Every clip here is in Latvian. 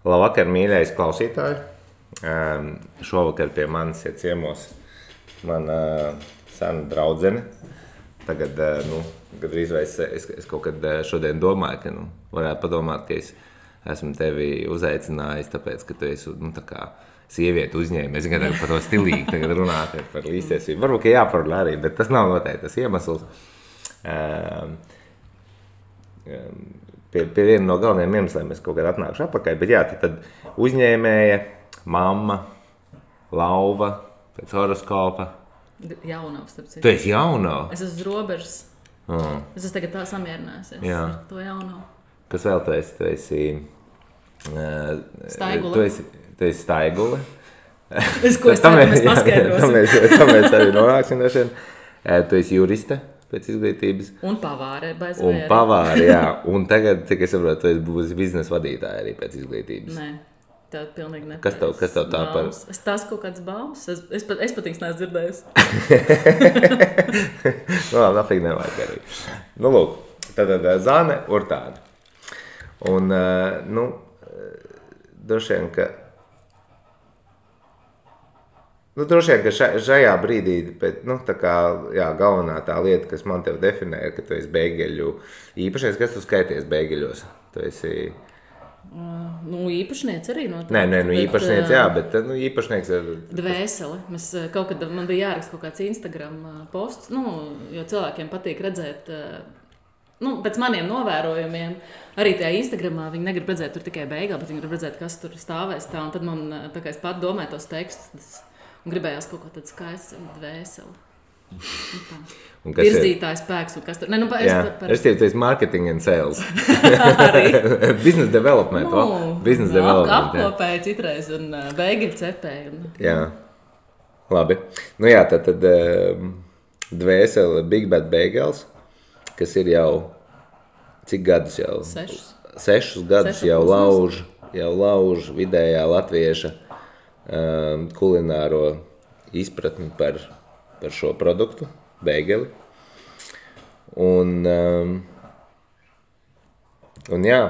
Labvakar, mīļais klausītāji. Šovakar pie manis ir ciemos mana sena draudzene. Tagad, gandrīz vai es kaut kad šodien domāju, ka varētu padomāt, ka es esmu tevi uzaicinājis, tāpēc, ka tu esi, tā kā sievieti uzņēmi. Es tagad par to stilīgi tagad runāt par līdztiesību. Varbūt, ka jāparunā arī, bet tas nav noteikti tas iemesls. Pie viena no galvenajiem iemesliem es kaut kad atnākšu atpakaļ, bet jā, tad uzņēmēja, mamma, lauva, pēc horoskopa. Jaunavs, starp citu. Tu esi jaunava? Es esmu uz robežas. Es esmu tagad tā samierinājusies ar to jaunavu. Kas vēl tu esi? Tu esi Staigule. Tu esi staigule. Ko es ceru, mēs paskaidrosim. Tā mēs arī nonāksim no šiem. Tu esi juriste pēc izglītības. Un pavāre. Un pavāre, jā. Un tagad, cik es saprotu, tu esi būs biznesa vadītāja arī pēc izglītības. Nē. Tā pilnīgi nepareiz. Kas tev tā par? Tas kaut kāds baumas. Es pat īsti neesmu dzirdējusi. Nafīgi nevajag arī. Lūk, tad Zane Urtāne. Un, droši vien, ka šajā brīdī, bet, tā kā, jā, galvenā tā lieta, kas man tev definē, ir, ka tu esi beigeļu īpašnieks. Kas tu skaities beigeļos? Tu esi... īpašnieks arī noteikti. Nē, īpašnieks, jā, bet īpašnieks ir... Dvēsele. Man bija jāraksta kaut kāds Instagram posts, jo cilvēkiem patīk redzēt, pēc maniem novērojumiem, arī tajā Instagramā viņi negrib redzēt tur tikai beigā, bet viņi grib redzēt, kas tur stāvēs tā, un tad man, tā kā es pat domāju tos tekstus, un gribējās kaut ko tādu skaistu dvēseli. Virzītājs spēks un kas tur... Es tev teicu marketing and sales. Arī. Business development. Business development. Apkopēja citreiz un beigļu cepēja. Jā. Labi. Tad dvēsele Big Bad Bagels, kas ir jau cik gadus jau? 6 gadus jau lauž vidējā latvieša kulināro izpratni par šo produktu, beigeli. Un jā,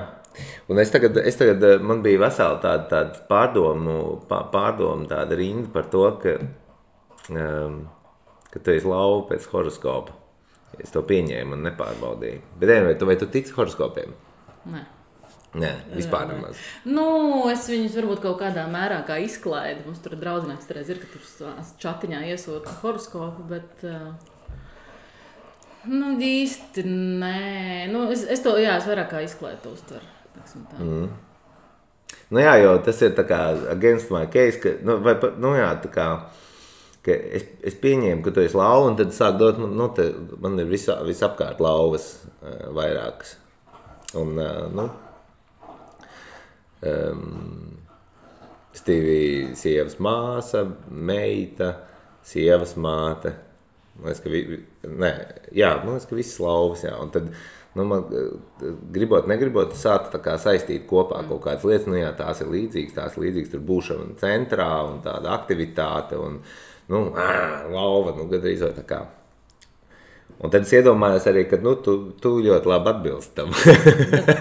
un es tagad man bija vesela tāda pārdomu tāda rinda par to, ka tu esi lauva pēc horoskopa. Es to pieņēmu un nepārbaudīju. Bet vai tu tici horoskopiem? Nē, vispār nemaz. Es viņus varbūt kaut kādā mērā kā izklaidu. Mums tur draudzenēks reiz ir, ka tur čatiņā iesūta horoskopu, bet īsti nē. Es vairāk kā izklaidu to uztveru. Jo tas ir tā kā against my case, ka, ka es pieņēmu, ka tu esi lauva, un tad sāk dot, man ir visapkārt lauvas vairākas. Un, Stīvi sievas māsa, meita, sievas māte. Man liekas, ka visas lauvas, jā. Un tad, man negribot, sākt tā kā saistīt kopā kaut kādas lietas, tās ir līdzīgas, tur būšana centrā un tāda aktivitāte un, lauva, gandrīz vai tā kā. Un tad es iedomājos arī, ka tu ļoti labi atbilst tam.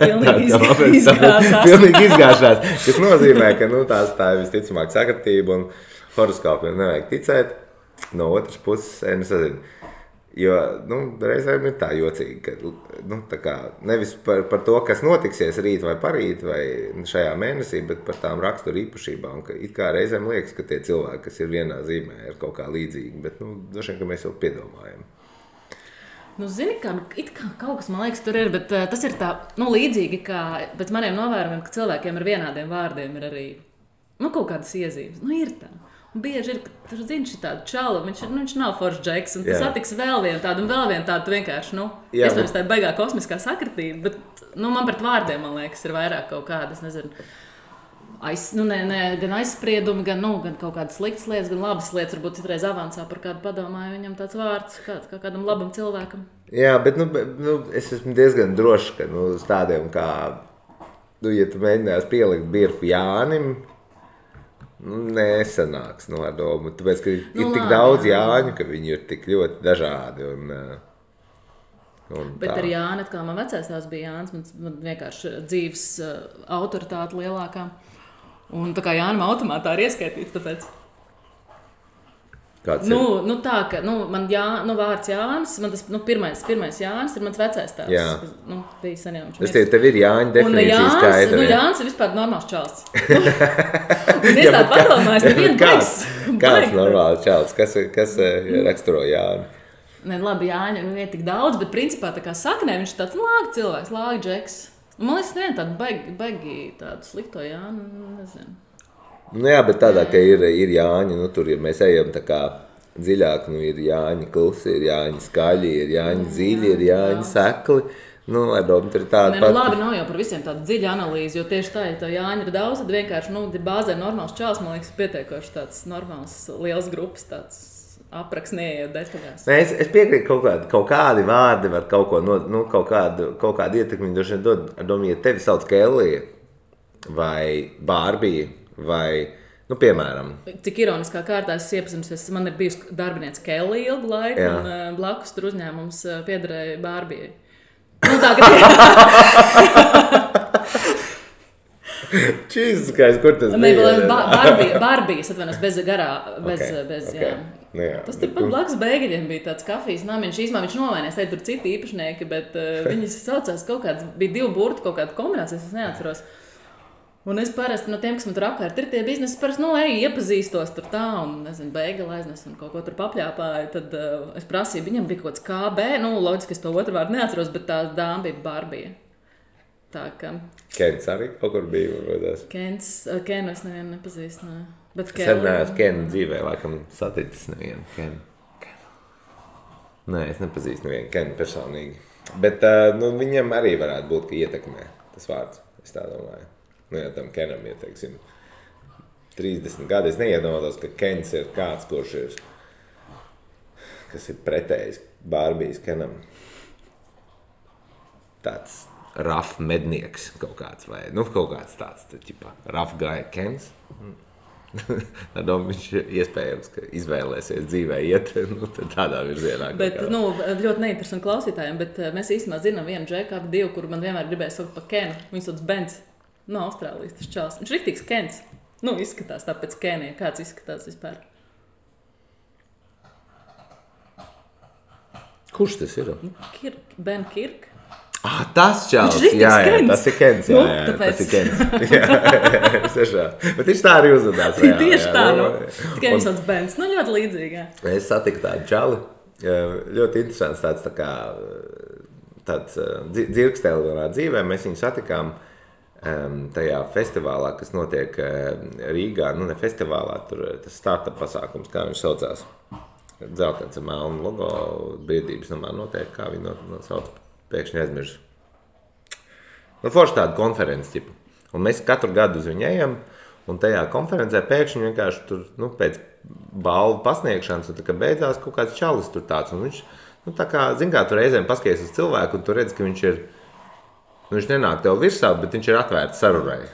Pilnīgi izgāšās. Pilnīgi izgāšās. Tas nozīmē, ka tā ir visticamāk sakritība un horoskopiem nevajag ticēt. No otras puses, nezinu. Jo, reizēm ir tā jocīgi, ka, tā kā, nevis par to, kas notiksies rīt vai parīt vai šajā mēnesī, bet par tām raksturu īpašībām, ka it kā reizēm liekas, ka tie cilvēki, kas ir vienā zīmē, ir kaut kā līdzīgi, bet, droši vien, ka mēs jau piedomājam. Zini, it kā kaut kas, man liekas, tur ir, bet tas ir tā, līdzīgi, kā pēc maniem novērojumiem, ka cilvēkiem ar vienādiem vārdiem ir arī, kaut kādas iezīmes. Ir tā. Un bieži ir, ka tur zini šī tāda čala, viņš nav foršs džeks, un tas attiks vēl vienu tādu, tu vienkārši, iespējams tā baigā kosmiskā sakritība, bet, man pret vārdiem, man liekas, ir vairāk kaut kādas, nezinu, gan aizspriedumi, gan kaut kādas sliktas lietas, gan labas lietas, varbūt citreiz avansā par kādu padomāju, viņam tāds vārds kā kādam labam cilvēkam. Jā, bet es esmu diezgan drošs, ka uz tādiem kā, ja tu mēģinās pielikt birku Jānim, nesanāks ar domu, tāpēc, ka ir tik daudz Jāņu, ka viņi ir tik ļoti dažādi Bet ar Jāni, atkal man vecais tās bija Jānis, man vienkārši dzīves autoritāte lielākā. Un tā kā Jānim automātā ir ieskaitīts, tāpēc. Kāds Nu, tā, ka man vārds Jānis, man tas pirmais Jānis ir mans vecais tēvs. Jā. Kas bija sen jau. Es tev ir Jāņa definīcija skaidra. Jānis ir vispār normāls čalis. Un es tādu padomāju, nevienu baigs. Kāds normāls čalis? Kas raksturo Jāni? Ne, labi, Jāņa ir tik daudz, bet principā tā kā saknē viņš ir tāds lāga cilvēks, lāga džeks. Man liekas, nevienu tādu baigi tādu slikto Jāni, nezinu. Nu jā, bet tādā, ka ir Jāņi, tur, ja mēs ejam tā kā dziļāk, ir Jāņi klusi, ir Jāņi skaļi, ir Jāņi dziļi, ir Jāņi sekli. Ar domu tur ir tāda pat. Labi, nav jau par visiem tāda dziļa analīze, jo tieši tā, ja tev Jāņi ir daudz, tad vienkārši, bāzē normāls čāls, man liekas, pietiekoši tāds normāls, liels grupas, tāds apraks neejot detaļās. Nē, es piekrītu, kaut kādi vārdi var kaut ko, kaut kādu ietekmi, droši vien dod, domu, ja tevi sauc Kellija vai Bārbija, vai, piemēram. Cik ironiskā kārtā es iepazinusies, man ir bijusi darbiniece Kellija ilgu laiku, jā. Un blakus tur uzņēmums piederēja Bārbijai. Tā, ka Čīzskais, kur tas bija? Bārbijas, atvainojos, bez garā, bez, jā. Jā. Tas tur pat blakus Bēgaļiem bija tāds kafijas namiņš, īsumā viņš novainies, tur citi īpašnieki, bet viņi saucās kaut kāds, bija 2 burtu kaut kāda kombinācijas, es neatceros. Un es parasti no tiem, kas man tur apkārt ir tie biznesi, parasti, iepazīstos tur tā un, nezinu, Bēgaļa aiznes un kaut ko tur papļāpāju, tad es prasīju, viņam bija kaut kāds KB, loģiski, es to otru vārdu neatceros, bet tā dāma bija Bārbija. Tā ka... Kens arī kaut kur bija, varbūt. Kenu es nevienu nepazīstu, ne. Bet Sen neesmu Kenu dzīvē, laikam saticis nevienu Kenu. Nē, es nepazīstu nevienu Kenu personīgi. Bet, viņam arī varētu būt, ka ietekmē tas vārds, es tā domāju. Ja tam Kenam ir, 30 gadi, es neiedomātos, ka Kens ir kāds, kas ir pretējs Bārbijas Kenam. Tāds rough mednieks kaut kāds, vai, kaut kāds tāds, rough guy Kens. Viņš iespējams, ka izvēlēsies dzīvē iet tādā virzienā. Bet, ļoti neinteresanti klausītājiem, bet mēs īstenībā zinām vienu džeku, ap 2, kuru man vienmēr gribēja saukt par Kenu. Viņš sauc Bens. No Austrālijas tas čals. Viņš riktīgs Kens. Izskatās tāpēc Kenija. Kāds izskatās vispār? Kurš tas ir? Ben Kirk. Tas čals. Jā, tas ir Kens. Jā, tas ir Kens. Bet viņš tā arī uzvedās. Tieši tā, Tikai viņš sauc Bens. Ļoti līdzīgi, jā. Es satiku tādu čali. Ļoti interesants tāds dzirkstēli manā dzīvē. Mēs viņu satikām tajā festivālā, kas notiek Rīgā, ne festivālā, tur tas startup pasākums, kā viņš saucās. Dzeltens ar melnu logo, biedrības namā notiek, kā viņi sauc, pēkšņi aizmirsu. Forši tāda konferences tipa. Un mēs katru gadu uz viņu ejam, un tajā konferencē pēkšņi vienkārši tur, pēc balvu pasniegšanas, un tā kā beidzās kaut kāds čalis tur tāds, un viņš, tā kā, tu reizēm paskaties uz cilvēku, un tu redz, ka viņš ir viņš nenāk tev virsā, bet viņš ir atvērts sarurai.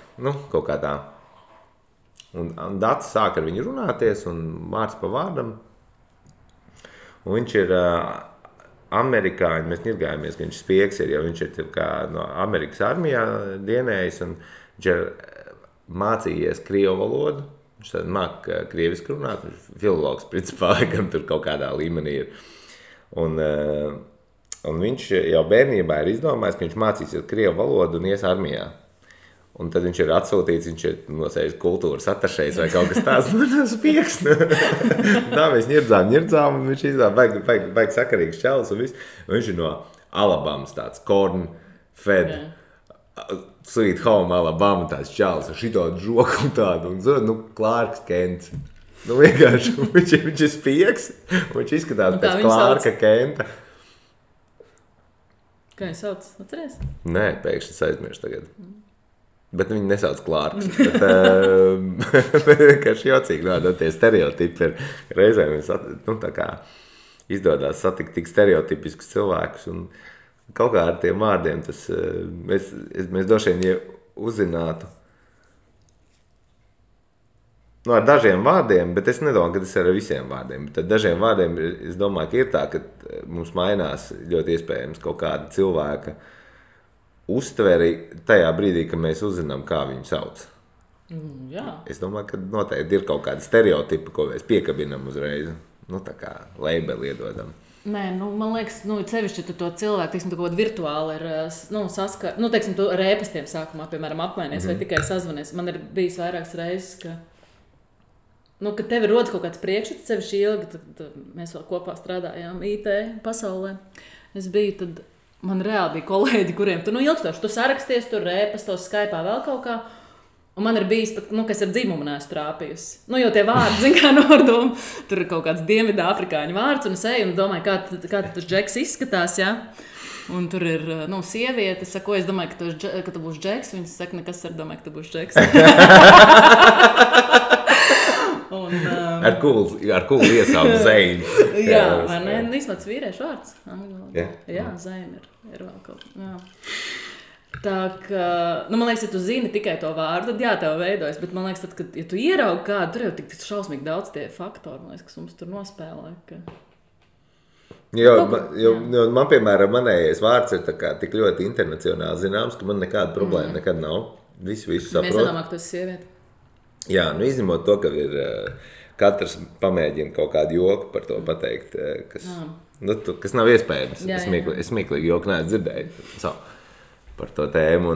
Kaut kā tā. Un Dats sāk ar viņu runāties, un vārds pa vārdam. Un viņš ir amerikāņi, mēs ņirgājamies, ka viņš spiegs ir, jo viņš ir kā no Amerikas armijā dienējis, un viņš ir mācījies krievu valodu. Viņš māk krieviski runāt, viņš ir filologs, principā, laikam tur kaut kādā līmenī ir. Un viņš jau bērnībā ir izdomājis, ka viņš mācīsies krievu valodu un ies armijā. Un tad viņš ir atsūtīts, viņš ir nosējis kultūras atašējs vai kaut kas tāds. Tas pieks. Tā mēs ņirdzām, un viņš baigi sakarīgs čalis un viss. Un viņš ir no Alabamas tāds corn fed, sweet home Alabama tāds čalis ar šitādu žoku un tādu. Un Klārks Kents. Vienkārši viņš ir spieks, un viņš izskatās pēc Klārka Kenta. Kā viņi sauc? Atceries? Nē, pēkšņi es aizmirstu tagad. Bet viņi nesauc Klārks. Bet vienkārši jocīgi, tie stereotipi ir. Reizēm tā kā izdodās satikt tik stereotipiskus cilvēkus. Un kaut kā ar tiem vārdiem tas, mēs droši vien, ja uzzinātu, ar dažiem vārdiem, bet es nedomāju, ka tas ir ar visiem vārdiem. Bet ar dažiem vārdiem es domāju, ka ir tā, ka mums mainās ļoti iespējams kaut kāda cilvēka uztveri tajā brīdī, kad mēs uzzinām, kā viņu sauc. Jā. Es domāju, ka noteikti ir kaut kādi stereotipi, ko mēs piekabinam uzreiz. Tā kā labeli iedodam. Nē, man liekas, sevišķi tu to cilvēku, teiksim, tu kaut kādā virtuāli ir saskar, teiksim, tu ar ēpastiem sākumā, piemēram, apmainies vai tikai sazvanies. Man ir bijis vairākas reizes, ka ka tev ir rodas kaut kāds priekšstats, sevišķi ilgi, tad mēs vēl kopā strādājām IT pasaulē. Es biju, tad man reāli bija kolēģi, kuriem tu ilgstoši, tu saraksties, tur ēpastos, Skype'ā vēl kaut kā. Un man ir bijis pat, kas ar dzimumu neesmu trāpījusi. Jo tie vārdi, zin kā nordoma, tur ir kaut kāds dienvidā afrikāņu vārds, un es eju un domāju, kā tas džeks izskatās, ja? Un tur ir, sieviete, es saku, es domāju, ka tu būsi džeks, viņas saka, nekas ar domāju, ka tu būsi džeks. Ar kulu iesaukt Zeinu. Jā, vai ne? Īstenībā tas vīriešu vārds. Jā, Zeina ir vēl kaut. Jā. Tā kā, man liekas, ja tu zini tikai to vārdu, tad jā, tev veidojas, bet man liekas, tad, kad, ja tu ieraugi kādu, tur jau tik šausmīgi daudz tie faktori, man liekas, kas mums tur nospēlē. Ka... Man, piemēram, manējais vārds ir tik ļoti internacionāli zināms, ka man nekāda problēma nekad nav. Visu saprot. Mēs nedomājam, ka tu esi sieviete. Jā, izņemot to, ka ir katrs pamēģina kaut kādu joku par to pateikt, kas nav iespējams. Es smieklīgi joku neesmu dzirdēju. Par to tēmu.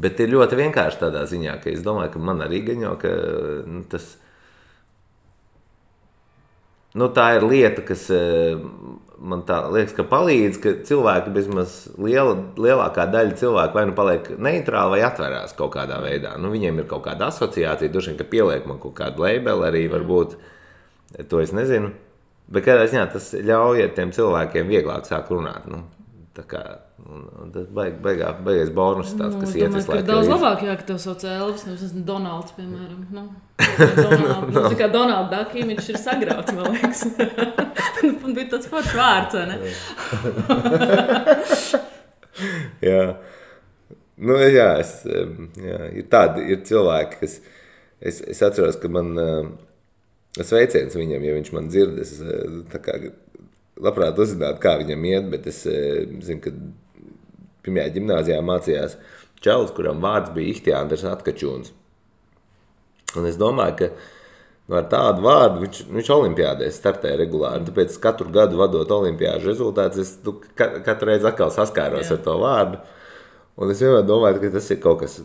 Bet ir ļoti vienkārši tādā ziņā, ka es domāju, ka man arī gaņo, ka tas... tā ir lieta, kas man tā liekas, ka palīdz, ka cilvēki bezmaz lielākā daļa cilvēku vai paliek neitrāli vai atverās kaut kādā veidā. Viņiem ir kaut kāda asociācija, droši vien, ka pieliek man kaut kādu labeli arī varbūt, to es nezinu. Bet kādā ziņā tas ļauj ar tiem cilvēkiem vieglāk sāk runāt. Tā kā, tas baigais bonus tāds, kas iet visu laiku. Daudz labāk, ka tev sauc Elvis, nevis esmu Donalds, piemēram. Tā kā Donalda Duck imidžs ir sagrauts, man liekas. Man bija tāds foršs vārds, vai ne? Jā. Ir cilvēki, kas... Es atceros, ka man sveiciens viņam, ja viņš man dzird, es tā kā... labprāt uzzinātu, kā viņam iet, bet es zinu, ka pirmajā ģimnāzijā mācījās čalis, kuram vārds bija Ihtiandrs Atkačūns. Un es domāju, ka ar tādu vārdu viņš olimpiādēs startē regulāri. Tāpēc katru gadu vadot olimpiāžu rezultātus, es katru reizi atkal saskāros ar to vārdu. Un es vienmēr domāju, ka tas ir kaut kas,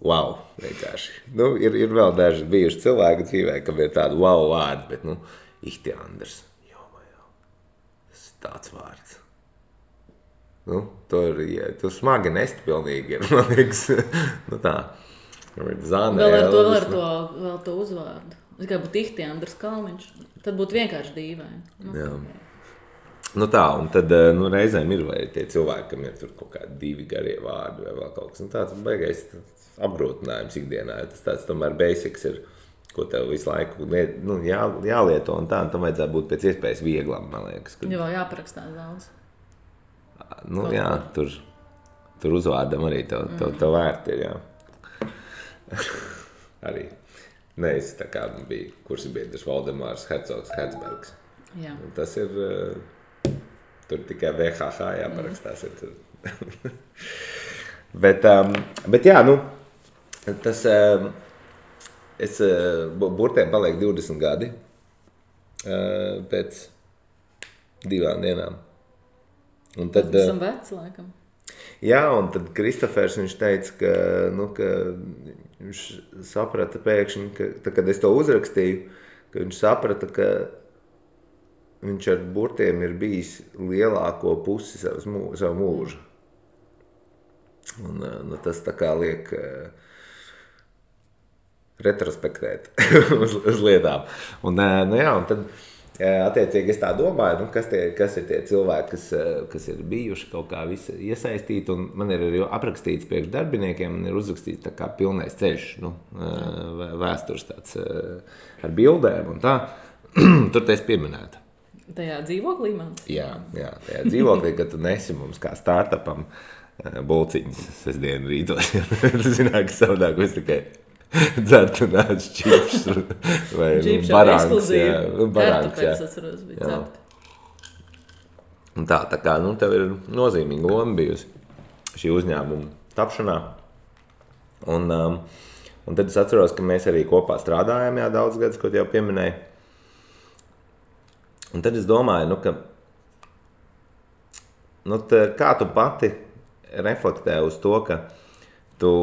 wow, vienkārši. Ir vēl daži bijuši cilvēki dzīvē, kam ir tādu wow vārdu, bet Ihtiandrs. Tāds vārds. Tur smagi nest pilnīgi ir, man liekas. Tā. Zāne, vēl ar to uzvārdu. Es kā būtu Ihtiandrs Kalniņš. Tad būtu vienkārši dīvaini. Jā. Tā, un tad reizēm ir vai tie cilvēki, kam ir tur kaut kādi 2 garie vārdi vai vēl kaut kas. Tāds baigais apgrūtinājums ikdienā. Tas tāds tomēr basics ir. Ko tev visu laiku jālieto un tā, un tam vajadzētu būt pēc iespējas vieglam, man liekas. Jo jāparakstās daudz. Jā, tur uzvārdam arī tev vērti ir, jā. Arī. Es tā kā bija kursabiedrs Valdemārs Hercogs Hertzbergs. Jā. Un tas ir, tur tikai VHH jāparakstās ir tur. bet jā, tas... burtēm paliek 20 gadi pēc 2 dienām. Un tad, tas esam veci, laikam. Jā, un tad Kristofers viņš teica, ka viņš saprata pēkšņi, ka kad es to uzrakstīju, ka viņš saprata, ka viņš ar burtiem ir bijis lielāko pusi savu mūžu. Un tas tā kā liek... retrospektēt uz lietām. Un tad attiecīgi es tā domāju, kas ir tie cilvēki, kas ir bijuši kaut kā visi iesaistīti, un man ir arī aprakstīts priekš darbiniekiem, man ir uzrakstīts tā kā pilnais ceļš, vēstures tāds ar bildēm un tā. Tur te es pieminētu. Tajā dzīvoklī man? Jā, tajā dzīvoklī, kad tu nesi mums kā startupam bulciņas sestdienu rītos. Tu zināt, ka savādāk mēs tikai dzert un ēd čipšus vai barāns. Kartupēs atceros bija cept. Un tā kā, tev ir nozīmīga loma bijusi šī uzņēmuma tapšanā. Un tad es atceros, ka mēs arī kopā strādājām, daudz gadus, ko jau pieminēju. Un tad es domāju, ka kā tu pati reflektē uz to, ka tu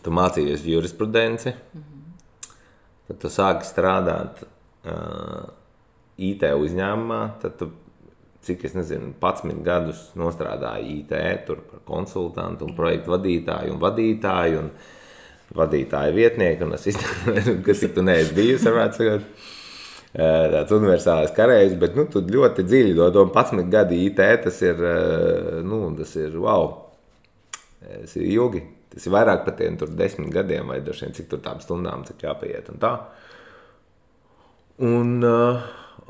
mācījies jurisprudenci, tad tu sāki strādāt IT uzņēmumā, tad tu, cik es nezinu, 11 gadus nostrādāju IT, tur par konsultantu un projektu vadītāju un vadītāju vietnieku, un kas tik tu neesi bijusi, varētu sakot, tāds universālais karējs, bet tu ļoti dziļi to 11 gadi IT, tas ir wow, tas ir ilgi, tas ir vairāk par tiem tur 10 gadiem, vai droši vien cik tur tām stundām, cik jāpaiet un tā.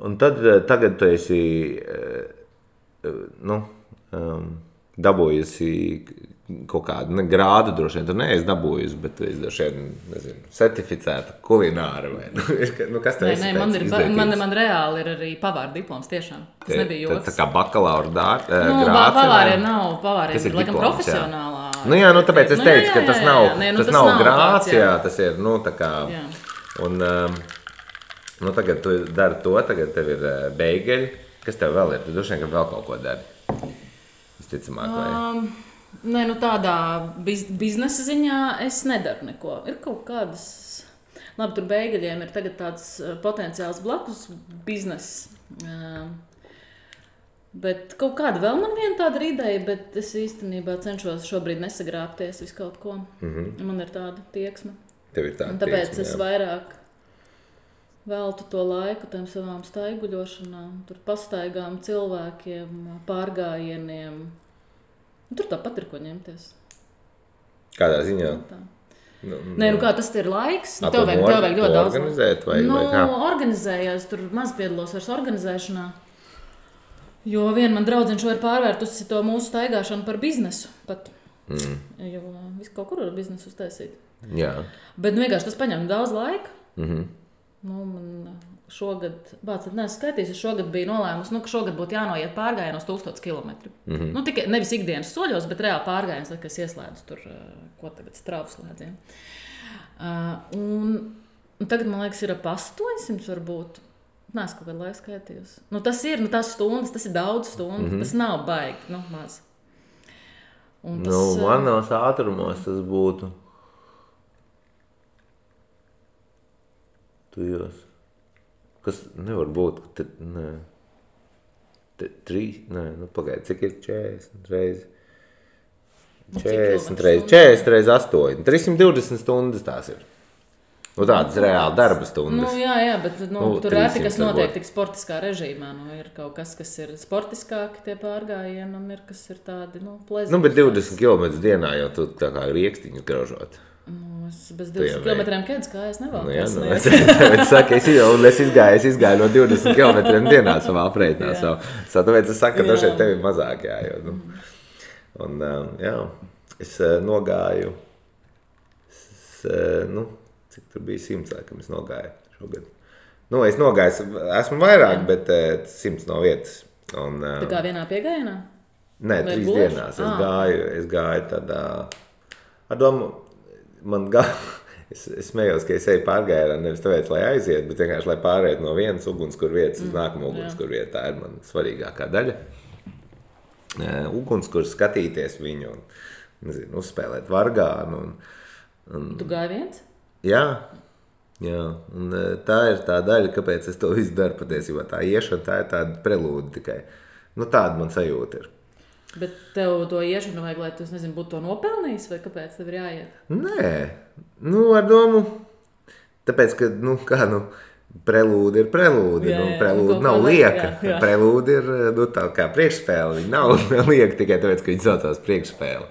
Un tad tagad tu esi dabūjusi kaut kādu grādu, droši vien tu neesi dabūjusi, bet tu esi droši vien, nezinu, certificēta kulināra vai kas tev esi pēc izglītības? Man reāli ir arī pavāra diploms tiešām. Tas nebija joks. Tā kā bakalaura grāts. Pavāriem nav, pavāriem ir laikam profesionālā. Tāpēc es teicu, ka tas nav grāts, tas ir, tā kā, un tagad tu dari to, tagad tev ir beigeļi. Kas tev vēl ir? Tu droši vien, ka vēl kaut ko dari. Visticamāk, vai? Tādā biznesa ziņā es nedaru neko. Ir kaut kādas, labi, tur beigeļiem ir tagad tāds potenciāls blakus bizness. Bet kaut kāda vēl man viena tāda ideja, bet es īstenībā cenšos šobrīd nesagrābties visu kaut ko. Man ir tāda tieksme. Tev ir tāda un tāpēc tieksme, es vairāk veltu to laiku tam savām staiguļošanām, tur pastaigām cilvēkiem, pārgājieniem. Tur tāpat ir ko ņemties. Kādā ziņā? Kā tas ir laiks? Tev vajag ļoti daudz. Organizēt vai kā? Organizējos, tur maz piedalos vairs organizēšanā. Jo viena man draudzene šo ir pārvērtusi to mūsu staigāšanu par biznesu pat. Jo visu kaut kur var biznesu uztaisīt. Jā. Bet vienkārši tas paņem daudz laika. Man šogad, es šogad biju nolēmusi, ka šogad būtu jānoiet pārgājienos 1000 kilometru. Tikai nevis ikdienas soļos, bet reāli pārgājiens, kad es ieslēdzu tur, ko tagad strāvu slēdzienu. Un tagad, man liekas, ir ap 800 varbūt. Nē, es kaut kādu laiku skaitījos. Tas ir, tās stundas, tas ir daudz stundu, tas nav baigi, maz. Manos ātrumos tas būtu tujos. Kas nevar būt, ka pagaidi, cik ir 40 reizi? 40 reizi 8. 320 stundas tās ir. Tādas reāli darba stundas. Jā, bet tur ir kas notiek tik sportiskā režīmā. Ir kaut kas ir sportiskāki tie pārgājieni, un ir kas ir tādi, plezīgi. Bet 20 km dienā jau tu tā kā riekstiņus graužot. Es bez 20 km kēdes kājas nevalku. Es izgāju no 20 km dienā savā aprēķinā. Tāpēc es saku, ka dažreiz tev ir mazāk. Es nogāju, cik tur bija 100, laikam es nogāju šogad. Es nogāju, esmu vairāk, bet 100 no vietas. Tā kā vienā piegājienā? Nē, 3 dienās. Es gāju tādā, ar domu, es smējos, ka es eju pārgājienā nevis tāpēc, lai aiziet, bet vienkārši, lai pārēt no vienas ugunskurvietas uz nākamo ugunskurvietu. Tā ir man svarīgākā daļa. Ugunskurs skatīties viņu un, uzspēlēt vargānu. Tu gāji viens? Jā. Un tā ir tā daļa, kāpēc es to visu daru patiesībā. Tā iešana, tā ir tāda prelūda tikai. Tāda man sajūta ir. Bet tev to iešanu vajag, lai tu, būtu to nopelnījis, vai kāpēc tev ir jāiet? Nē, ar domu, tāpēc, ka, prelūda ir prelūda, prelūda nav lieka. Jā. Prelūda ir, tā kā priekšspēle, viņa nav lieka tikai tāpēc, ka viņa saucās priekšspēle.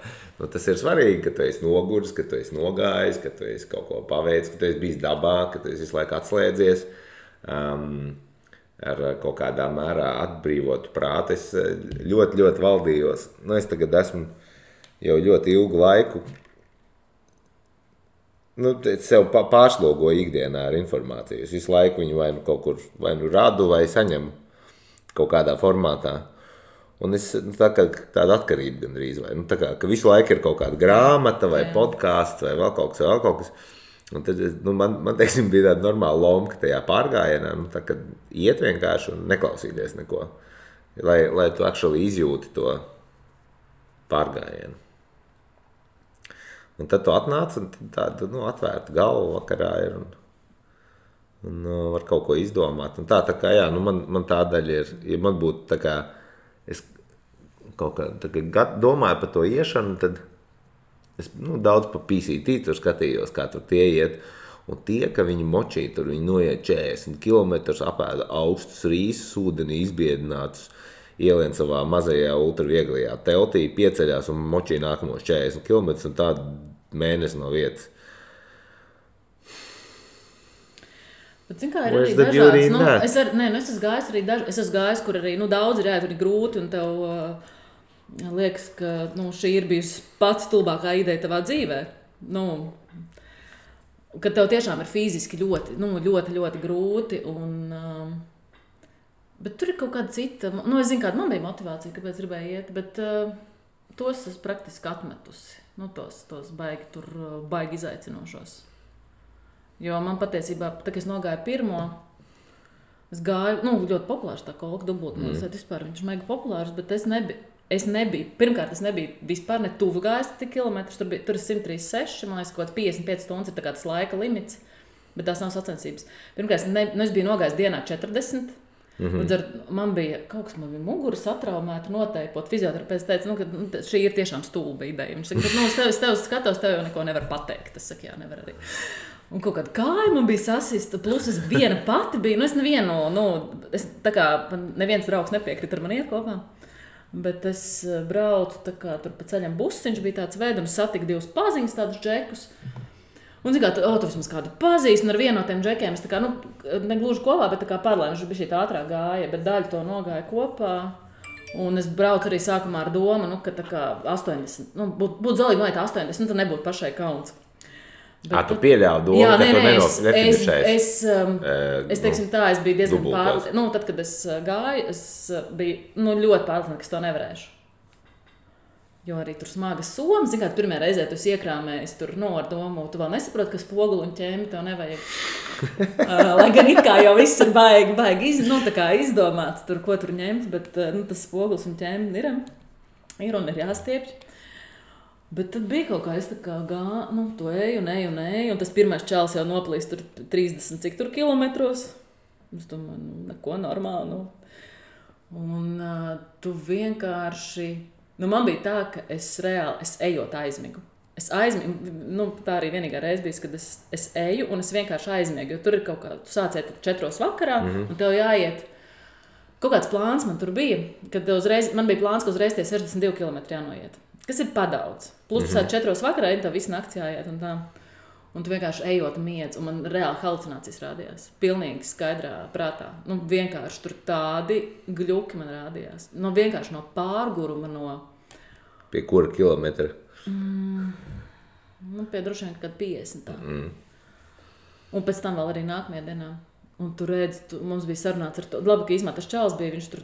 Tas ir svarīgi, ka tu esi noguris, ka tu esi nogājis, ka tu esi kaut ko paveicis, ka tu esi bijis dabā, ka tu esi visu laiku atslēdzies. Ar kaut kādā mērā atbrīvotu prātu. Es ļoti, ļoti valdījos. Es tagad esmu jau ļoti ilgu laiku. Es sev pārslogoju ikdienā ar informāciju. Es visu laiku viņu vai kaut kur radu vai saņemu kaut kādā formātā. Un es tāda atkarība gandrīz, vai, tā kā, ka visu laiku ir kaut kāda grāmata vai podkāsts vai vēl kaut kas. Un tad man teiksim, bija tāda normāla lomka tajā pārgājienā, tā, kad iet vienkārši un neklausīties neko, lai tu actually izjūti to pārgājienu. Un tad tu atnāc un tāda atvērta galva vakarā ir un var kaut ko izdomāt. Un tā kā, jā, man tā daļa ir, ja man būtu tā kā, es kaut kā domāju par to iešanu, tad es daudz pa PCT tur skatījos, kā tur tie iet. Un tie, ka viņi močī, tur viņi noiet 40 kilometrus, apēda augstus rīsus, ūdenī izbiedinātus, ielien savā mazajā ultravieglajā teltī, pieceļās un močī nākamos 40 kilometrus un tādu mēnesi no vietas. Bet, zin kā, ir arī dažāds, es esmu gājis, kur arī daudz ir jāiet, ir grūti, un tev liekas, ka šī ir bijusi pats stulbākā ideja tavā dzīvē. Kad tev tiešām ir fiziski ļoti, ļoti grūti, bet tur ir kaut kāda cita, es zinu, kāda man bija motivācija, kāpēc gribēju iet, bet tos es praktiski atmetusi, tos baigi izaicinošos. Jo man patiesībā, tā kā es nogāju pirmo, es gāju, ļoti populārs tā kolka dubultmūs, vispār viņš mega populārs, bet es nebiju, pirmkārt, es nebiju vispār ne tuvu gājis tik kilometrus, tur ir 136, man liekas, kaut kāds 55 stundas ir tā kāds laika limits, bet tās nav sacensības. Pirmkārt, es biju nogājis dienā 40, man bija mugura satraumēta noteipot. Fizioterapeits teica, ka šī ir tiešām stulba ideja. Viņš saka, bet es tev skatos, tev jau neko nevar pateikt. Es saku, jā, nevar arī. Un kaut kāda kāja man bija sasista, plus es viena pati biju, es neviens draugs nepiekrita ar mani iet kopā. Bet es braucu tur pa ceļam busiņš, bija tāds veids, un satiku divus paziņas, tādus džekus. Un tu vismaz kādu pazīst, un ar vienu no tiem džekiem es negluži kopā, bet paralēli, viņš bija šī tā ātrāk gāja, bet daļu to nogāja kopā. Un es braucu arī sākumā ar domu, ka 80, būtu zalīgi noiet 80, tad nebūtu pašai kauns. Tu pieļāvi domu, ka tu nefinišēsi? Es teiksim tā, es biju diezgan pārliecināta. Tad, kad es gāju, es biju ļoti pārliecināta, ka es to nevarēšu. Jo arī tur smagas somas, zin kā, pirmajā reizē tu iekrāmējies tur ar domu, tu vēl nesaproti, ka spoguli un ķēmi tev nevajag. Lai gan it kā jau viss ir baigi izdomāts, tur, ko tur ņemt, bet tas spogulis un ķēmi ir un ir jāstiepj. Bet tad bija kaut kā, es to eju, un tas pirmais čalis jau noplīst tur 30 cik tur kilometros. Es domāju, neko normāli, Un tu vienkārši, man bija tā, ka es ejot aizmigu. Tā arī vienīgā reize bija, kad es eju un es vienkārši aizmiegu, jo tur ir kaut kā, tu sāciet 4 vakarā, un tev jāiet. Kaut kāds plāns man tur bija, kad man bija plāns, ka uzreiz tie 62 km jānoiet. Kas ir padaudz. Plus tu sāc 4 vakarā, tev visu nakti jāiet un tā. Un tu vienkārši ejot miedz, un man reāli halucinācijas rādījās. Pilnīgi skaidrā prātā. Vienkārši tur tādi gļuki man rādījās. Vienkārši no pārguruma Pie kura kilometra? Pie droši vien kad 50 tā. Un pēc tam vēl arī nākamajā dienā. Un tu redzi, mums bija sarunāts ar to. Labi, ka izmētas čals bija, viņš tur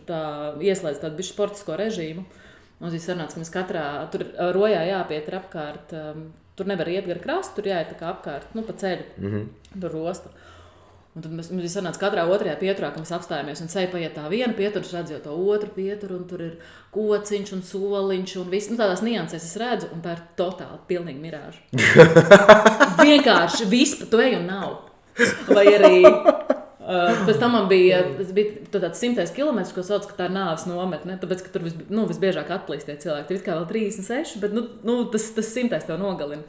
ieslēdz tādu bišķi sportisko režīmu. Mums bija sarunāts, ka mēs katrā, tur rojā jāpiet ir apkārt, tur nevar iet gar krastu, tur jāiet tā kā apkārt, pa ceļu, tur rosta. Un tad mums bija sarunāts katrā otrajā pieturā, ka mēs apstājamies un ceļ paiet tā viena pietura, es redzu jau to otru pieturu, un tur ir kociņš un soliņš un viss, tādās niansēs es redzu, un tā ir totāli pilnīgi mirāža. Vienkārši viss pa to eju un nav. Vai arī... Pēc tam man bija tāds 100 kilometrs, ko sauc, ka tā ir nāves nometne, tāpēc, ka tur visbiežāk atplīst tie cilvēki. Tur kā vēl 36, bet tas 100 tev nogalina.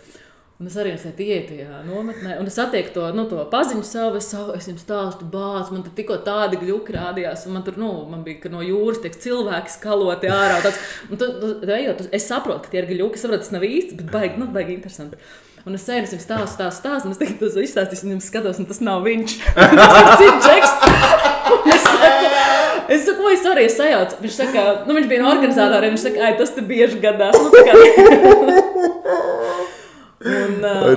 Un es arī ieju tajā nometnē, un es satieku to paziņu savu, es jums stāstu bāc, man tur tikko tādi gļuki rādījās, un man tur, man bija, ka no jūras tiek cilvēki skaloti ārā. Ejot, es saprotu, ka tie ir gļuki, es saprotu, tas nav īsti, bet baigi interesanti. Un es sēju, es jums stāstu, un es tagad to izstāstīšu, un jums skatos, un tas nav viņš. Tas ir cits džeks. Es saku, oi, sorry, es sajaucu. Viņš saka, viņš bija no organizatoriem, viņš saka, tas te bieži gadās.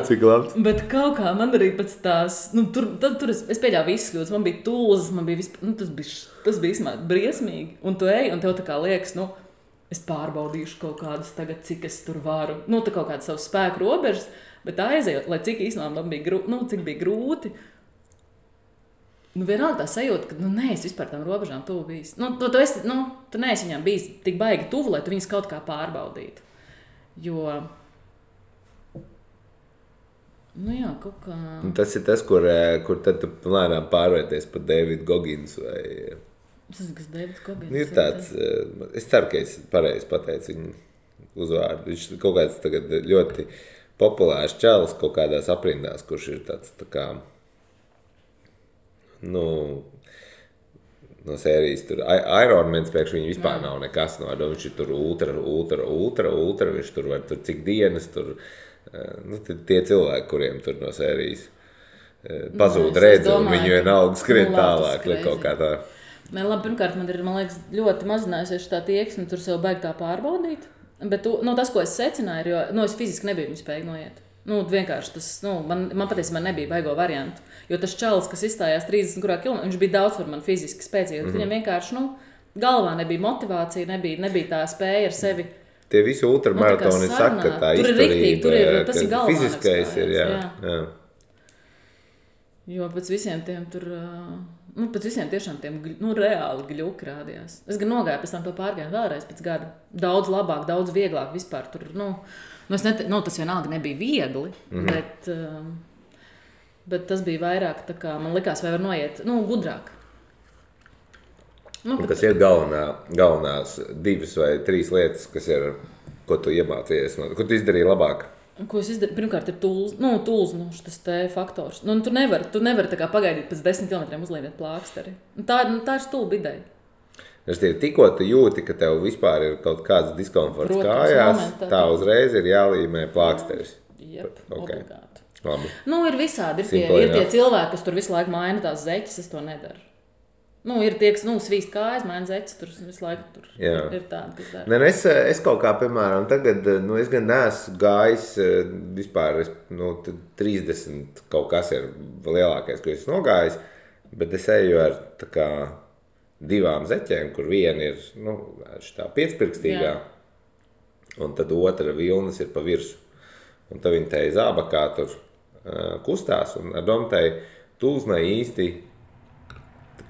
cik labs. Bet kaut kā man arī pēc tās, tur es pieļāvu visus kļūdas, man bija tūzas, man bija tas bija īstenībā briesmīgi. Un tu ej, un tev tā kā liekas, es pārbaudīšu kaut kādas tagad, cik es tur varu. Tā kaut kādas savas spēku robežas, bet aizejot, lai cik īstenībā man bija, cik bija grūti. Vienalga tā sajūta, ka, es vispār tam robežām tuvu bijis. Tu neesi viņām bijis tik baigi tuvu, lai tu viņas kaut kā pārbaudītu. Jo... jā, kaut kā... Tas ir tas, kur tad tu lēnām pārvērties par Davidu Goggins vai... Es zinu, kas Davids Goggins. Ir tāds... Es ceru, ka es pareizi pateicu viņu uzvārdu. Viņš kaut kāds tagad ļoti populārs čalis kaut kādās aprindās, kurš ir tāds tā kā... no sērijas tur Iron Man priekš viņu vispār nav nekas no. Viņš ir tur ultra, viņš tur var tur cik dienas tur... tie cilvēki, kuriem tur no sērijas pazūd redzi, un viņi vienalga skrien tālāk, kaut kā tā. Labi, pirmkārt, man liekas, ļoti mazinājusies tā tieksme, tur sev baigi tā pārbaudīt, bet tas, ko es secināju, jo es fiziski nebiju viņu spēju noiet. Vienkārši tas, man patiesībā nebija baigo variantu, jo tas čalis, kas izstājās 30 km, viņš bija daudz par man fiziski spēcīgi, viņam vienkārši, galvā nebija motivācija, nebija tā spēja ar sevi. Tie visi ultramaratoni saka, ka tā izturība, tas ir galvā fiziskais ir, jā. Jo pēc visiem tiem tur, pēc visiem tiešām tiem, reāli gļuki rādījās. Es gan nogāju pēc tam to pārgāju vēlreiz pēc gada. Daudz labāk, daudz vieglāk vispār tur, tas vienalga nebija viegli, bet tas bija vairāk, tā kā man likās, vai var noiet, gudrāk. Kas ir galvenās 2 vai 3 lietas, kas ir, ko tu iemācījies, ko tu izdarīji labāk? Ko es izdarīju? Pirmkārt ir tūls, šis te faktors. Tu nevari tā kā pagaidīt pēc 10 km uzlīmēt plāksteri. Tā ir stulba ideja. Tikko tu jūti, ka tev vispār ir kaut kāds diskomforts kājās, tā uzreiz ir jālīmē plāksteris. Jep, obligāti. Labi. Ir visādi, ir tie cilvēki, kas tur visu laiku maina tās zeķes, es to nedaru. Ir tie, kas svīst kājas, maina zeķes, tur visu laiku tur ir tādi, kas dara. Es kaut kā, piemēram, tagad, es gan neesmu gājis vispār, 30 kaut kas ir lielākais, ko es nogājis, bet es eju ar tā kā 2 zeķēm, kur viena ir, šitā piecpirkstīgā, un tad otra vilnas ir pa virsu. Un tad viņi tai zābakā tur kustās, un ar domu tai tūznai īsti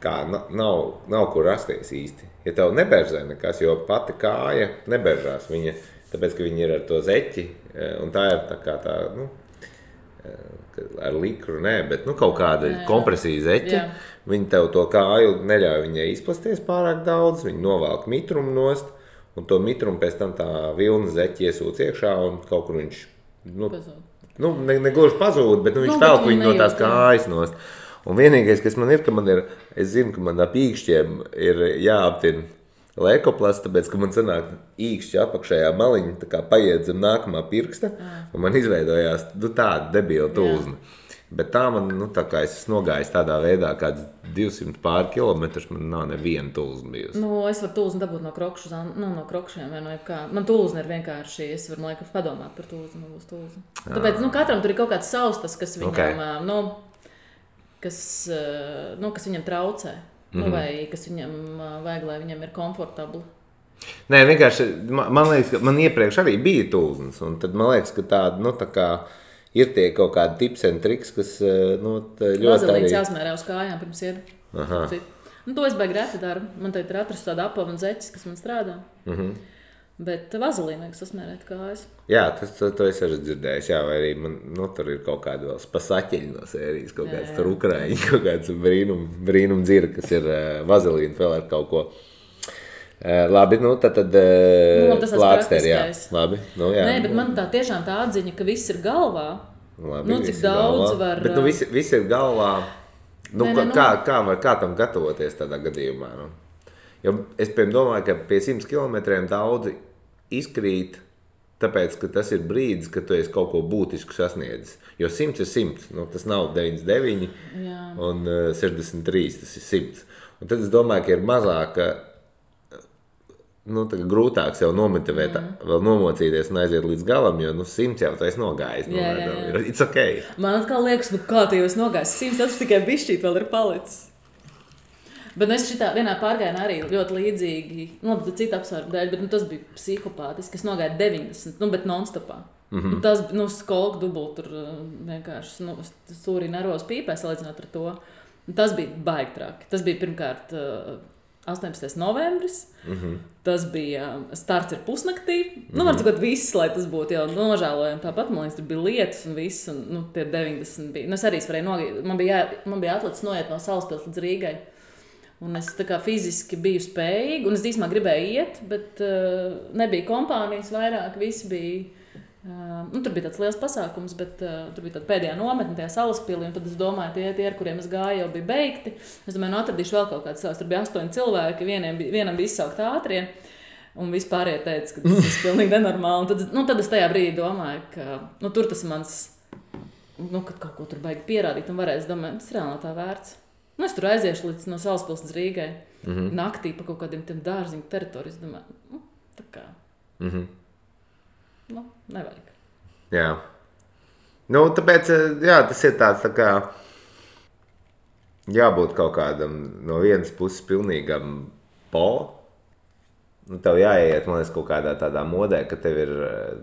kā nav kur rasties īsti. Ja tev neberzē nekas, jo pati kāja neberžās viņa, tāpēc, ka viņi ir ar to zeķi, un tā ir tā kā tā, ar likru, bet kaut kāda kompresija zeķa, viņi tev to kāju neļauj viņai izplasties pārāk daudz, viņi novelk mitrumu nost, un to mitrumu pēc tam tā vilna zeķi iesūc iekšā, un kaut kur viņš, negluži pazūd, bet viņš velk viņu no tās kājas nost. Un vienīgais, kas man ir, es zinu, ka man ap īkšķiem ir jāaptina lēkoplasts, tāpēc, ka man sanāk īkšķi apakšējā maliņa, tā kā paiet zem nākamā pirksta, un man izveidojās tāda debila tūzna. Bet tā man, tā kā es nogājis tādā veidā, kāds 200 pār kilometrus, man nav neviena tūzna bijusi. Es varu tūznu dabūt no krokšiem vai no jebkā. Man tūzna ir vienkārši, es varu, man liekas, padomāt par tūznu, man būs tūzna. Tāpēc, katram tur ir kaut kāds savs tas, kas viņam, kas viņam traucē, vai kas viņam vajag, lai viņam ir komfortabli. Nē, vienkārši, man liekas, ka man iepriekš arī bija tūznas, un tad man liekas, ka tāda, tā kā ir tie kaut kādi tips and triks, kas, ļoti arī... Vazelīns jāsmērē uz kājām pirms iet. To es baigi reti daru. Man tagad ir atrast tāda apava un zeķis, kas man strādā. Bet vazelīnu vajag sasmērēt kājas. Jā, to es arī dzirdējis, vai arī man, tur ir kaut kāda vēl spasaķeļi no sērijas, kaut kāds tur ukraiņi, kaut kāds brīnum dzira, kas ir vazelīnu vēl ar kaut ko. Labi, tad plāksteri, jā. Labi, jā. Nē, bet man tā tiešām tā atziņa, ka viss ir galvā. Labi, cik daudz galvā. Var... Bet viss ir galvā. Kā tam gatavoties tādā gadījumā? Jo es domāju, ka pie 100 kilometriem daudzi izkrīt, tāpēc, ka tas ir brīdis, kad tu esi kaut ko būtisku sasniedzis. Jo 100 ir 100, tas nav 99 un 63, tas ir 100. Un tad es domāju, ka ir mazāka grūtāk sev nomotivēt, vēl nomocīties un aiziet līdz galam, jo 100 jau tu esi nogājis. It's okay. Man atkal liekas, kā tu jau esi nogājis. 100 tas tikai bišķīt vēl ir palicis. Bet es šitā vienā pārgājienā arī ļoti līdzīgi, cita apsvērumu dēļ, bet tas bija psihopātiski. Es nogāju 90, bet non-stopā. Tas skolku dubult tur vienkārši stūrī nervos pīpē salīdzinot ar to. Tas bija baigi traki. Tas bija pirmkārt 18. novembris. Tas bija starts ir pusnaktī. Var cikot viss, lai tas būtu jau nožēlojami. Tāpat, man liekas, tur bija lietas un viss. Un, tie 90 bija. Es arī varēju man bija atlicis noiet no Salaspils līdz Rīgai. Un es tā kā fiziski biju spējīga, un es īsumā gribēju iet, bet nebija kompānijas vairāk, visi bija, tur bija tāds liels pasākums, bet tur bija tāda pēdējā nometne tajā Salaspilī, un tad es domāju, tie, ar kuriem es gāju, jau bija beigti. Es domāju, atradīšu vēl kaut kāds savs, tur bija 8 cilvēki, vienam bija izsaukt ātrie, un vispārējie teica, ka tas ir pilnīgi nenormāli. Tad es tajā brīdī domāju, ka tur tas mans, kad kaut ko tur baigi pierādīt, un varēs domāt, tas reāli nav tā vērts. Es tur aiziešu līdz no Salaspils līdz Rīgai. Naktī pa kaut kādiem tiem dārziņu teritorijas. Domāju, tā kā. Nevajag. Jā. Tāpēc, tas ir tāds tā kā jābūt kaut kādam no vienas puses pilnīgam tev jāiet, man liekas, kaut kādā tādā modē, ka tev ir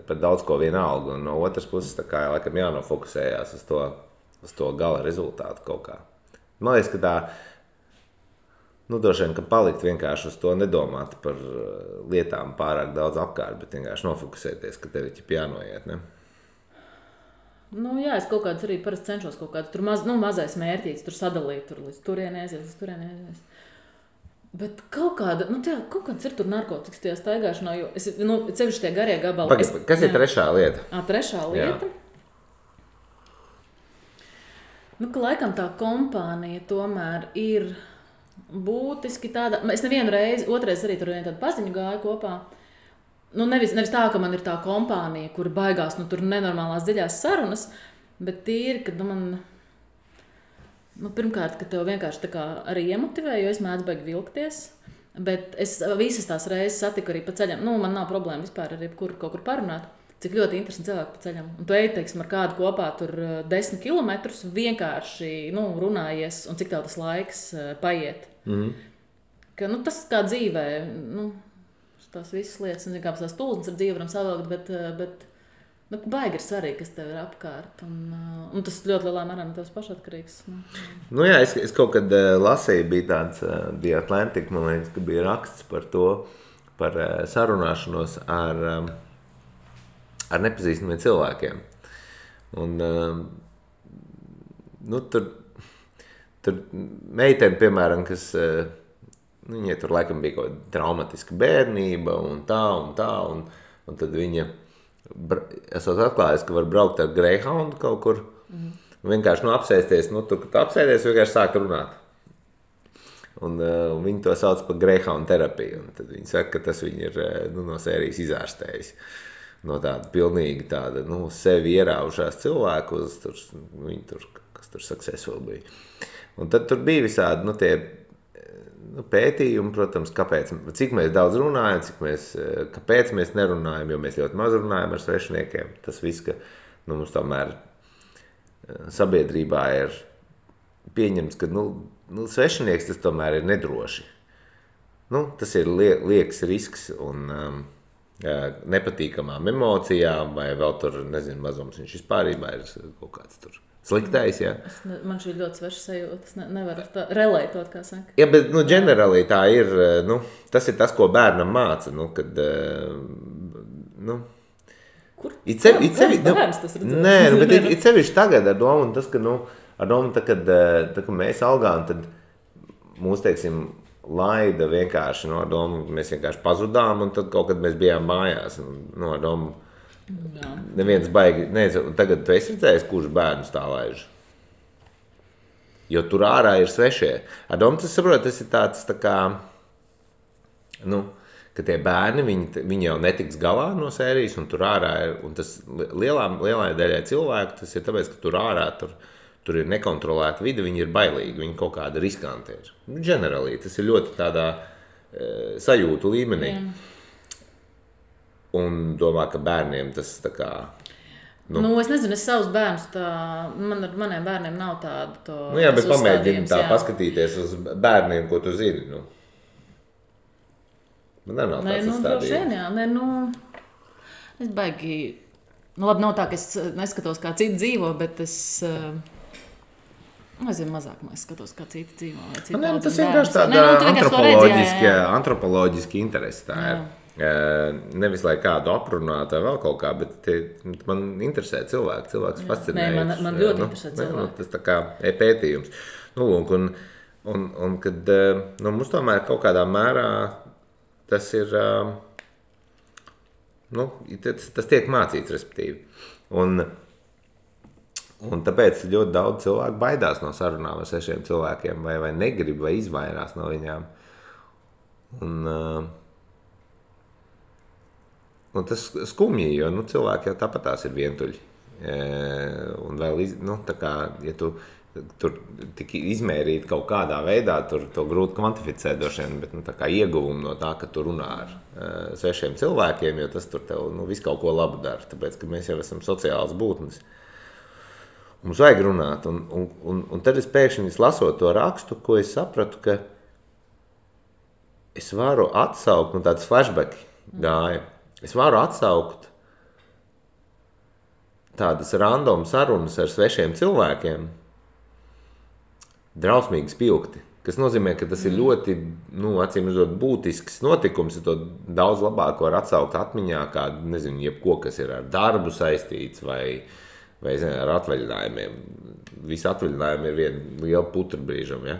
par daudz ko vienalga, un no otras puses tā kā laikam jānofokusējās uz to gala rezultātu kaut kā. Man liekas, ka tā, droši vien, ka palikt vienkārši uz to nedomāt par lietām pārāk daudz apkārt, bet vienkārši nofokusēties, ka tev ir jānoiet, ne? Jā, es kaut kāds arī parasti cenšos kaut kāds tur mazais mērķīts, tur sadalīt, tur līdz turienēs. Bet kaut kāda, kaut kāds ir tur narkotikas tajā staigāšanā, jo es, cevišķi tie garie gabali. Kas ir trešā lieta? Trešā lieta? Jā. Ka laikam tā kompānija tomēr ir būtiski tāda. Es nevienu reizi, otrais arī tur tādu paziņu gāju kopā. Nevis tā, ka man ir tā kompānija, kur baigās tur nenormālās dziļās sarunas, bet tīri, kad man, pirmkārt, ka tev vienkārši tā kā arī iemotivē, jo es mēdzu baigi vilkties. Bet es visas tās reizes satiku arī pa ceļam. Man nav problēma vispār ar jebkuru kaut kur parunāt. Cik ļoti interesanti cilvēki pa ceļam. Un tu ej, teiksim, ar kādu kopā tur 10 kilometrus, vienkārši runājies, un cik tev tas laiks paiet. Ka, tas kā dzīvē, tās visas lietas, kā tās tulznes ar dzīvi varam savilkt, bet baigi ir svarīgi, kas tev ir apkārt. Un tas ļoti lielā mērā no tevs pašatkarīgs. Es kaut kad lasīju, bija tāds The Atlantic, man liekas, ka bija raksts par to, par sarunāšanos ar nepazīstamiem cilvēkiem. Un, tur meiteni, piemēram, kas, viņai tur laikam bija kaut traumatiska bērnība un tā, un tad viņa, esot atklājis, ka var braukt ar Greyhoundu kaut kur, un vienkārši apsēsties, tur, kad apsēdies, vienkārši sāk runāt. Un viņi to sauc par Greyhound terapiju, un tad viņi saka, ka tas viņi ir no sērijas izārstējis. No tāda pilnīgi tāda, sevi ieraušās cilvēku uz kas tur successful bija. Un tad tur bija visādi, tie pētījumi, protams, cik mēs daudz runājam, kāpēc mēs nerunājam, jo mēs ļoti maz runājam ar svešiniekiem. Tas viss, ka mums tomēr sabiedrībā ir pieņemts, ka svešinieks tas tomēr ir nedroši. Tas ir liekas risks un nepatīkamām emocijām, vai vēl tur, mazums viņš vispārībā ir kaut kāds tur sliktais, jā. Man šī ļoti sveša sajūta, es nevaru relētot, kā saka. Jā, bet, ģenerāli tā ir, tas ir tas, ko bērnam māca, kad, Kur? Bērns tas redzēs? Nē, bet ir sevišķi tagad ar domu, un tas, ka, ar domu, kad mēs augām, tad mūs, teiksim, laida vienkārši no domu, mēs vienkārši pazudām, un tad kaut kad mēs bijām mājās. No domu, neviens baigi, tagad tu esi redzējis, kurš bērnus tā laiž. Jo tur ārā ir svešie. Ar domu, tas saprot, tas ir tāds tā kā, ka tie bērni, viņi jau netiks galā no sērijas, un tur ārā ir, un tas lielai daļai cilvēku, tas ir tāpēc, ka tur ārā, tur ir nekontrolēta vide, viņi ir bailīgi, viņi kaut kāda riskanti ir. Ģenerāli, tas ir ļoti tādā sajūtu līmenī. Un domā, ka bērniem tas tā kā... Nu, es nezinu, es savus bērnus ar maniem bērniem nav tādu jā, bet pamēģini tā paskatīties uz bērniem, ko tu zini, Man nav tāds uzstādījums. Es baigi... labi, nav tā, ka es neskatos, kā citi dzīvo, bet es... Es mazāk skatos, kā citi dzīvo. Tas vienkārši tāda antropoloģiski interesi tā ir. Nevis, lai kādu aprunātu vai vēl kaut kā, bet man interesē cilvēks. Cilvēks fascinē. Man ļoti interesē cilvēki. Tas tā kā pētījums. Un kad mums tomēr kaut kādā mērā tas ir, tas tiek mācīts, respektīvi. Un tāpēc ļoti daudz cilvēku baidās no sarunām ar 6 cilvēkiem, vai negrib, vai izvairās no viņām. Un tas skumji, jo cilvēki jau tāpat tās ir vientuļi. Un vēl, tā kā, ja tu tur tik izmērīt kaut kādā veidā, tur to grūti kvantificēt droši vien, bet tā kā ieguvumu no tā, ka tu runā ar 6 cilvēkiem, jo tas tur tev visu kaut ko labu dara, tāpēc, ka mēs jau esam sociāls būtnes. Mums vajag runāt, un tad es pēkšņi lasot to rakstu, ko es sapratu, ka es varu atsaukt, tāds flashback gāja, es varu atsaukt tādas random sarunas ar 6 cilvēkiem, drausmīgi spilgti, kas nozīmē, ka tas ir ļoti, acīm redzot, būtisks notikums, ja to daudz labāk var atsaukt atmiņā, kā, nezinu, jebko, kas ir ar darbu saistīts vai ar atvaļinājumiem. Visi atvaļinājumi ir viena liela putra brīžam, ja?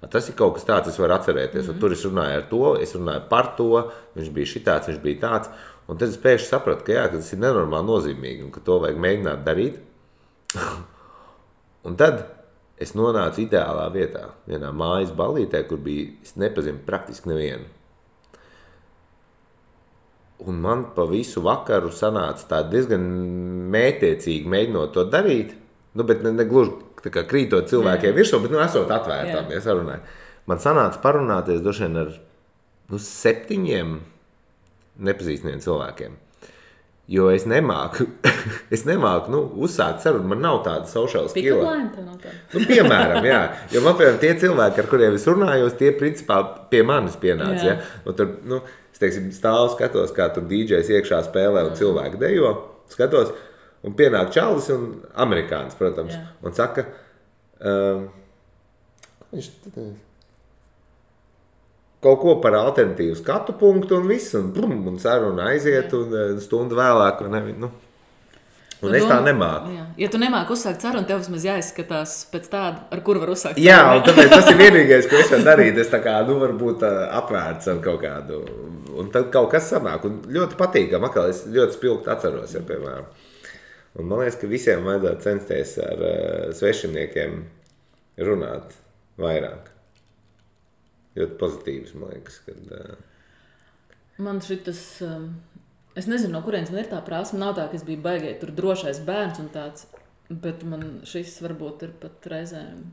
Tas ir kaut kas tāds, es varu atcerēties. Tur es runāju ar to, es runāju par to, viņš bija šitāds, viņš bija tāds. Un tad es pēkšņi sapratu, ka tas ir nenormāli nozīmīgi un ka to vajag mēģināt darīt. Un tad es nonācu ideālā vietā, vienā mājas ballītē, kur bija, es nepazinu praktiski nevienu. Un man pa visu vakaru sanāca tā diezgan mētiecīgi mēģinot to darīt, bet ne gluži tā kā krītot cilvēkiem virsū, bet esot atvērtām, ja sarunāju. Man sanāca parunāties droši vien ar 7 nepazīstamiem cilvēkiem, jo es nemāku uzsākt sarunu, man nav tāda social skill. Piemēram, jā, jo man, piemēram, tie cilvēki, ar kuriem es runājos, tie principā pie manis pienāca, ja? Un tur, es teiksim, stāvu skatos, kā tur DJs iekšā spēlē un cilvēki dejo, skatos, un pienāk čalis un amerikānis, protams, un saka, viņš kaut ko par alternatīvu skatu punktu un viss, un saruna aiziet, un stundu vēlāk, un es tā nemāku. Jā. Ja tu nemāki uzsākt sarunu, tev vismaz jāizskatās pēc tāda, ar kuru var uzsākt sarunu. Jā, un tāpēc tas ir vienīgais, ko es varu darīt. Es tā kā, varbūt apvērts ar kaut kādu, un tad kaut kas sanāk, un ļoti patīkam, atkal es ļoti spilgti atceros, ja, piemēram. Un man liekas, ka visiem vajadzētu censties ar svešiniekiem runāt vairāk. Ļoti pozitīvs, man liekas, kad... Man šitas... Es nezinu, no kurienes man ir tā prasme. Nav tā, ka es biju baigēji tur drošais bērns un tāds, bet man šis varbūt ir pat reizēm...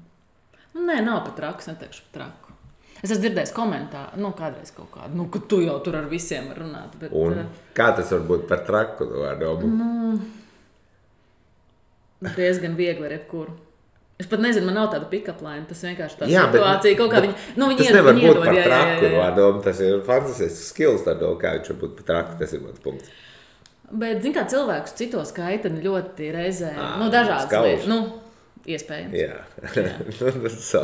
Nē, nav pat traks, neteikšu pat traku. Es esmu dzirdējis komentāru, kādreiz kaut kādu, ka tu jau tur ar visiem var runāt. Bet, un kā tas var būt par traku? Diezgan viegli ar jebkuru. Es pat nezinu, man nav tāda pick-up line, tas vienkārši tā situācija, kaut kā viņi tas nevar būt par traku, tas ir fantastisks skills, kā viņš var būt par traku, tas ir mans punkts. Bet, zin kā, cilvēkus citos kaitani ļoti reizē, dažādas lietas, iespējams. Jā. So.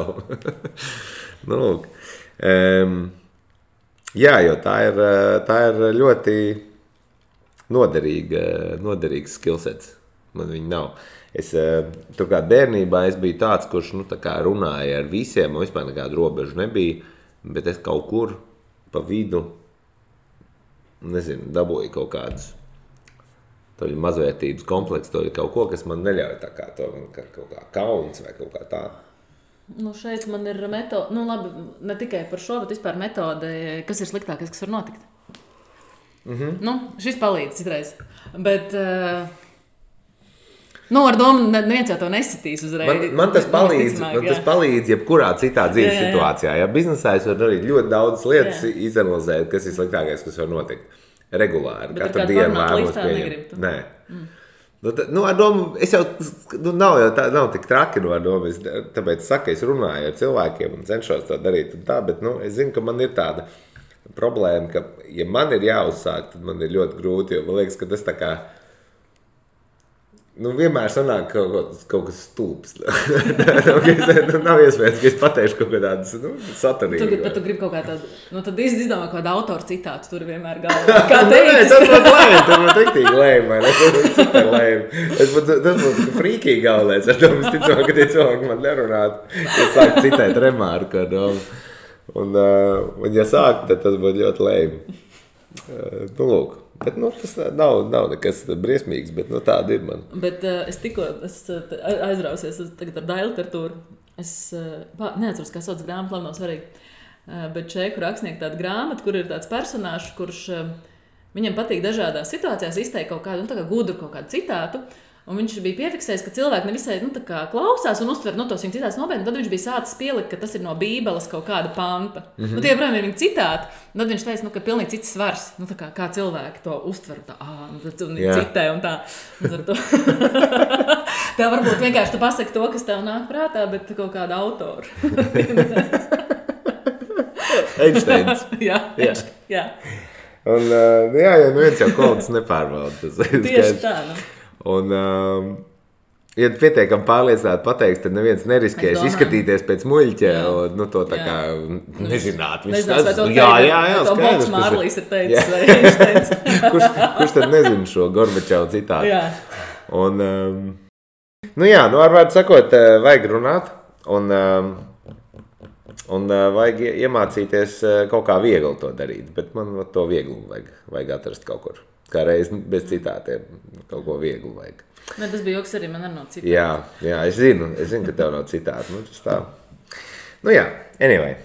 Jā, jo tā ir ļoti noderīgs skillsets, man viņa nav. Turklāt bērnībā es biju tāds, kurš runāja ar visiem, un vispār nekādu robežu nebija, bet es kaut kur pa vidu, dabūju kaut kādus mazvērtības kompleksu, kaut ko, kas man neļauj tā kā to, kaut kā kauns vai kaut kā tā. Šeit man ir metode, labi, ne tikai par šo, bet vispār metode, kas ir sliktākais, kas var notikt. Šis palīdz citreiz, bet... ar domu neviens jau to nesatīs uzreiz. Man tas palīdz jebkurā citā dzīves situācijā. Ja biznesā es varu darīt ļoti daudz lietas, izanalizēt, kas ir sliktākais, kas var notikt. regulāri. Bet katru dienu lēmumus pieņem. Nē. Ar domu, es jau, nav tik traki no domu, tāpēc saku, es runāju ar cilvēkiem un cenšos to darīt un tā, bet, es zinu, ka man ir tāda problēma, ka, ja man ir jāuzsāk, tad man ir ļoti grūti, jo man liekas, ka tas tā kā, vienmēr sanāk kaut kas stulbs. Nav iespējams, ka es pateikšu kaut kā tādas saturīgas. Bet tu gribi kaut kā tādu, tad izdomā kaut kādu autoru citātu, tur vienmēr galvā. Kā teicis? Tas būtu lēm, tas būtu riktīgi lēm, vai ne? Tas būtu super lēm. Tas būtu frīkīgi galvenais, ar to es ticamā, ka tie cilvēki man nerunātu. Es sāku citēt remārku ar domu. Un ja sāk, tad tas būtu ļoti lēm. Lūk. Bet tas nav nekas briesmīgs, bet tāda ir man. Bet es aizrausies tagad ar Dailu literatūru. Es neatceros, kā sauc grāmatu, labi nav svarīgi. Bet čeku rakstnieku tāda grāmata, kur ir tāds personāžs, kurš viņam patīk dažādās situācijās izteikt kaut kādu, tā kā gudru kaut kādu citātu. Un viņš bija piefiksējis, ka cilvēki nevisai klausās un uztver tos viņa citātus nopietni. Tad viņš bija sācis pielikt, ka tas ir no Bībeles kaut kāda panta. Tie, protams, ir viņa citāti. Tad viņš teica, ka pilnīgi cits svars. Kā cilvēki to uztver. Un citē un tā. Tev varbūt vienkārši tu pasaki to, kas tev nāk prātā, bet kaut kāda autora. Einsteins. Jā. Un viens jau kolds nepārbauda. Tieši tā, Un, ja pietiekami pārliecināti pateiks, tad neviens neriskēs izskatīties pēc muļķa un to tā kā nezināt. Nezinās, vai to to Bolts Mārlīs ir teicis, vai viņš teica. Kurš tad nezina šo Gorbačovu citātu? Jā. Un, ar vārdu sakot, vajag runāt un vajag iemācīties kaut kā viegli to darīt, bet man to viegli vajag atrast kaut kur. Kā reiz bez citātiem kaut ko vieglu vajag. Tas bija joks arī, man arī nav citāti. Jā, es zinu, ka tev nav citāti. Tas tā. Anyway.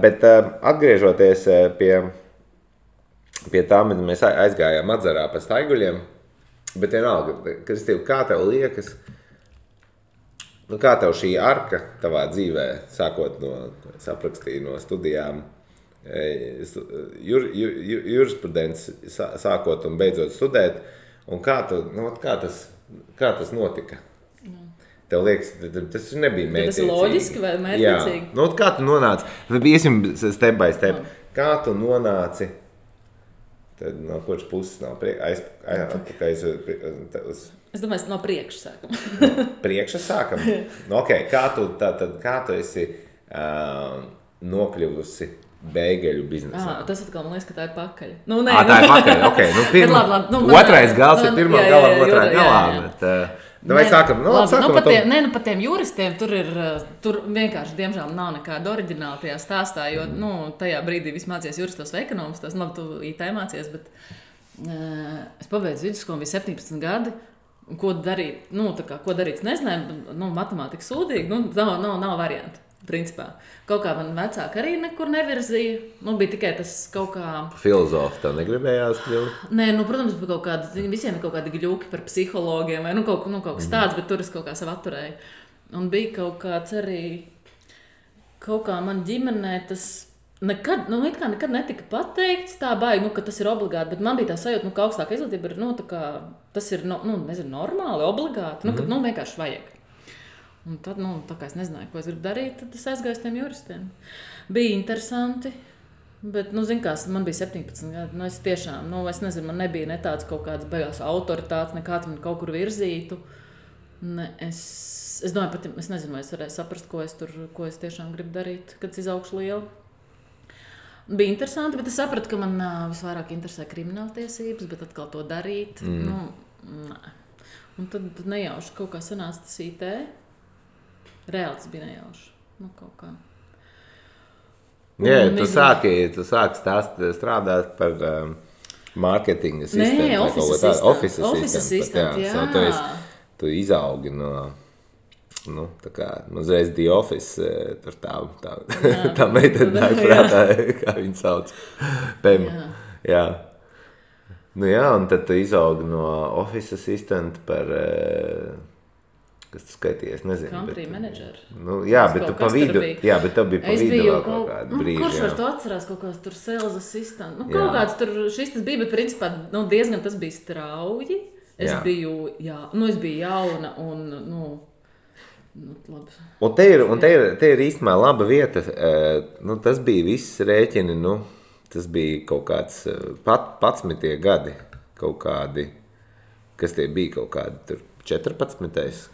Bet atgriežoties pie tā, mēs aizgājām atzarā pa staiguļiem, bet vienalga, Kristīva, kā tev liekas, kā tev šī arka tavā dzīvē, sākot saprakstīju no studijām, jurisprudenci sākot un beidzot studēt, un kā tas notika? Tev liekas, tas nebija mērķiecīgi. Tas ir loģiski vai mērķiecīgi? Jā, kā tu nonāci? Iesim step by step. Kā tu nonāci? Tad no kuras puses nav Es domāju, no priekša sākam. Priekša sākam? Kā tu esi nokļuvusi beigeļu biznesā? Tas atkal man liekas, ka tā ir pakaļ. Tā ir pakaļ, otrais gals ir pirmā galam, otrā galā. Vai sākam? Par tiem juristiem tur vienkārši, diemžēl, nav nekāda oriģināla tajā stāstā, jo tajā brīdī viss mācījies juristos vai ekonomistos, tu IT mācījies, bet es pabeidzu vidusskolu, bija 17 gadi. Ko darīt? Ko darīt? Es nezināju, matemātika sūdīgi, nav variantu. Principā. Kaut kā man vecāki arī nekur nevirzīja. Bija tikai tas kaut kā... Filozofi tev negribējās kļūt? Nē, protams, visiem ir kaut kādi gļuki par psihologiem vai kaut kas tāds, bet tur es kaut kā sev atturēju. Un bija kaut kāds arī... Kaut kā man ģimenē tas... Nekad netika pateikts tā baigi, ka tas ir obligāti, bet man bija tā sajūta, ka augstāka izglītība ir, tas ir, normāli, obligāti, kad vienkārši vajag. Un tad, tā kā es nezināju, ko es gribu darīt, tad es aizgāju uz tiem juristiem. Bija interesanti, bet, man bija 17 gadi, es tiešām, es nezinu, man nebija ne tāds kaut kāds beigās autoritātes, nekāds man kaut kur virzītu. Es domāju, es nezinu, vai es varēju saprast, ko es tiešām gribu darīt, kad es izaugšu lielu. Bija interesanti, bet es sapratu, ka man visvairāk interesē krimināltiesības, bet atkal to darīt, nē. Un tad nejauši kaut kā sanāca tas IT. Reāli tas bija nejauši. Kaut kā. Tu sāki strādāt par marketinga sistēmu. Nē, office assistant, jā. Tu izaugi no... tā kā uzreiz The Office, tur tā meitene nāk prātā, kā viņu sauc, Pem. Jā. Un tad tu izaugi no Office Assistant par Kas tu skaities, nezinu. Country manager. Nu, jā, bet tu pa vidu, jā, bet tev bija pa vidu vēl kaut kādu brīži. Kurš var to atcerās kaut kāds tur sales assistant? Nu, kaut kāds tur šis tas bija, bet principā diezgan tas bija strauji. Es biju jauna un, labi. Un te ir īstenībā laba vieta. Tas bija viss rēķini, tas bija kaut kāds 11. gadi, kaut kādi, kas tie bija kaut kādi tur. 14.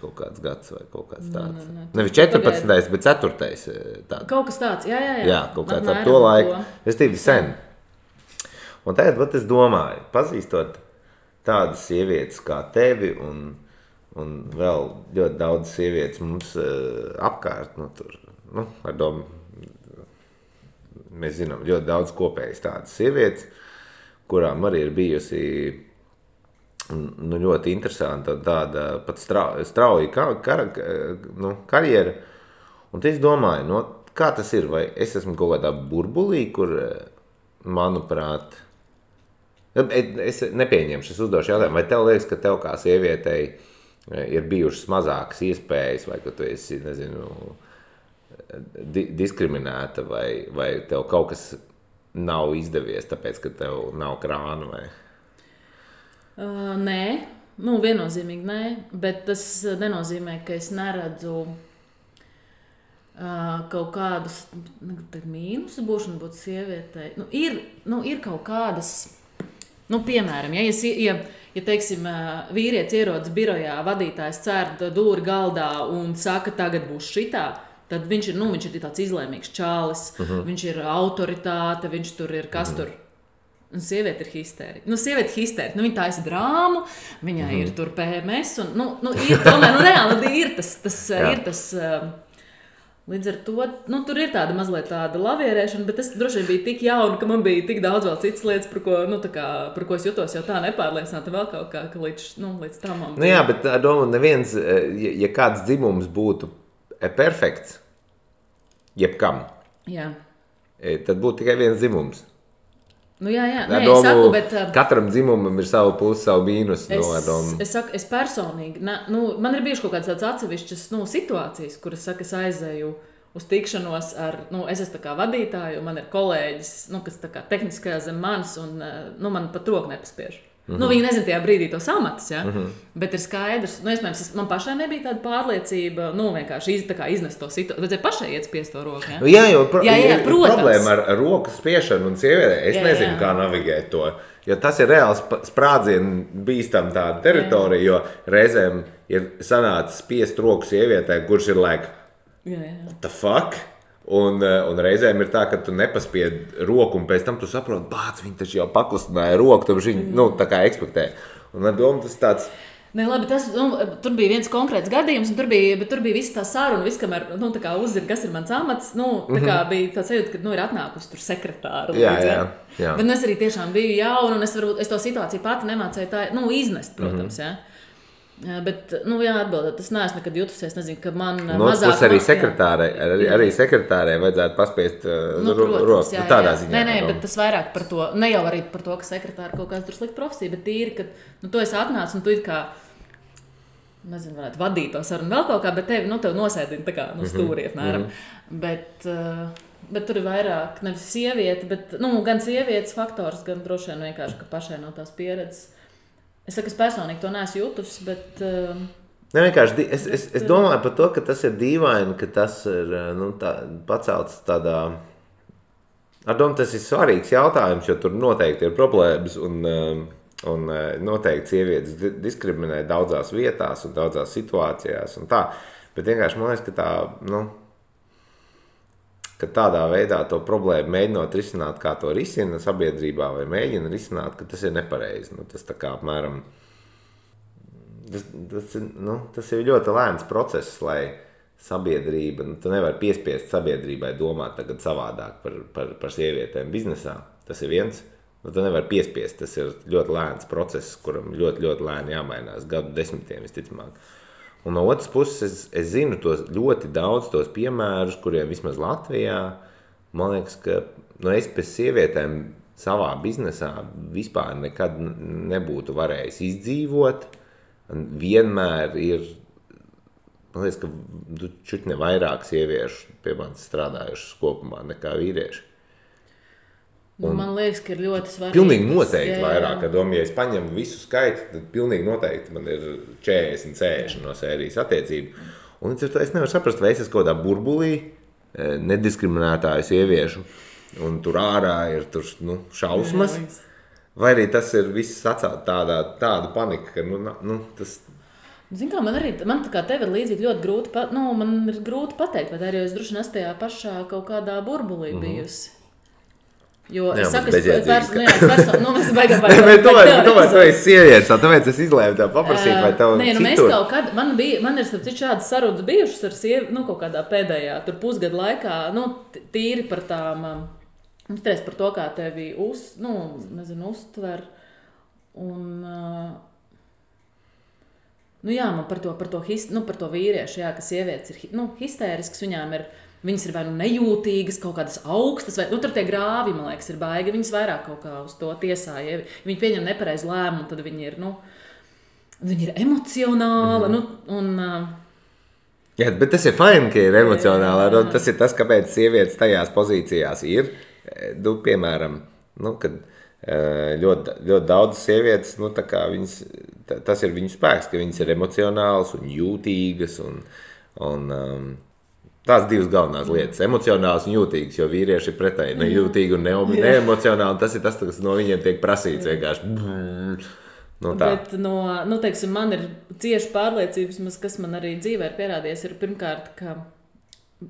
kaut kāds gads vai kaut kāds tāds. Nevis 14. bet 4. tāds. Kaut kas tāds, jā. Jā, kaut kāds ar to laiku. Es tīvi sen. Un tagad, es domāju, pazīstot tādas sievietes kā tevi un vēl ļoti daudz sievietes mums apkārt, ar domu, mēs zinām, ļoti daudz kopējas tādas sievietes, kurām arī ir bijusi ļoti interesanta tāda pat strauja karjera. Un es domāju, kā tas ir, vai es esmu kaut kādā burbulī, kur, manuprāt, es nepieņemšu, es uzdošu jautājumu, vai tev liekas, ka tev kā sievietei ir bijušas mazākas iespējas, vai ka tu esi, nezinu, diskriminēta, vai tev kaut kas nav izdevies, tāpēc, ka tev nav krāna, vai... Nē, viennozīmīgi nē, bet tas nenozīmē, ka es neredzu kaut kādus mīnusus būšanu būt sievietei. Ir kaut kādas, piemēram, ja teiksim, vīrietis ierodas birojā, vadītājs cērt dūri galdā un saka, tagad būs šitā, tad viņš ir tāds izlēmīgs čālis, viņš ir autoritāte, viņš tur ir kas tur. Un sieviete ir histērika. Viņa taisa drāmu, viņai ir tur PMS. Un, ir tomēr, reāli ir tas. Līdz ar to, tur ir tāda mazliet tāda lavierēšana, bet es droši vien biju tik jauna, ka man bija tik daudz vēl citas lietas, par ko es jutos jau tā nepārliecināta vēl kaut kā, ka līdz tam man bija. Jā, bet domāju, neviens, ja kāds dzimums būtu perfekts, jebkam, tad būtu tikai viens dzimums. Jā, es saku, bet... Katram dzimumam ir savu pusi, savu mīnus. Es personīgi, man ir bijuši kaut kādas tādas atsevišķas situācijas, kuras saka, es aizēju uz tikšanos ar, es esmu tā kā vadītāju, un man ir kolēģis, kas tā kā tehniskajā zem manis, un man pat roku nepaspiež. Viņi nezina tajā brīdī tos amatus, ja? Bet ir skaidrs, iespējams, man pašai nebija tāda pārliecība, vienkārši iznest to situāciju, vajadzēja pašai iet spiest to roku, ja? Jā, problēma ar roku spiešanu un sievietē, es nezinu, kā navigēt to, jo tas ir reāls sprādzienu bīstam tāda teritorija, jo reizēm ir sanācis spiest roku sievietē, kurš ir what the fuck? Un reizēm ir tā, ka tu nepaspied roku, un pēc tam tu saproti, viņi taču jau pakustināja roku, tad viņi, tā kā ekspektē. Un ar domu tas tāds... Nē, labi, tur bija viens konkrēts gadījums, un tur bija viss tā saruna, viss, kamēr, tā kā uzzina, kas ir mans amats, tā kā bija tāds sajūta, ka, ir atnākusi tur sekretāra. Jā. Bet es arī tiešām biju jauna, un es to situāciju pati nemācēju tā, iznest, protams, Bet, atbildēt, tas neesmu nekad jutusies, nezinu, ka man mazāk... arī sekretārē vajadzētu paspiest roku, tādā ziņā. Nē, bet tas vairāk par to, ne jau arī par to, ka sekretāra kaut kāds tur slikta profesija, bet tīri, ka, tu esi atnācis un tu it kā, nezinu, varētu vadīt to sarunu vēl kaut kā, bet tevi, tev nosēdina tā kā, stūri, apmēram. Bet tur ir vairāk, nevis sieviete, bet, gan sievietes faktors, gan droši vien vienkārši, ka pašai nav tās pieredzes. Es saku, es personīgi to neesmu jutusi, bet... Vienkārši, es domāju par to, ka tas ir dīvaini, ka tas ir pacelts tādā... Ar domu, tas ir svarīgs jautājums, jo tur noteikti ir problēmas un noteikti sievietes diskriminē daudzās vietās un daudzās situācijās un tā. Bet vienkārši man liekas, ka tā, ka tādā veidā to problēmu mēģinot risināt, kā to risina sabiedrībā vai mēģina risināt, ka tas ir nepareizi. Tas tā kā apmēram, tas ir ļoti lēns process, lai sabiedrība, tu nevari piespiest sabiedrībai domāt tagad savādāk par sievietēm biznesā. Tas ir viens, tu nevari piespiest, tas ir ļoti lēns process, kuram ļoti, ļoti lēni jāmainās, gadu desmitiem visticamāk. Un no otras puses, es zinu ļoti daudz tos piemērus, kuriem vismaz Latvijā, man liekas, ka es pēc sievietēm savā biznesā vispār nekad nebūtu varējis izdzīvot. Vienmēr ir man liekas, ka čutne vairāk sieviešu pie manis strādājušas kopumā nekā vīrieši. Man liekas, ka ir ļoti svarīgi. Pilnīgi noteikti vairāk, ka ja es paņemu visu skaitu, tad pilnīgi noteikti man ir 40 no sērijas attiecību. Un es nevaru saprast, vai es esmu kaut kādā burbulī nediskriminētāju sieviešu, un tur ārā ir šausmas, vai arī tas ir viss sacelt tāda panika, ka tas... Zin kā, man tā kā tev ir līdzīgi ļoti grūti, man ir grūti pateikt, vai arī es droši vien tajā pašā kaut kādā burbulī bijusi. Jo es saku, es personu, baigā tomēr tu esi sievietes, tāpēc es izlēmu tev paprasīt, vai tev citur. Mēs kaut kad, man ir šādas sarunas bijušas ar sievi, kaut kādā pēdējā, tur pusgadu laikā, tīri par tām, par to, kā tevi uztver, un, man par to vīriešu, jā, ka sievietes ir, histērisks, viņām ir, viņas ir vai nejūtīgas, kaut kādas augstas, vai tur tie grāvi, man liekas, ir baigi. Viņas vairāk kaut kā uz to tiesāja. Ja viņi pieņem nepareizu lēmumu, tad viņi ir, viņi ir emocionāli. Jā, bet tas ir fajn, ka ir emocionāli. Tas ir tas, kāpēc sievietes tajās pozīcijās ir. Piemēram, kad ļoti daudz sievietes, tā kā viņas, tas ir viņu spēks, ka viņas ir emocionālas un jūtīgas un tās divas galvenās lietas, emocionāls un jūtīgs, jo vīrieši ir pretēji nejūtīgi un neemocionāli, tas ir tas, kas no viņiem tiek prasīts vienkārši. Bet teiksim, man ir cieši pārliecības, kas man arī dzīvē ir pierādījies, ir pirmkārt, ka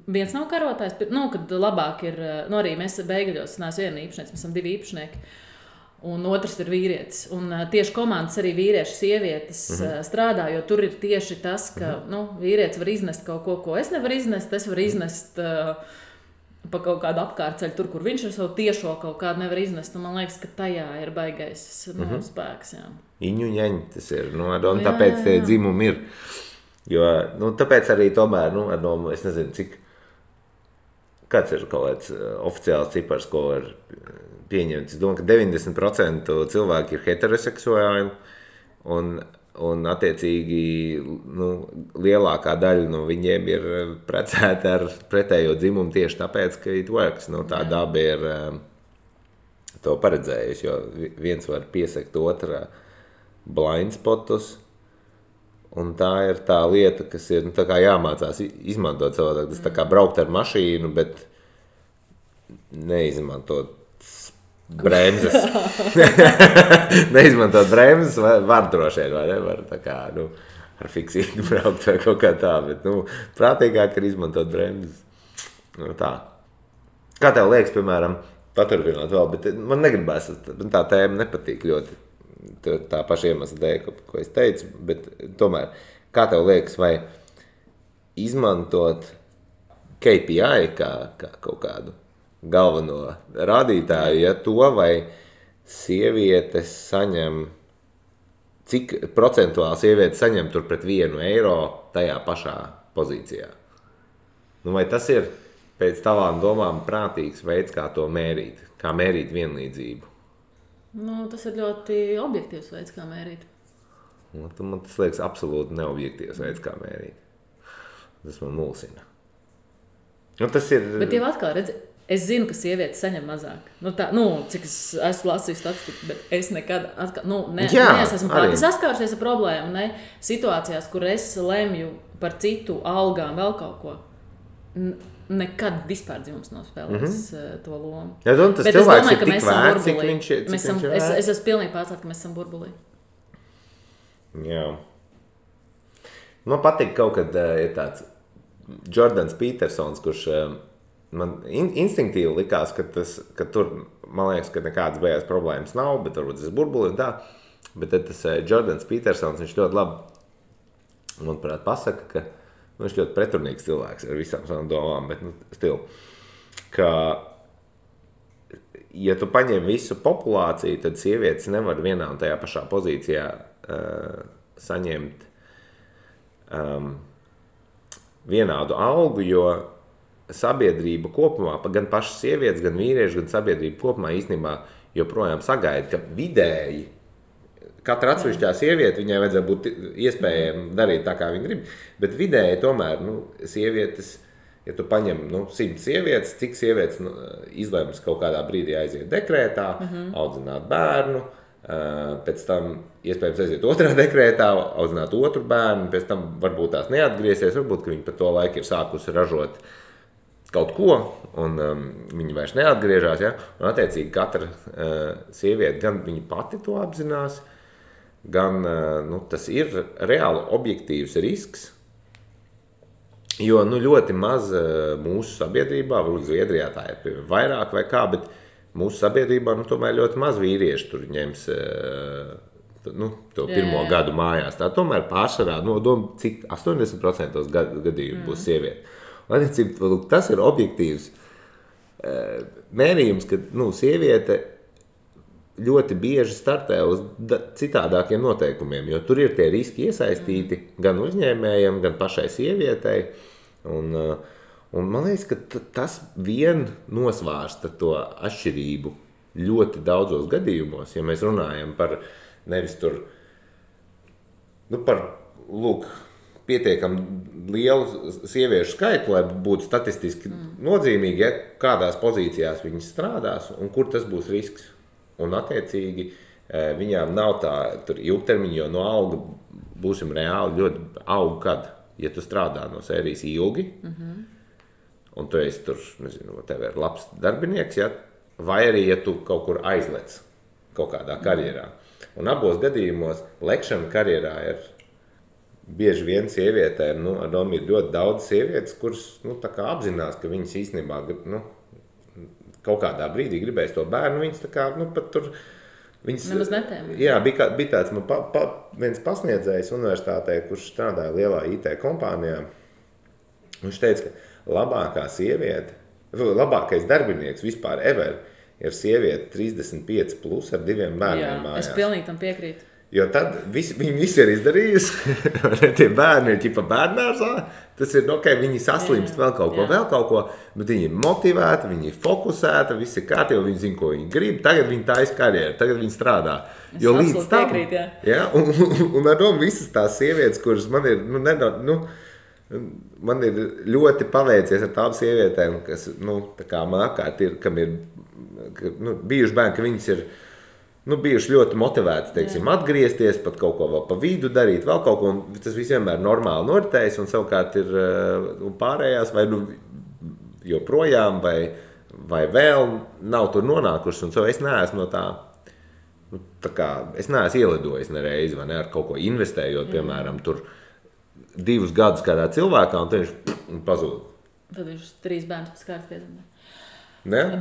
viens nav karotājs, kad labāk ir, arī mēs Beigaļos, neesmu viena īpašnieks, mēs esam 2 īpašnieki. Un otrs ir vīrietis. Un tieši komandas arī vīrieši, sievietes strādā, jo tur ir tieši tas, ka vīrietis var iznest kaut ko es nevaru iznest, es varu iznest pa kaut kādu apkārtceļu tur, kur viņš ar savu tiešo kaut kādu nevar iznest. Un man liekas, ka tajā ir baigais spēks. Jā. Iņuņaņi tas ir, un tāpēc tie dzimumi ir. Jo, tāpēc arī tomēr, es nezinu, cik, kāds ir kaut kāds oficiāls cipars, ko var pieņemts. Es domāju, ka 90% cilvēki ir heteroseksuāli un attiecīgi lielākā daļa no viņiem ir precēti ar pretējo dzimumu tieši tāpēc, ka it works. Tā daba ir to paredzējusi, jo viens var piesekt otrā blindspotus, un tā ir tā lieta, kas ir tā kā jāmācās izmantot savādāk. Tas tā kā braukt ar mašīnu, bet neizmantot bremzes. Neizmantot bremzes var droši vien, vai nevar tā kā, ar fiksītu braukt vai kaut kā tā, bet, prātīgāk ir izmantot bremzes. Tā. Kā tev liekas, piemēram, paturpināt vēl, bet man negribās, tā tēma nepatīk ļoti, tā paša iemesla dēļ, ko es teicu, bet tomēr, kā tev liekas, vai izmantot KPI kā kaut kādu galveno rādītāju, ja to vai sievietes saņem, cik procentuāli sievietes saņem tur pret 1 eiro tajā pašā pozīcijā. Vai tas ir pēc tavām domām prātīgs veids, kā to mērīt, kā mērīt vienlīdzību? Tas ir ļoti objektīvs veids, kā mērīt. Man tas liekas absolūti neobjektīvs veids, kā mērīt. Tas man mulsina. Tas ir... Bet jau atkal, redzi, es zinu, ka sievietes saņem mazāk. Cik es esmu lasījis statistiku, bet es nekad esmu pati saskārusies ar problēmu, situācijās, kur es lemju par citu algām vēl kaut ko. Nekad vispār dzimums nav spēlējis to lomu. Ja, tas bet es domāju, ka mēs esam burbulī. Es esmu pilnīgi pārcelt, ka mēs esam burbulī. Jā. Man patīk kaut kad ir tāds Jordans Petersons, kurš man instinktīvi likās, ka tur, man liekas, ka nekādas beigās problēmas nav, bet varbūt tas ir burbuli un tā. Bet tad tas Jordans Petersons, viņš ļoti labi, manuprāt, pasaka, ka viņš ļoti pretrunīgs cilvēks ar visām savām domām, bet stilu, ka ja tu paņem visu populāciju, tad sievietes nevar vienā un tajā pašā pozīcijā saņemt vienādu algu, jo sabiedrība kopumā, gan pašas sievietes, gan vīrieši, gan sabiedrība kopumā īstenībā joprojām sagaida, ka vidēji katra atsevišķā sieviete, viņai vajadzētu būt iespējami darīt tā, kā viņa grib, bet vidēji tomēr, sievietes, ja tu paņem 100 sievietes, cik sievietes izlems kaut kādā brīdī aiziet dekrētā, audzināt bērnu, pēc tam iespējams aiziet otrā dekrētā, audzināt otru bērnu, pēc tam varbūt tās neatgriezies, varbūt, ka viņi pa to laiku ir sākusi ražot kaut ko, un viņi vairs neatgriežās, ja? Un attiecīgi katra sieviete, gan viņa pati to apzinās, gan tas ir reāli objektīvs risks, jo ļoti maz mūsu sabiedrībā, varbūt Zviedrijā tā ir vairāk vai kā, bet mūsu sabiedrībā tomēr ļoti maz vīrieši tur ņems to pirmo gadu mājās. Tā tomēr pārsvarā, cik 80% gadījumu būs sieviete. Tas ir objektīvs mērījums, ka sieviete ļoti bieži startē uz citādākiem noteikumiem, jo tur ir tie riski iesaistīti gan uzņēmējiem, gan pašai sievietei. Un man liekas, ka tas vien nosvārsta to atšķirību ļoti daudzos gadījumos, ja mēs runājam par nevis tur, par pietiekami lielu sieviešu skaitu, lai būtu statistiski nozīmīgi, ja kādās pozīcijās viņas strādās un kur tas būs risks. Un attiecīgi viņām nav tā ilgtermiņa, jo no alga būsim reāli ļoti auga, kad, ja tu strādā no sērijas ilgi, un tu esi tur, nezinu, tev ir labs darbinieks, ja? Vai arī, ja tu kaut kur aizlec kaut kādā karjerā. Un abos gadījumos lekšana karjerā ir bieži vien sievietēm, ir ļoti daudz sievietes, kuras tā kā apzinās, ka viņas īstenībā kaut kādā brīdī gribēs to bērnu, viņas tā kā pat tur... Nemaz netēma. Jā, bija tāds viens pasniedzējs universitātē, kurš strādāja lielā IT kompānijā. Viņš teica, ka labākais darbinieks vispār ever ir sieviete 35 plus ar 2 bērniem mājās. Es pilnīgi tam piekrītu. Jo tad viņi visi ir izdarījusi, tie bērni ir ķipa bērnārzā, tas ir, viņi saslimst vēl kaut ko, bet viņi ir motivēti, viņi ir fokusēti, visi ir kārtībā, viņi zina, ko viņi grib, tagad viņi taisa karjeru, tagad viņi strādā. Jo līdz tam, un ar domu visas tās sievietes, kuras man ir, man ir ļoti paveicies ar tām sievietēm, kas, tā kā man apkārt ir, kam ir bijuši bērni, ka viņas ir, bijuši ļoti motivēti, teiksim, atgriezties, pat kaut ko vēl pa vidu darīt, vēl kaut ko, un tas viss vienmēr normāli noritējis, un savukārt ir pārējās, vai joprojām, vai vēl nav tur nonākušas, un es neesmu no tā kā, es neesmu ielidojis nereizi, vai ne, ar kaut ko investējot, piemēram, tur 2 gadus kādā cilvēkā, un tad viņš pazūd. Tad viņš 3 bērnus pēc kārtas piedzimta.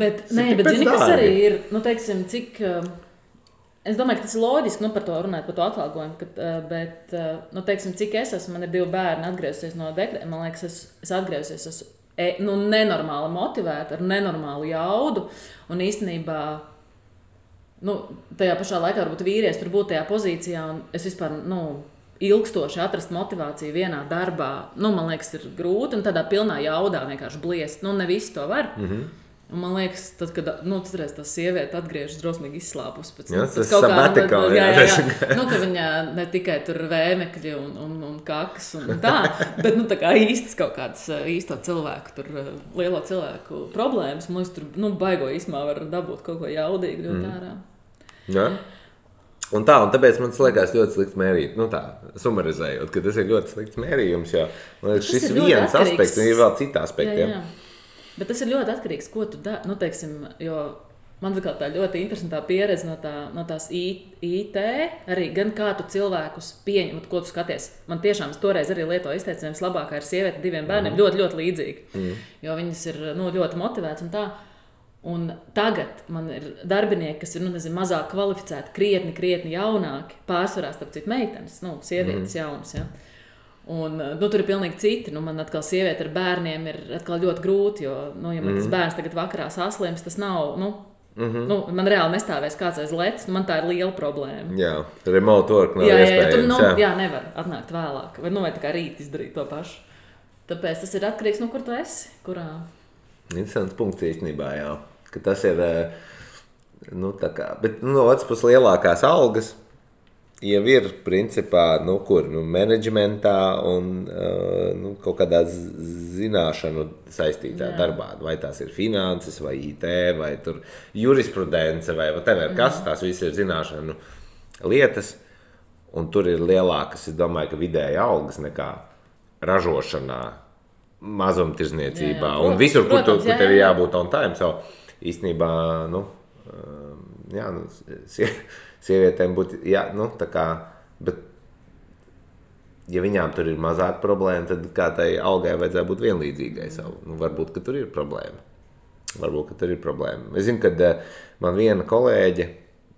Bet zini, kas arī ir, teiksim, cik... Es domāju, ka tas ir loģiski, par to runāt, par to atalgojumu, bet, teiksim, cik es esmu, man ir 2 bērni atgriezusies no dekrēta, man liekas, es atgriezusies, esmu nenormāli motivēta, ar nenormālu jaudu, un īstenībā, tajā pašā laikā varbūt vīrietis tur būtu tajā pozīcijā, un es vispār, ilgstoši atrast motivāciju vienā darbā, man liekas, ir grūti, un tādā pilnā jaudā vienkārši bliest, ne visi to var. Un man liekas, tad, kad tas sieviete atgriežas drosmīgi izslāpus pēc tas sabatikal, ka viņa ne tikai tur vēmekļi un kakas un tā, bet tā kā īstas kaut kādas īsto cilvēku, tur lielo cilvēku problēmas, man liekas, tur baigo īsmā var dabūt kaut ko jaudīgi ļoti ārā. Jā. Un tāpēc man liekas ļoti slikts mērīt, sumarizējot, ka tas ir ļoti slikts mērījums, jo man liekas, šis viens aspekts, un ir vēl citi aspekti. Jā. Bet tas ir ļoti atkarīgs, ko tu dari. Teiksim, jo man ir tā ļoti interesantā pieredze no tās IT, arī gan kā tu cilvēkus pieņem, ko tu skaties. Man tiešām toreiz arī lietoju izteicienu, labākā ir sieviete 2 bērniem, ļoti, ļoti līdzīgi, jo viņas ir ļoti motivētas un tā. Un tagad man ir darbinieki, kas ir mazāk kvalificēti, krietni jaunāki, pārsvarā starp citu meitenes, sievietes jaunas. Ja? Un, tur ir pilnīgi citi. Man atkal sieviete ar bērniem ir atkal ļoti grūti, jo, ja man tas bērns tagad vakarā saslims, tas nav, man reāli nestāvēs kāds aiz letes, man tā ir liela problēma. Jā, remote work nav iespējams. Jā, nevar atnākt vēlāk, vai tā kā rīt izdarīt to pašu. Tāpēc tas ir atkarīgs, kur tu esi, kurā. Interesants punkts īstenībā, jā, ka tas ir, tā kā, bet no otras puses lielākās algas, jau ir principā, menedžmentā un kaut kādā zināšanu saistītā darbā. Vai tās ir finanses, vai IT, vai tur jurisprudence, vai whatever, kas tās viss ir zināšanu lietas. Un tur ir lielākas, es domāju, ka vidēji algas nekā ražošanā, mazumtirdzniecībā un visur, kur tev ir jābūt on time. So, īstenībā, sievietēm būtu, tā kā, bet, ja viņām tur ir mazāk problēma, tad kā tai algai vajadzētu būt vienlīdzīgai. Varbūt, ka tur ir problēma. Es zinu, kad man viena kolēģe,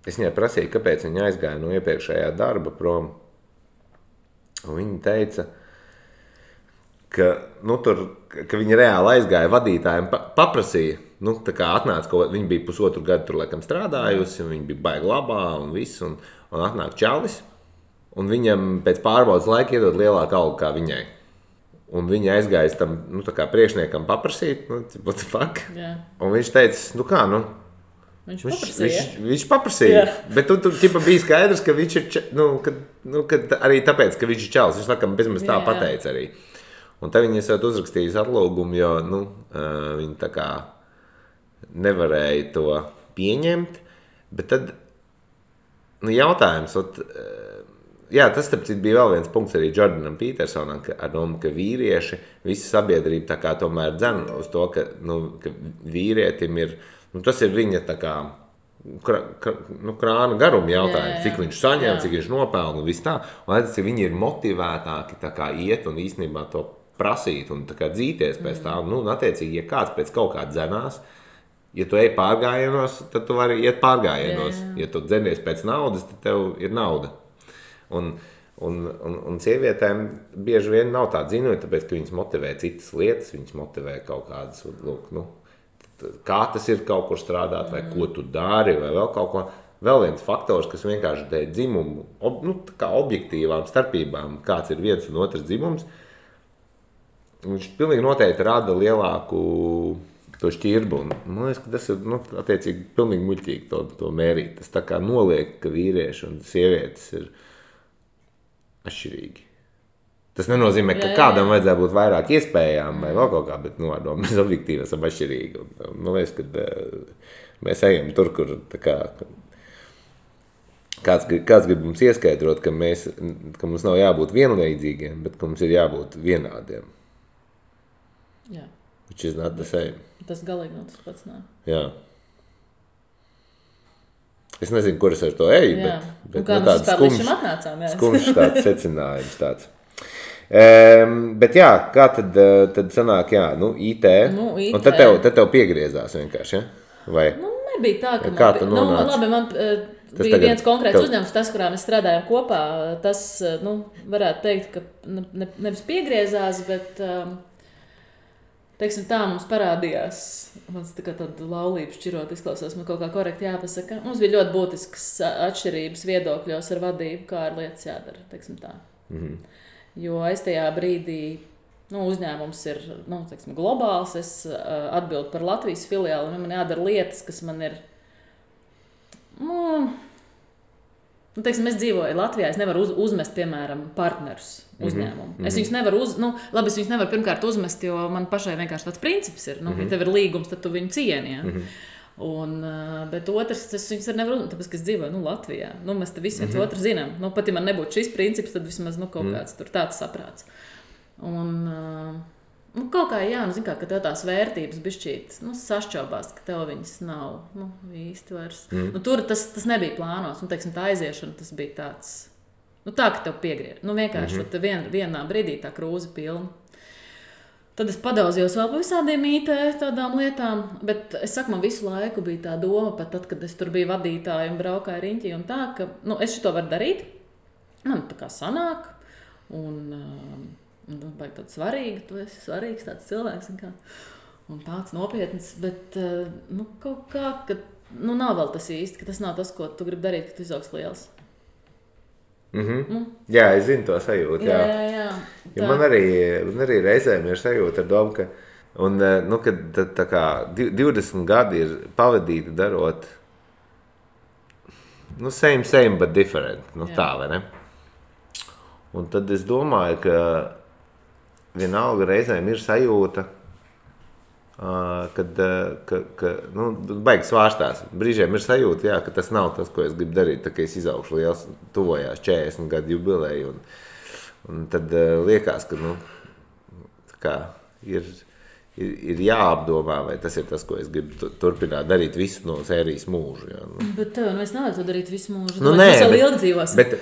es viņai prasīju, kāpēc viņa aizgāja no iepriekšējā darba prom. Un viņa teica, ka viņa reāli aizgāja vadītājiem, paprasīja, tā kā atnāca, viņa bija pusotru gadu tur laikam strādājusi, un viņa bija baigi labā un viss, un atnāk čalis, un viņam pēc pārbaudas laika iedod lielāku algu kā viņai. Un viņa aizgāja tam, tā kā priekšniekam paprasīt, what the fuck? Yeah. Un viņš teica, Viņš paprasīja, bet tur bija skaidrs, ka viņš ir, kad arī tāpēc, ka viņš ir čalis, viņš laikam bezmaz tā pateica arī. Un tad viņi esat uzrakstījis atlūgumu, jo, viņi tā kā nevarēja to pieņemt, bet tad, jautājums, tas starp citu bija vēl viens punkts arī Jordanam Petersonam, ka vīrieši, visa sabiedrība tā kā tomēr dzen uz to, ka vīrietim ir, tas ir viņa tā kā krāna garuma jautājums, cik viņš saņem, cik viņš nopelna un viss tā. Un redz, ka viņi ir motivētāki tā kā iet un īstenībā to prasīt un tā kā dzīties pēc tā. Attiecīgi, ja kāds pēc kaut kā dzenās, ja tu ej pārgājienos, tad tu vari iet pārgājienos. Ja tu dzenies pēc naudas, tad tev ir nauda. Un sievietēm bieži vien nav tā dzinoja, tāpēc, ka viņas motivē citas lietas, viņas motivē kaut kādas, kā tas ir kaut kur strādāt, vai ko tu dari, vai vēl kaut ko. Vēl viens faktors, kas vienkārši dēļ dzimumu, kā objektīvām starpībām, kāds ir viens un otrs dzimums, viņš pilnīgi noteikti rada lielāku to šķirbu. Man liekas, ka tas ir, attiecīgi, pilnīgi muļķīgi to mērīt. Tas tā kā noliek, ka vīrieši un sievietes ir atšķirīgi. Tas nenozīmē, ka kādam vajadzētu būt vairāk iespējām vai vēl kaut kā, bet mēs objektīvi esam atšķirīgi. Man liekas, ka mēs ejam tur, kur tā kā, kāds grib mums ieskaidrot, ka mums nav jābūt vienlīdzīgiem, bet ka mums ir jābūt vienādiem. Jā. Which is not the same. Tas galīgi nav tas pats, nē. Jā. Es nezinu, kur es ar to eju, bet tāds skumjš tāds secinājums tāds. Bet jā, kā tad sanāk, IT, un tad tev piegriezās vienkārši, ja? Vai? Nebija tā, ka kā tu nonāci? Labi, man bija viens konkrēts uzņēmums, tas, kurā mēs strādājam kopā, tas, varētu teikt, ka nevis piegriezās, bet, teiksim tā, mums parādījās, mans tā kā tāda laulība šķirot izklausās, man kaut kā korekti jāpasaka, mums bija ļoti būtiskas atšķirības viedokļos ar vadību, kā ar lietas jādara, teiksim tā. Jo es tajā brīdī, uzņēmums ir, teiksim, globāls, es atbildu par Latvijas filiāli, un man jādara lietas, kas man ir, teiksim, es dzīvoju Latvijā, es nevaru uzmest, piemēram, partnerus uzņēmumu. Es viņus nevaru labi, es viņus nevaru pirmkārt uzmest, jo man pašai vienkārši tāds princips ir, ja tev ir līgums, tad tu viņu cieni, ja? Bet otrs, es viņus nevaru uzmest, tāpēc, ka es dzīvoju Latvijā. Mēs te visi viens otru zinām. Pat ja man nebūtu šis princips, tad vismaz kaut kāds tur tāds saprāts. Kaut kā, ka tev tās vērtības bišķīt sašķobās, ka tev viņas nav īsti vairs. Tur tas nebija plānots. Teiksim, tā aiziešana, tas bija tāds, tā, ka tev piegriez. Vienkārši vienā brīdī tā krūze pilna. Tad es padaudzījos vēl par visādiem IT tādām lietām, bet es saku, man visu laiku bija tā doma, pat tad, kad es tur biju vadītāja un braukāju riņķī un tā, ka es šito varu darīt, man tā kā sanāk, un baigi tāds svarīgi, tu esi svarīgs tāds cilvēks un tāds nopietns, bet kaut kā, ka nav vēl tas īsti, ka tas nav tas, ko tu gribi darīt, ka tu izaugs liels. Jā, es zinu to sajūtu. Jā. Ja man arī reizēm ir sajūta ar domu, ka, kad tā kā 20 gadi ir pavadīti darot same, but different. Tā, vai ne? Un tad es domāju, ka vienalga reizēm ir sajūta, kad baigi svārstās. Brīžiem ir sajūta, jā, ka tas nav tas, ko es gribu darīt, tā kā es izaugšu liels, tuvojās 40 gadu jubileju. Un tad liekas, ka tā kā ir jāapdomā, vai tas ir tas, ko es gribu turpināt darīt visu no sērijas mūžu. Jā, Bet tev es nevaru to darīt visu mūžu. Nē, vēl ilgi dzīvos. Bet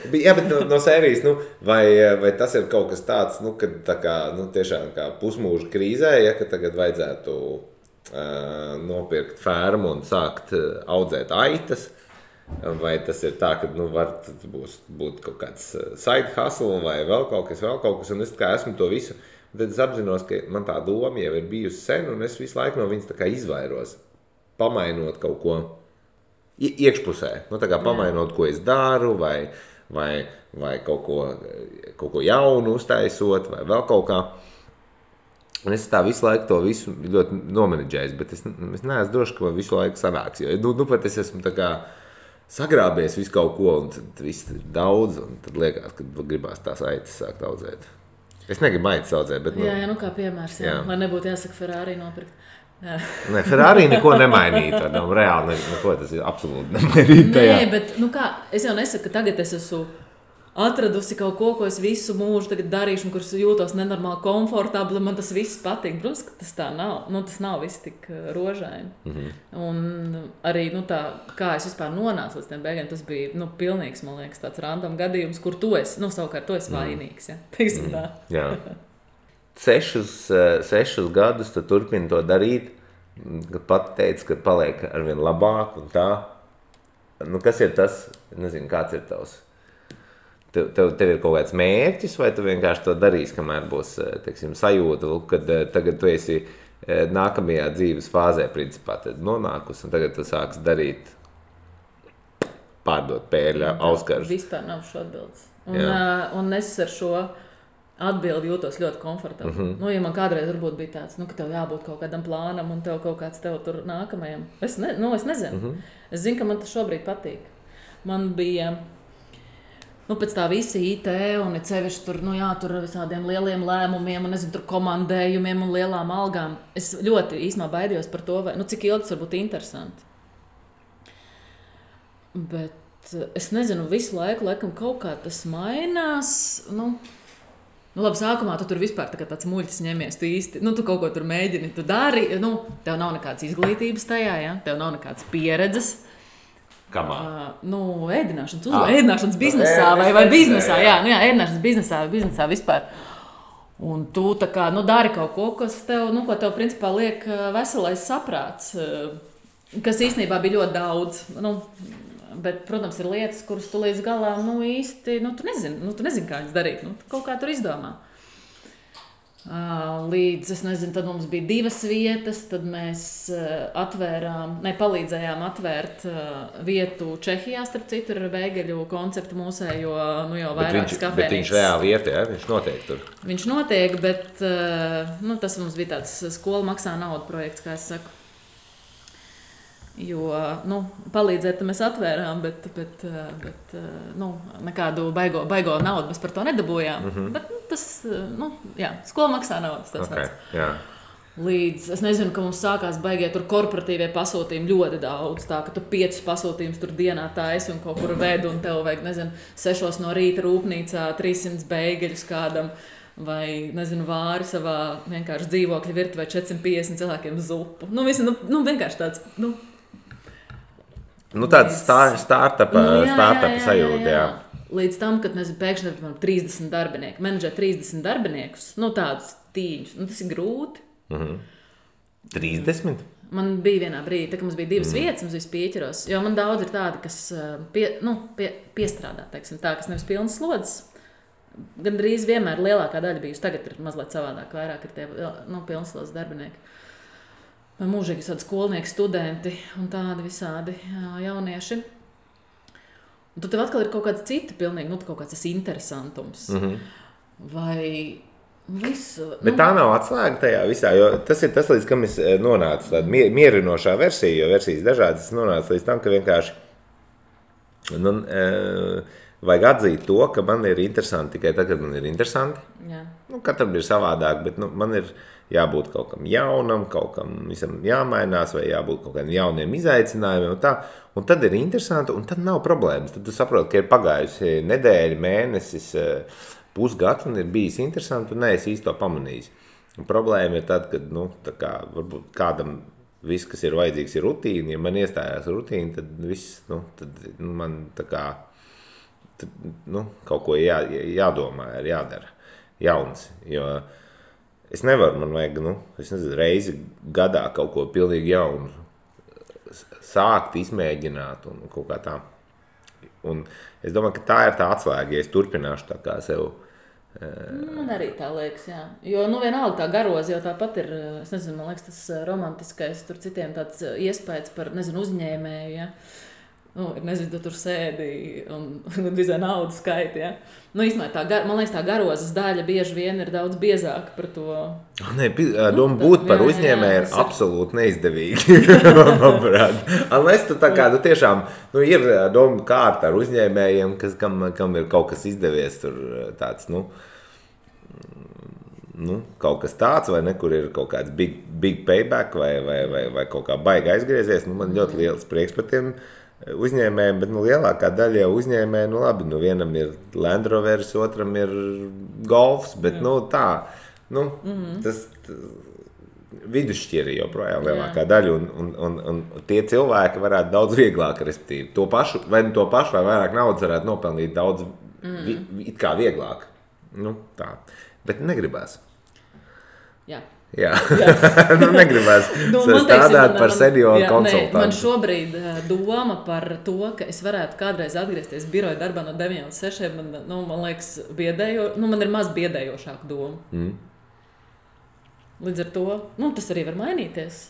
no sērijas, vai tas ir kaut kas tāds, kad tā kā, tiešām kā pusmūža krīzē, ja, ka tagad vajadzētu nopirkt fermu un sākt audzēt aitas, vai tas ir tā, ka var būt kaut kāds side hustle vai vēl kaut kas, un es kā esmu to visu. Tad es apzinos, ka man tā doma jau ir bijusi sen, un es visu laiku no viņas tā kā izvairos, pamainot kaut ko iekšpusē. Tā kā pamainot, ko es daru, vai kaut ko jaunu uztaisot, vai vēl kaut kā. Un es tā visu laiku to visu ļoti nomenedžējis, bet es neesmu droši, ka man visu laiku sanāks. Jo pat es esmu tā kā sagrābies visu kaut ko, un tad viss ir daudz, un tad liekas, ka gribās tās aitas sākt audzēt. Es negribu aitas audzēt, bet... Jā, kā piemērs, lai nebūtu jāsaka Ferrari nopirkt. Nē, Ferrari neko nemainītu, reāli neko, tas ir absolūti nemainīt tajā. Nē, bet, es jau nesaku, ka tagad es esmu atradusi kaut ko es visu mūžu tagad darīšu, un kurš jūtos nenormāli komfortabli, man tas viss patīk. Protams, ka tas tā nav. Tas nav viss tik rožaini. Un arī, tā, kā es vispār nonācu līdz tiem beigām, tas bija, pilnīgs, man liekas, tāds random gadījums, kur tu esi, savukārt tu esi vainīgs, ja? Teiksim tā. Jā. 6 gadus tu turpini to darīt, kad pat teici, ka paliek arvien labāk un tā. Kas ir tas? Nezinu, kāds ir tavs? Tev ir kaut kāds mērķis, vai tu vienkārši to darīsi, kamēr būs, teiksim, sajūta, kad tagad tu esi nākamajā dzīves fāzē, principā, tad nonākus, un tagad tu sāksi darīt, pārdot pērļa auskarus. Vispār nav šo atbildes. Un es ar šo atbildi jūtos ļoti komfortabli. Ja man kādreiz varbūt bija tāds, ka tev jābūt kaut kādam plānam, un tev kaut kāds tev tur nākamajam. Es nezinu. Es zinu, ka man tas šobrīd patīk. Man bija... pēc tā visi IT un ir sevišķi tur, tur ar visādiem lieliem lēmumiem un, tur komandējumiem un lielām algām. Es ļoti īsumā baidījos par to, vai, cik ilgi tas var būt interesanti. Bet es nezinu, visu laiku, laikam, kaut kā tas mainās. Labi, sākumā tu tur vispār tāds muļķis ņemies, tu īsti, tu kaut ko tur mēģini, tu dari, tev nav nekādas izglītības tajā, ja? Tev nav nekādas pieredzes. Kamā? Ēdināšanas biznesā vai biznesā, ēdināšanas biznesā vai biznesā vispār. Un tu tā kā, dari kaut ko, kas tev, ko tev principā liek veselais saprāts, kas īstenībā bija ļoti daudz. Bet, protams, ir lietas, kuras tu līdz galām, īsti, tu nezini, kā viņas darīt, tu kaut kā tur izdomā. Līdz, es nezinu, tad mums bija 2 vietas, tad mēs palīdzējām atvērt vietu Čehijā, starp citu, ar beigeļu konceptu mūsējo, jau vairākas kafēnīcas. Bet viņš reāli iet, ja? Viņš notiek tur? Viņš notiek, bet tas mums bija tāds skola maksā naudu projekts, kā es saku. Jo, palīdzēt mēs atvērām, bet nekādu baigo naudu mēs par to nedabūjām. Bet tas, skola maksā naudas. Līdz, es nezinu, ka mums sākās baigie tur korporatīvie pasūtījumi ļoti daudz, tā, ka tu 5 pasūtījumus tur dienā taisi un kaut kur vedu, un tev vajag, 6 no rīta rūpnīcā 300 beigeļus kādam, vai, vāri savā vienkārši dzīvokļa virtuvē 450 cilvēkiem zupu. Vienkārši tāds, tāds startupa sajūta, jā. Līdz tam, kad mēs pēkšņi 30 darbinieki, menedžē 30 darbiniekus, tādus tīņus, tas ir grūti. 30? Man bija vienā brīdī, tā, ka mums bija 2 vietas, mums bija pieķeros, jo man daudz ir tādi, kas piestrādā, teiksim, tā, kas nevis pilnas slodzes. Gandrīz vienmēr lielākā daļa bijusi, tagad ir mazliet savādāk, vairāk ir tie pilnas slodzes darbinieki. Vai mūžīgi tādi skolnieki, studenti un tādi visādi jaunieši. Un tad tev atkal ir kaut kāds cita pilnīgi, kaut kāds tas interesantums. Vai visu... Bet tā nav atslēga tajā visā, jo tas ir tas, līdz kam es nonācu tāda mierinošā versija, jo versijas dažādas, es nonācu līdz tam, ka vienkārši Nu, vajag atzīt to, ka man ir interesanti tikai tad, kad man ir interesanti. Jā. Nu, katram ir savādāk, bet man ir jābūt kaut kam jaunam, kaut kam visam jāmainās, vai jābūt kaut kādiem jauniem izaicinājumiem. Un, tā. Un tad ir interesanti, un tad nav problēmas. Tad tu saproti, ka ir pagājusi nedēļa, mēnesis, pusgads, un ir bijis interesanti, un neesi īsti to pamanījis. Un problēma ir tad, kad varbūt kādam viss, kas ir vajadzīgs, ir rutīna. Ja man iestājās rutīna, tad viss man kaut ko jādomā, ir jādara jauns. Jo es nevaru, man vajag reizi gadā kaut ko pilnīgi jaunu sākt, izmēģināt un kaut kā tā. Un es domāju, ka tā ir tā atslēga, ja es turpināšu tā kā sev. Man arī tā liekas, jā. Jo, vienalga tā garoza jau tāpat ir, es nezinu, man liekas, tas romantiskais, tur citiem tāds iespējas par, uzņēmēju, ja. Nezinu, tu tur sēdi un visai naudu skaiti, ja. Īstenībā man liekas, tā garozas daļa bieži vien ir daudz biezāka par to. Doma būt par uzņēmēju ir absolūti neizdevīgi, manuprāt. Unless tu tā kā, tiešām, ir doma kārta ar uzņēmējiem, kam ir kaut kas izdevies, tur tāds, kaut kas tāds, vai ne, kur ir kaut kāds big payback, vai kaut kā baigi aizgriezies. Man ļoti liels prieks par tiem uzņēmējiem, bet lielākā daļa jau uzņēmēji, labi, vienam ir Land Rovers, otram ir Golfs, bet tas vidusšķiri joprojām lielākā daļa, un tie cilvēki varētu daudz vieglāk, respektīvi, to pašu vai vairāk naudas varētu nopelnīt daudz it kā vieglāk. Tā. Bet negribās. Jā. Negribās strādāt par senioru konsultantu. Man šobrīd doma par to, ka es varētu kādreiz atgriezties biroja darbā no 9 līdz 6, man liekas man ir maz biedējošāka doma. Līdz ar to, tas arī var mainīties.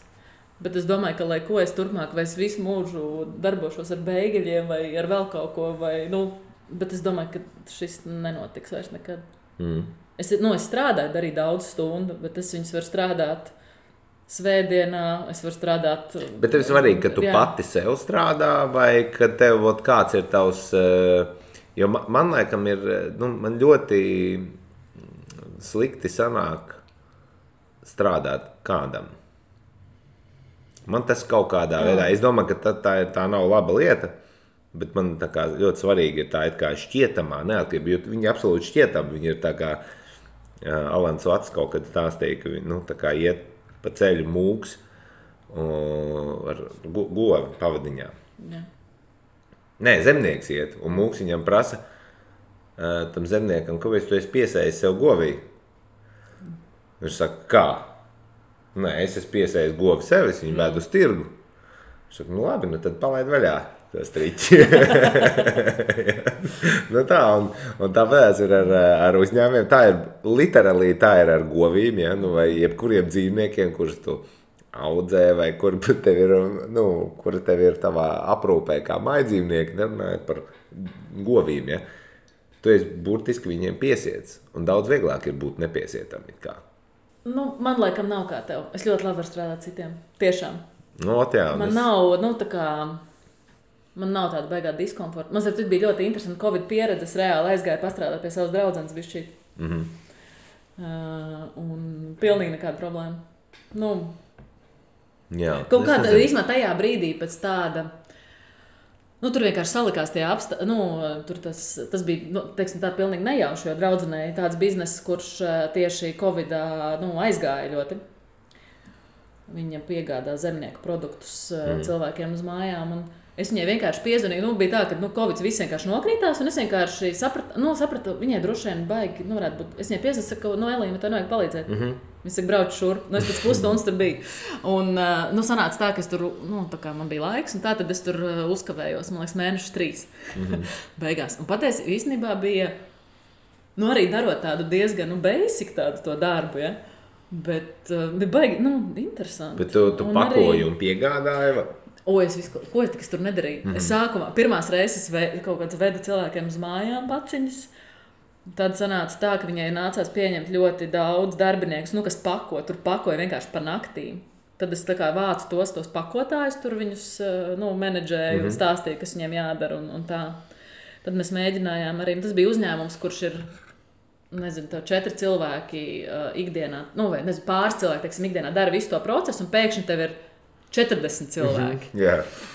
Bet es domāju, ka, lai ko es turpmāk, vai es visu mūžu darbošos ar beigeļiem vai ar vēl kaut ko, bet es domāju, ka šis nenotiks vairs nekad. Es strādāju, darīju daudz stundu, bet es viņus varu strādāt svētdienā, es varu strādāt. Bet tev ir svarīgi, ka tu pati sev strādā, vai ka tev kāds ir tavs, jo man laikam ir, man ļoti slikti sanāk strādāt kādam. Man tas kaut kādā veidā, es domāju, ka tā nav laba lieta. Bet man tā kā ļoti svarīgi ir tā kā šķietamā neatkarība, jo viņi absolūti šķietami, viņi ir tā kā Alans Vats kaut kad stāstīja, ka tā kā iet pa ceļu mūks ar govi pavadiņā. Jā. Nē, zemnieks iet, un mūks viņam prasa tam zemniekam, kāpēc tu esi piesējis sev govī? Viņš saka, kā? Nē, es esmu piesējis govi sev, es viņu vēdu uz tirgu. Viņš saka, labi, tad palaid vaļā. Tas triķi. Tā, un tāpēc ir ar uzņēmumiem. Tā ir literāli ar govīm, ja? Vai jebkuriem dzīvniekiem, kurus tu audzē, vai kur tev ir tavā aprūpē kā mājdzīvnieki, nerunājot par govīm. Ja? Tu esi burtiski viņiem piesiets, un daudz vieglāk ir būt nepiesietam. Man laikam nav kā tev. Es ļoti labi varu strādāt citiem. Tiešām. Man nav, man nav tāda baigā diskomforta. Man bija ļoti interesanti Covid pieredze. Es reāli aizgāju pastrādāt pie savas draudzenes bišķīt. Un pilnīgi nekāda problēma. Kaut kādā īsumā tajā brīdī pēc tāda, tur vienkārši salikās tie tur tas bija, teiksim tā, pilnīgi nejauši, jo draudzenei tāds bizness, kurš tieši Covidā, aizgāja ļoti. Viņa piegādā zemnieku produktus cilvēkiem uz mājām, un es viņai vienkārši piezvanīju, bija tā, ka Covid viss vienkārši nokrītās, un es vienkārši sapratu, viņai droši vien baigi, varētu būt. Es viņai piezvanīju, saku, Elīna, tev nevajag palīdzēt. Viņa saka, brauc šurp. Es pēc pusstundas tur biju. Un sanāca tā, ka es tur, tā kā man bija laiks, un tā tad es tur uzkavējos, man liekas, mēnešus 3 beigās. Un patiesi īstenībā bija, arī darot tādu diezgan, basic tādu to darbu, ja. Bet bija baigi, interesanti. Bet tu pakoji un piegādāji? Ko es tur nedarīju? Es sākumā, pirmās reizes kaut kāds vedu cilvēkiem uz mājām paciņas. Tad sanāca tā, ka viņai nācās pieņemt ļoti daudz darbiniekus, kas pako. Tur pakoja vienkārši pa naktīm. Tad es tā kā vācu tos pakotājus, tur viņus menedžēju un stāstīju, kas viņiem jādara un tā. Tad mēs mēģinājām arī, tas bija uzņēmums, kurš ir, nezinu, 4 cilvēki ikdienā, vai nezinu, pāris cilvēki, teiksim, ikdienā dara visu to procesu un pēkšņi tev ir 40 cilvēki.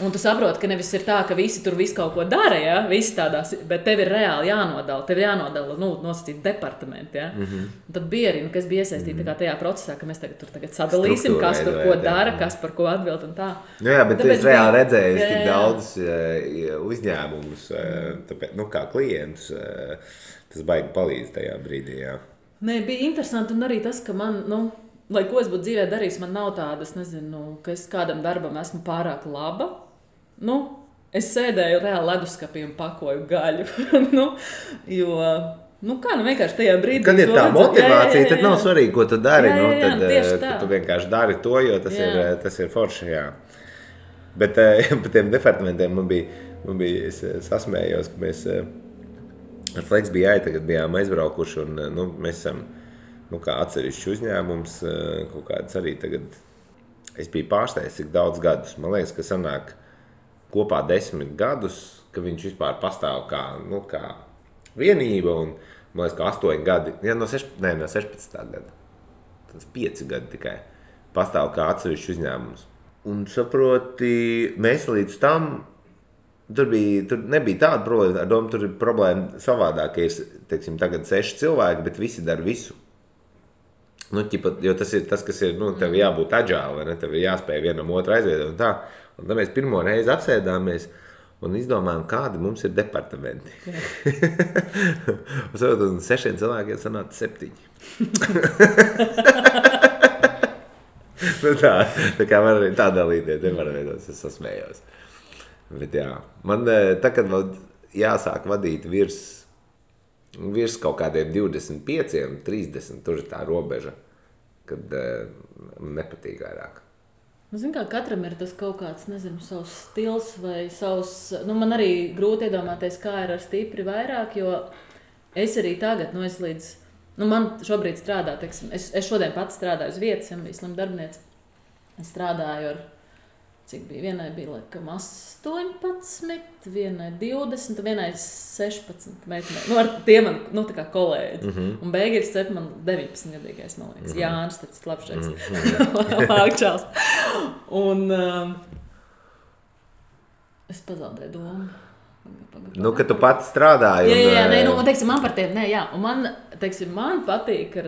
Un tu saproti, ka nevis ir tā, ka visi tur visu kaut ko dara, ja? Visi tādās, bet tev ir reāli jānodala. Tev ir jānodala, nosacīt departamenti. Ja? Un tad bija arī, kas bija iesaistīti tajā procesā, ka mēs tagad sadalīsim, kas tur ko dara, kas par ko atbild un tā. Jā, bet es reāli redzēju tik daudz uzņēmumus, tāpēc, kā klientus, tas baigi palīdz tajā brīdī. Jā. Nē, bija interesanti un arī tas, ka man, lai ko es būtu dzīvē darījis, man nav tādas, nezinu, ka es kādam darbam esmu pārāk laba. Es sēdēju reāli leduskapī un pakoju gaļu. Jo, vienkārši tajā brīdī... Kad ir tā motivācija, tad nav svarīgi, ko tu dari. Tad tu vienkārši dari to, jo tas ir forši, jā. Bet par tiem departamentiem man bija es sasmējos, ka mēs ar Flex bija tagad bijām aizbraukuši un mēs esam... kā atsevišķi uzņēmums, kaut kāds arī tagad, es biju pārsteigts, cik daudz gadus. Man liekas, ka sanāk kopā 10 gadus, ka viņš vispār pastāv kā vienība, un man liekas, ka 8 gadi, no 16. gada, tas 5 gadi tikai, pastāv kā atsevišķi uzņēmums. Un saproti, mēs līdz tam, tur nebija tāda problēma, ar domu tur ir problēma savādāk, ka ir, teiksim, tagad 6 cilvēki, bet visi dara visu. Jo tas ir tas, kas ir, tev jābūt agile, vai ne? Tev ir jāspēj vienam otru aizviedot un tā. Un tad mēs pirmo reizi apsēdāmies un izdomājām, kādi mums ir departamenti. Un saprot, un 6 cilvēkiem sanāca 7. Tā kā man arī tā dalīties, nevar veidot, es sasmējos. Bet jā, man tagad vēl jāsāk vadīt virs kaut kādiem 25, 30, tur ir tā robeža, kad nepatīk vairāk. Zin kā, katram ir tas kaut kāds, nezinu, savs stils vai savs... man arī grūti iedomāties, kā ir ar stipri vairāk, jo es arī tagad, es līdz... man šobrīd strādā, teiksim, es šodien pats strādāju uz vietas, ja bija slim darbinieci. Es strādāju ar... Cik bija? Vienai bija, laikam, 18, vienai 20, vienai 16 meitenei. Ar tiem man, tā kā kolēģi. Un beigās cep man 19-gadīgais, man liekas. Jānis, tāds labšais. Lākčās. Un es pazaudēju domu. Ka tu pats strādāji. Jā, teiksim, man par tiem, un man patīk,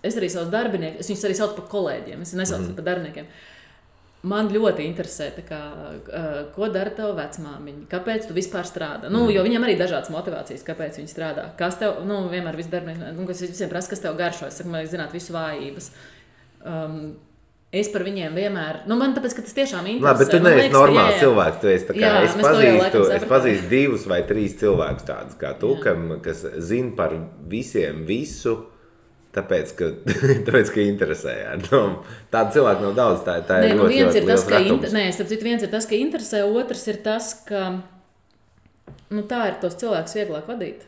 es arī savus darbiniekus, es viņus arī saucu par kolēģiem, es nesaucu par darbiniekiem. Man ļoti interesē, ko dara tava vecmāmiņa, kāpēc tu vispār strādā. Jo viņiem arī dažādas motivācijas, kāpēc viņi strādā. Kas tev, vienmēr visi darbinieki, kas visiem prasa, kas tev garšo, es saku, man zināt visu vājības. Es par viņiem vienmēr, man tāpēc, ka tas tiešām interesē. Bet tu neesi normāls cilvēks, tu esi tā kā, es pazīstu 2 vai 3 cilvēkus tādus kā tu, kas zina par visiem visu, Tāpēc, ka interesē. Tāda cilvēka nav daudz, tā ir ļoti liels retums. Viens ir tas, ka interesē, otrs ir tas, ka tā ir tos cilvēkus vieglāk vadīt.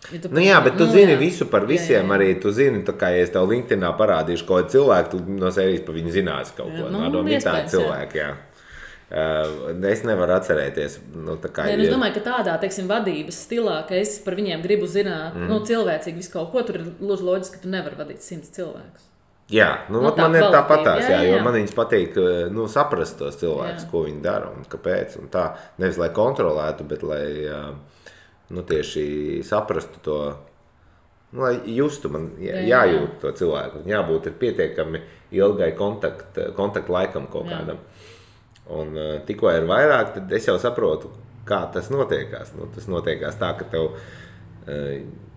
Bet tu zini visu par visiem, arī tu zini, kā ja es tev LinkedInā parādīšu kaut cilvēku, tu no sērijas par viņu zināsi kaut ko. Tādi cilvēki, jā. Es nevaru atcerēties. Es domāju, ka tādā, teiksim, vadības stilā, ka es par viņiem gribu zināt, cilvēcīgi visu kaut ko, tur ir loģiski, ka tu nevari vadīt 100 cilvēkus. Jā, man ir tāpatās, jo man viņas patīk saprast tos cilvēkus, ko viņi dara un kāpēc. Un tā, nevis lai kontrolētu, bet lai tieši saprastu to, lai justu, man jājūt to cilvēku. Jābūt ir pietiekami ilgai kontaktu laikam kaut kādam. Un tikko ir vairāk, tad es jau saprotu, kā tas notiekās. Tas notiekās tā, ka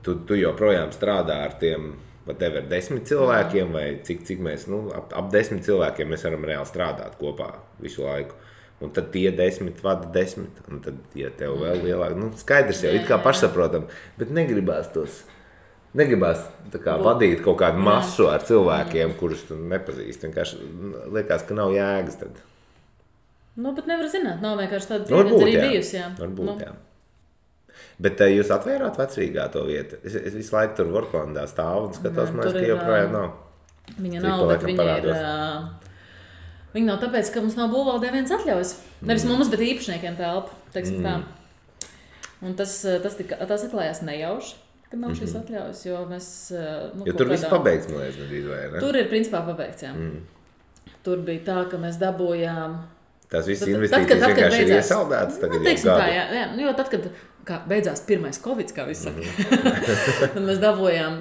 tu joprojām strādā ar tiem 10 cilvēkiem, vai cik mēs, ap 10 cilvēkiem mēs varam reāli strādāt kopā visu laiku. Un tad tie 10 vada 10, un tad, ja tev vēl lielāk, skaidrs jau, it kā pašsaprotam, bet negribās vadīt kaut kādu masu ar cilvēkiem, kurus tu nepazīsti. Vienkārši liekas, ka nav jēgas tad. Bet nevar zināt, nav vienkārši tāda pieredze arī bijusi, jā. Varbūt, jā. Bet jūs atvērāt Vecrīgā to vietu? Es visu laiku tur Vorklandā stāvu un skatos, ka joprojām nav. Viņa nav, bet viņa ir Viņi nav tāpēc, ka mums nav būvvaldē viens atļaujas. Nevis mums, bet īpašniekiem telpa, teiksim tā. Un tas atklājās nejauši, ka nav šīs atļaujas, jo mēs... Jo tur viss pabeigts, man liekas, nedrīz vai, ne? Tur ir principā pabeigts, jā. Tur bija tā, ka mēs dabūjām... Tās visas investīcijas vienkārši ir iesaldētas tagad jau gadu. Tā, jā, jo tad, kad beidzās pirmais Covid, kā viss saka, tad mēs dabūjām,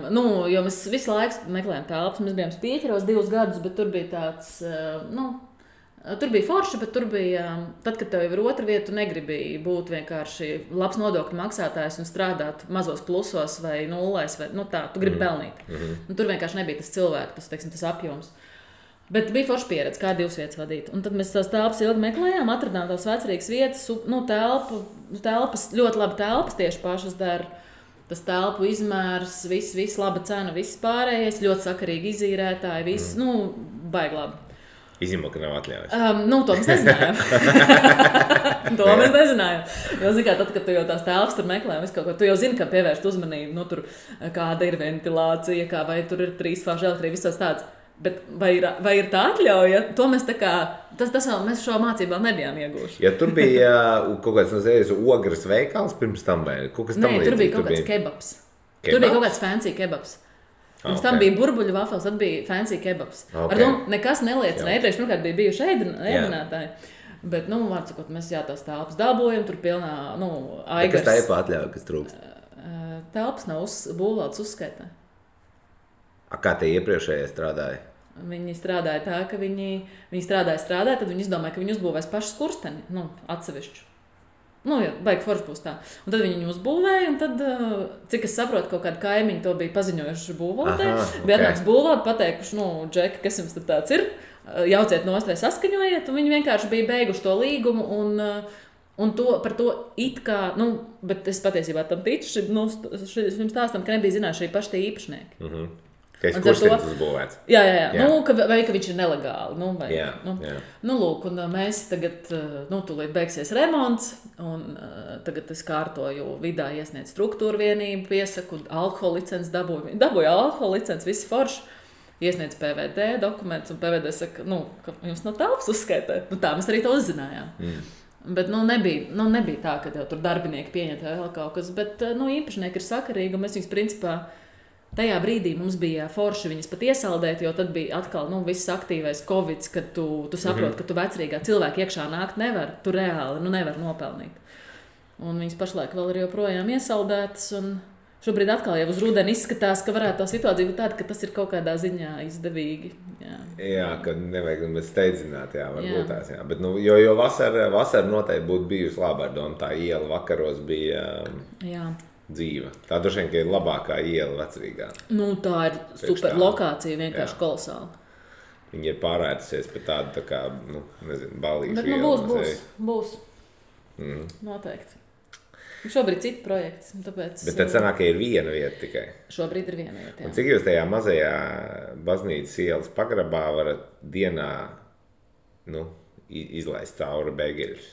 jo mēs visu laiku meklējām telpas, mēs bijām Spīķeros 2 gadus, bet tur bija tāds, tur bija forši, bet tur bija, tad, kad tev jau ir otra vieta, tu negribēji būt vienkārši labs nodokļu maksātājs un strādāt mazos plusos vai nullēs, vai tā, tu gribi pelnīt. Tur vienkārši nebija tas cilvēks, tas apjoms. Bet bija forša pieredze, kā 2 vietas vadīt. Un tad mēs tās telpas ilgi meklējām, atradām tās vecrīgas vietas, telpas, ļoti labi telpas tieši pašas dara. Tas telpu izmērs, viss laba cena, viss pārējais, ļoti sakarīgi izīrētāji, viss, baigi labi. Izņemot, ka nav atļaujas. To mēs nezinājām. Mēs nezinājām. Jo, zini, tad, kad tu jau tās telpas tur meklē, tu jau zini, kā pievērst uzmanību, tur kāda ir ventilācija, vai tur ir 3 fāžu elektrība, viss tāds. Bet vai ir tā atļauja? To mēs mēs šo mācību vēl nebijām ieguvuši. Ja tur bija kaut kāds ogres veikals pirms tam vai kaut kas tam līdzīgi? Tur bija kaut kāds kebabs. Tur bija kaut kāds fancy kebabs. Pirms tam bija burbuļu vafels, tad bija fancy kebabs. Ar to nekas neliecina. Iepriekš, pirmkārt, bija bijuši ēdinātāji. Bet, vārdsakot, mēs tās telpas dabūjam, tur pilnā, aigars. Kas tā ir pa atļauja, kas trūkst? Telpas nav būvvaldes uzskaitā. Kā tie iepriekšējie strādāja? Viņi strādāja tā, ka viņi strādāja, tad viņi izdomāja, ka viņi uzbūvēs pašu skursteni, atsevišķu. Baigi forši būs tā. Un tad viņi uzbūvēja, un tad, cik es saprotu, kaut kādi kaimiņi to bija paziņojuši būvvaldē. Bija atnāks būvvalde, pateikuši, Džeki, kas jums tad tāds ir, jauciet nost vai saskaņojiet, un viņi vienkārši bija beiguši to līgumu, un par to it kā, bet es patiesībā tam ticu, šim stāstam, ka nebija zinājuši arī paši tie īpašnieki. Ka es kurstenis uzbūvēts. Jā. Vai ka viņš ir nelegāli. Jā. Lūk, un mēs tagad, tūlīt beigsies remonts, un tagad es kārtoju vidā iesniedz struktūru vienību, piesaku, alkohola licenci dabūju alkohola licenci, visi forši. Iesniedz PVD dokumentus, un PVD saka, ka jums nav telpas uzskaitē. Tā mēs arī to uzzinājām. Bet nebija tā, ka tur darbinieki pieņem vēl kaut kas, bet īpašnieki ir sakarīgi, un mēs viņus principā tajā brīdī mums bija forši viņas pat iesaldēt, jo tad bija atkal viss aktīvais Covid, kad tu saproti, ka tu vecrīgā cilvēka iekšā nākt nevar, tu reāli nevar nopelnīt. Un viņas pašlaik vēl ir joprojām iesaldētas, un šobrīd atkal jau uz rudeni izskatās, ka varētu tā situācija būt tāda, ka tas ir kaut kādā ziņā izdevīgi. Jā, ka nevajag steidzināt, varbūt tās, jā. Bet, jo vasara noteikti būtu bijusi labā ar domu, tā iela vakaros bija... dzīva. Tā droši vien, ka ir labākā iela vecrīgā. Tā ir super lokācija, vienkārši kolosāla. Viņi ir pārētusies pie tādu, tā kā, balīšu ielu. Bet būs. Noteikti. Šobrīd citi projekti, tāpēc... Bet tad sanāk, ka ir viena vieta tikai. Šobrīd ir viena vieta, jā. Un cik jūs tajā mazajā baznīcas ielas pagrabā varat dienā, izlaist cauri bēgeļus?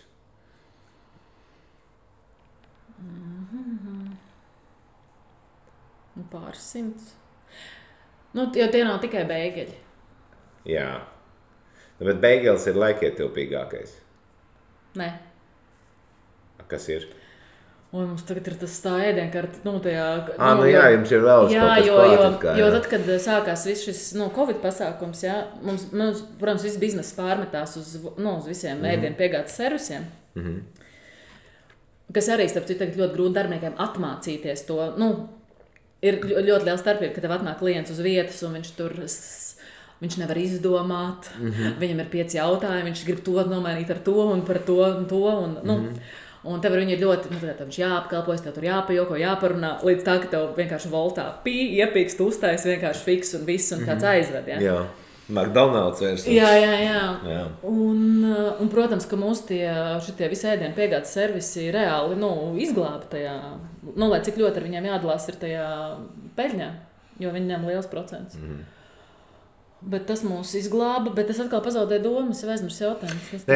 Pāris simts. Jo tie nav tikai bēgeļi. Jā. Bet bēgeļs ir laikietilpīgākais. Nē. Kas ir? Mums tagad ir tas tā ēdienkarte, tajā... jums ir vēl kaut kas jo tad, kad sākās viss šis, Covid pasākums, mums, protams, viss bizness pārmetās uz visiem ēdienu piegādes servisiem. Kas arī, starp citu, tagad ļoti grūti darbiniekiem atmācīties to, ir ļoti liela starpība, ka tev atnāk klients uz vietas, un viņš nevar izdomāt, viņam ir 5 jautājumi, viņš grib to nomainīt ar to, un par to, un to, un tev viņi ir ļoti, viņš jāapkalpojas, tev tur jāpajoko, jāparunā, līdz tā, ka tev vienkārši voltā iepīkst, uztais, vienkārši fiks un viss, un kāds aizved, Jā. McDonald's versijas. Jā. Un, protams, ka mūsu šitie visi ēdienu piegādes servisi reāli izglāba tajā, lai cik ļoti ar viņiem jādalās ir tajā peļņā, jo viņi ņem liels procents. Bet tas mūs izglāba, bet es atkal pazaudēju domas, jau aizmirsu jautājumus.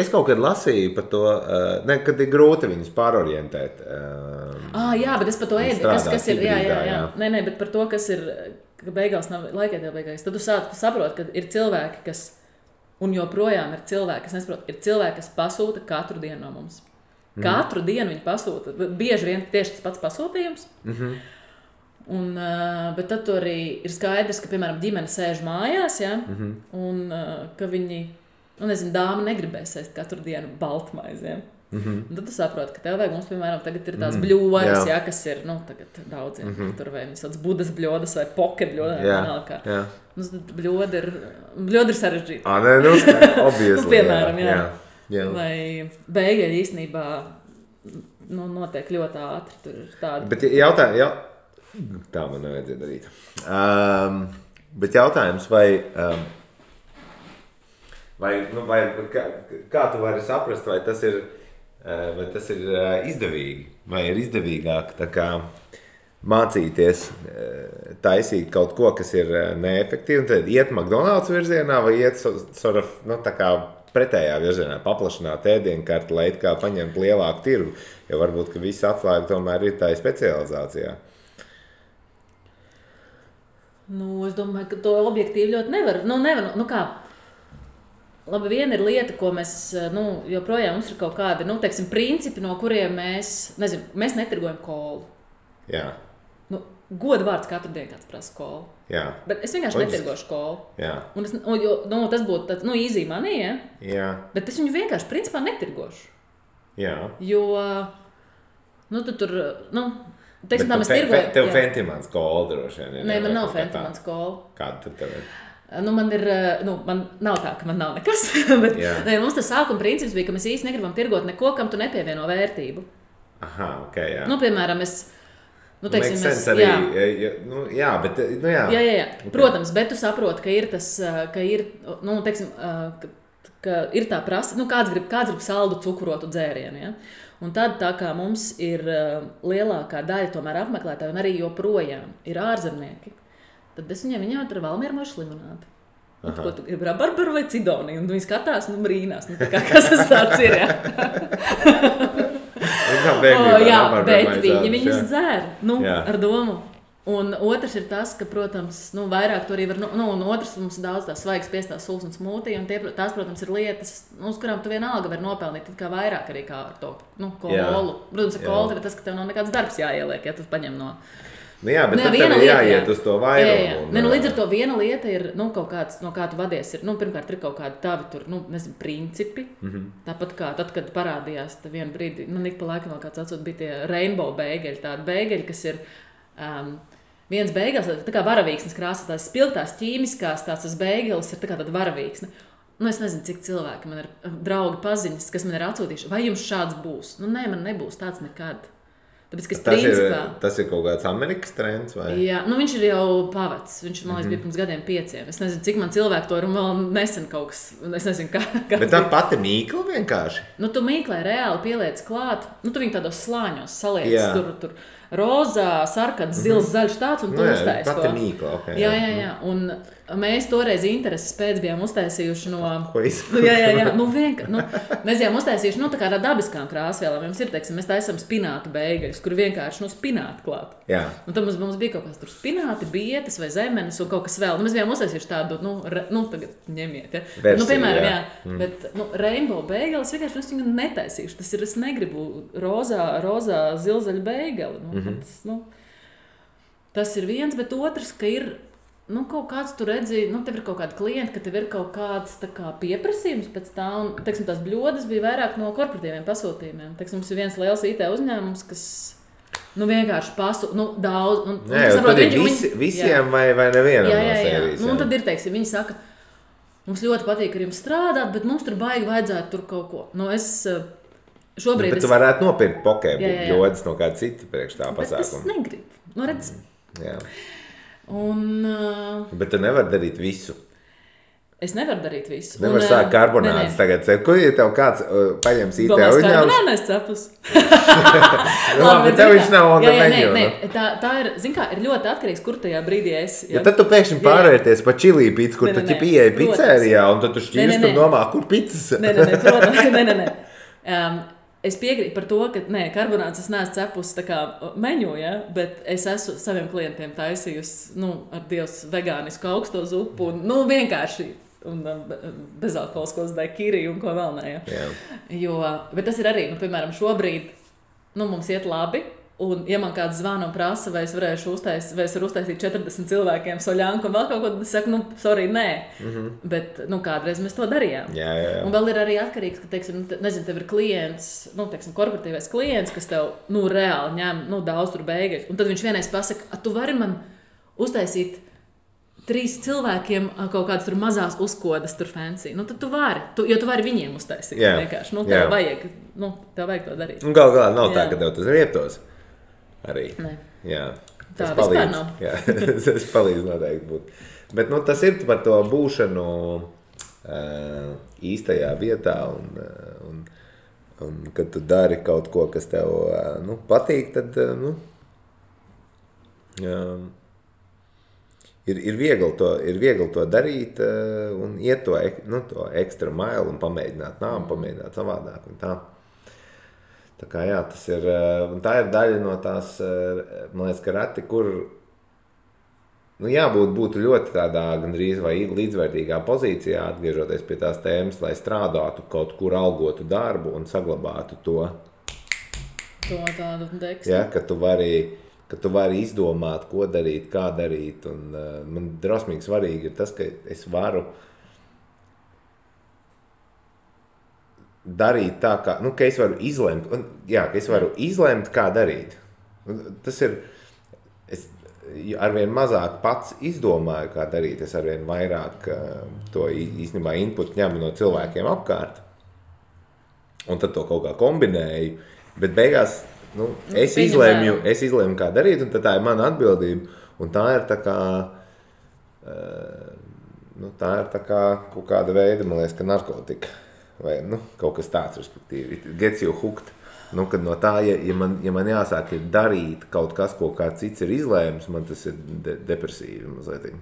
Es kaut kad lasīju par to, kad ir grūti viņus pārorientēt. Jā, bet es par to kas ir, jā. Nē, bet par to, kas ir, ka beigās nav laikietilpīgākais. Tad tu saproti, ka ir cilvēki, kas Un joprojām ir cilvēki, kas nesaprot, ir cilvēki, kas pasūta katru dienu no mums. Katru dienu viņi pasūta. Bieži vien tieši tas pats pasūtījums. Un, bet tad tur arī ir skaidrs, ka, piemēram, ģimene sēž mājās, ja? Un ka viņi, nezinu, dāma negribēs ēst katru dienu baltmaizi. Ja? Un tad tu saproti, ka tev vajag, mums, piemēram, tagad ir tās bļodas, ja, kas ir, tagad daudziem, tur vai viņi sauc budas bļodas vai poke bļodas. Mums tad bļoda ir sarežģīta. Obviously. Piemēram, jā. Vai beigeļi īstenībā notiek ļoti ātri. Tur ir tāda. Bet tā man nevajadzēja darīt. Bet jautājums, vai kā tu vari saprast, vai tas ir izdevīgi, vai ir izdevīgāk tā kā mācīties taisīt kaut ko, kas ir neefektīvi, un tad iet McDonald's virzienā, vai iet tā kā pretējā virzienā, paplašināt ēdienkarti, lai it kā paņemt lielāku tirgu, jo varbūt, ka viss atslēga tomēr ir tā specializācijā. Es domāju, ka to objektīvi ļoti nevar. Kā? Labi, viena ir lieta, ko mēs, joprojām mums ir kaut kādi, teiksim, principi, no kuriem mēs netirgojam kolu. Jā. Goda vārds katru dienu kāds prasa kolu. Jā. Bet es vienkārši netirgošu kolu. Jā. Un tas būtu easy money, ja? Jā. Bet es viņu vienkārši principā netirgošu. Jā. Jo, tu tur, teiksim, tā mēs tirgojam. Tev Fentimans kola droši vien. Nē, man nav Fentimans kola. Kāda tad tev ir? Man nav tā, ka man nav nekas, bet mums tas sākuma princips bija, ka mēs īsti negribam tirgot neko, kam tu nepievieno vērtību. Aha, ok, jā. Piemēram, teiksim, jā. Okay. Protams, bet tu saproti, ka ir tas, ka ir, teiksim, ka ir tā prasa, kāds grib saldu cukrotu dzērienu, ja? Un tad tā kā mums ir lielākā daļa tomēr apmeklētāji un arī joprojām ir ārzemnieki, tad es viņiem tur Valmieru mošu limonādi. Ko tu gribi, rabarbaru vai cidoniju? Un viņi skatās, brīnās. Kas tas tāds ir, ja? Bet viņas dzēr, ar domu. Un otrs ir tas, ka, protams, vairāk tur arī var, un otrs mums daudz tās svaigas piestās sulas un smūtī, un tās, protams, ir lietas, uz kurām tu vienalga var nopelnīt, tad kā vairāk arī kā ar to, kolu. Protams, ar kolu tev ir tas, ka tev nav nekāds darbs jāieliek, ja tu paņem no... bet tad tev ir jāiet uz to vairumu. Līdz ar to viena lieta ir, kaut kāds, no kā tu vadies, ir, pirmkārt ir kaut kādi tavi tur, principi. Tāpat kā tad, kad parādījās vienu brīdi, ik pa laikam vēl kāds atsūt, bija tie rainbow beigeļi, tādi beigeļi, kas ir viens beigās, tā kā varavīksnes krāsa, tās spilgtās ķīmiskās, tās beigelis ir tā kā tāda varavīksne. Es nezinu, cik cilvēki man ir draugi paziņas, kas man ir atsūtījuši, vai jums šāds būs? Nē, man nebūs tāds nekad. Tāpēc, tas ir kaut kāds Amerikas trends, vai? Jā, viņš ir jau pavecs. Viņš, man liekas, bija pirms gadiem 5. Es nezinu, cik man cilvēku to ir un vēl nesen kaut kas. Es nezinu, kā. Bet tā pati mīkla vienkārši? Tu mīklai reāli pieliec klāt. Tu viņu tādos slāņos saliec. Tur rozā, sarkans, zils, zaļš tāds un tu uztaisi to. Pati mīkla, ok. Jā. Un mēs toreiz intereses pēc bijām uztaisījuši no... Ko izpildīt? Jā. Mēs bijām uztaisījuši, tā kā dabiskām krāsvielām. Mums ir, teiksim, mēs taisam spinātu beigaļus, kur vienkārši, spinātu klāt. Jā. Un tad mums bija kaut kas tur spināti, bietes vai zemenes un kaut kas vēl. Mēs bijām uztaisījuši tādu, tagad ņemiet, ja. Versiju, piemēram, jā. Bet, rainbow beigalis vienkārši es viņu netaisīšu. Tas ir, es negribu rozā zilzaļu beigali. Tas ir viens, bet otrs, ka ir kaut kāds, tu redzi, tev ir kaut kādi klienti, ka tev ir kaut kāds tā kā pieprasījums pēc tā, un, teiksim, tās bļodas bija vairāk no korporatīviem pasūtījumiem. Teiksim, mums ir viens liels IT uzņēmums, kas, vienkārši daudz. Tad ir visiem vai nevienam no sērijas. Un tad ir, teiksim, viņi saka, mums ļoti patīk ar jums strādāt, bet mums tur baigi vajadzētu tur kaut ko. Šobrīd bet tu varētu nopirkt pokē bļodas no kāda cita priekš tā pasākuma. Bet es negribu. Redz. Jā. Bet tu nevari darīt visu. Es nevaru darīt visu. Nevar sākt karbonādes tagad. Ko, ja tev kāds paņems IT uzņēmums? Domāju, karbonādes cepus. Bet tev viņš nav on the menu. Nē. Tā ir, ir ļoti atkarīgs, kur tajā brīdī esi. Ja tad tu pēkšņi pārvērties pa čilī pizzu, kur tu pieeji pizzērijā, un tad tu šķīrst un domā, kur pizzas. Nē. Es piekrītu par to, ka karbonādes es neesmu cepusi tā kā meņu, ja? Bet es esmu saviem klientiem taisījusi ar Dievs vegānisku augsto zupu un vienkārši un bezalkoholiskos daikiri un ko vēl ne. Ja. Bet tas ir arī, piemēram, šobrīd mums iet labi. Un, ja man kāds zvana un prasa, vai es varu uztaisīt 40 cilvēkiem soļānku un vēl kaut ko, tad es saku, sorry, nē. Bet, kādreiz mēs to darījām. Jā. Un vēl ir arī atkarīgs, ka, teiksim, nezinu, tev ir klients, teiksim, korporatīvais klients, kas tev, reāli ņem, daudz tur beigas. Un tad viņš vienreiz pasaka, tu vari man uztaisīt 3 cilvēkiem kaut kādas tur mazās uzkodas tur fancy. Tad tu vari, jo tu vari viņiem uztaisīt. Vienkārši. Tev vajag to darīt. Un galā nav tā, ka tev tas rietos. Arī. Ne. Jā. Tā vispār nav. Jā, tas palīdz noteikti būt. Bet tas ir par to būšanu īstajā vietā un kad tu dari kaut ko, kas tev patīk, tad ir viegli to darīt un iet to ekstra mailu un pamēģināt pamēģināt savādāk un tā. Tā kā jā, tas ir, un tā ir daļa no tās, man liekas, ka reti, kur būtu ļoti tādā gandrīz vai līdzvērtīgā pozīcijā, atgriežoties pie tās tēmas, lai strādātu kaut kur algotu darbu un saglabātu to. To tādu dekstu. Ja, ka tu vari izdomāt, ko darīt, kā darīt, un man drosmīgi svarīgi ir tas, ka es varu darīt tā, ka es varu izlemt, ka es varu izlemt, kā darīt. Tas ir, es arvien mazāk pats izdomāju, kā darīt, es arvien vairāk to īstenībā input ņemu no cilvēkiem apkārt, un tad to kaut kā kombinēju, bet beigās, es izlēmu, kā darīt, un tad tā ir mana atbildība, un tā ir tā kā kaut kāda veida, man liekas, ka narkotika. Vai kaut kas tāds, respektīvi, gets you hooked. Kad no tā, ja man jāsāk ir darīt kaut kas, ko kāds cits ir izlēmis, man tas ir depresīvi mazliet.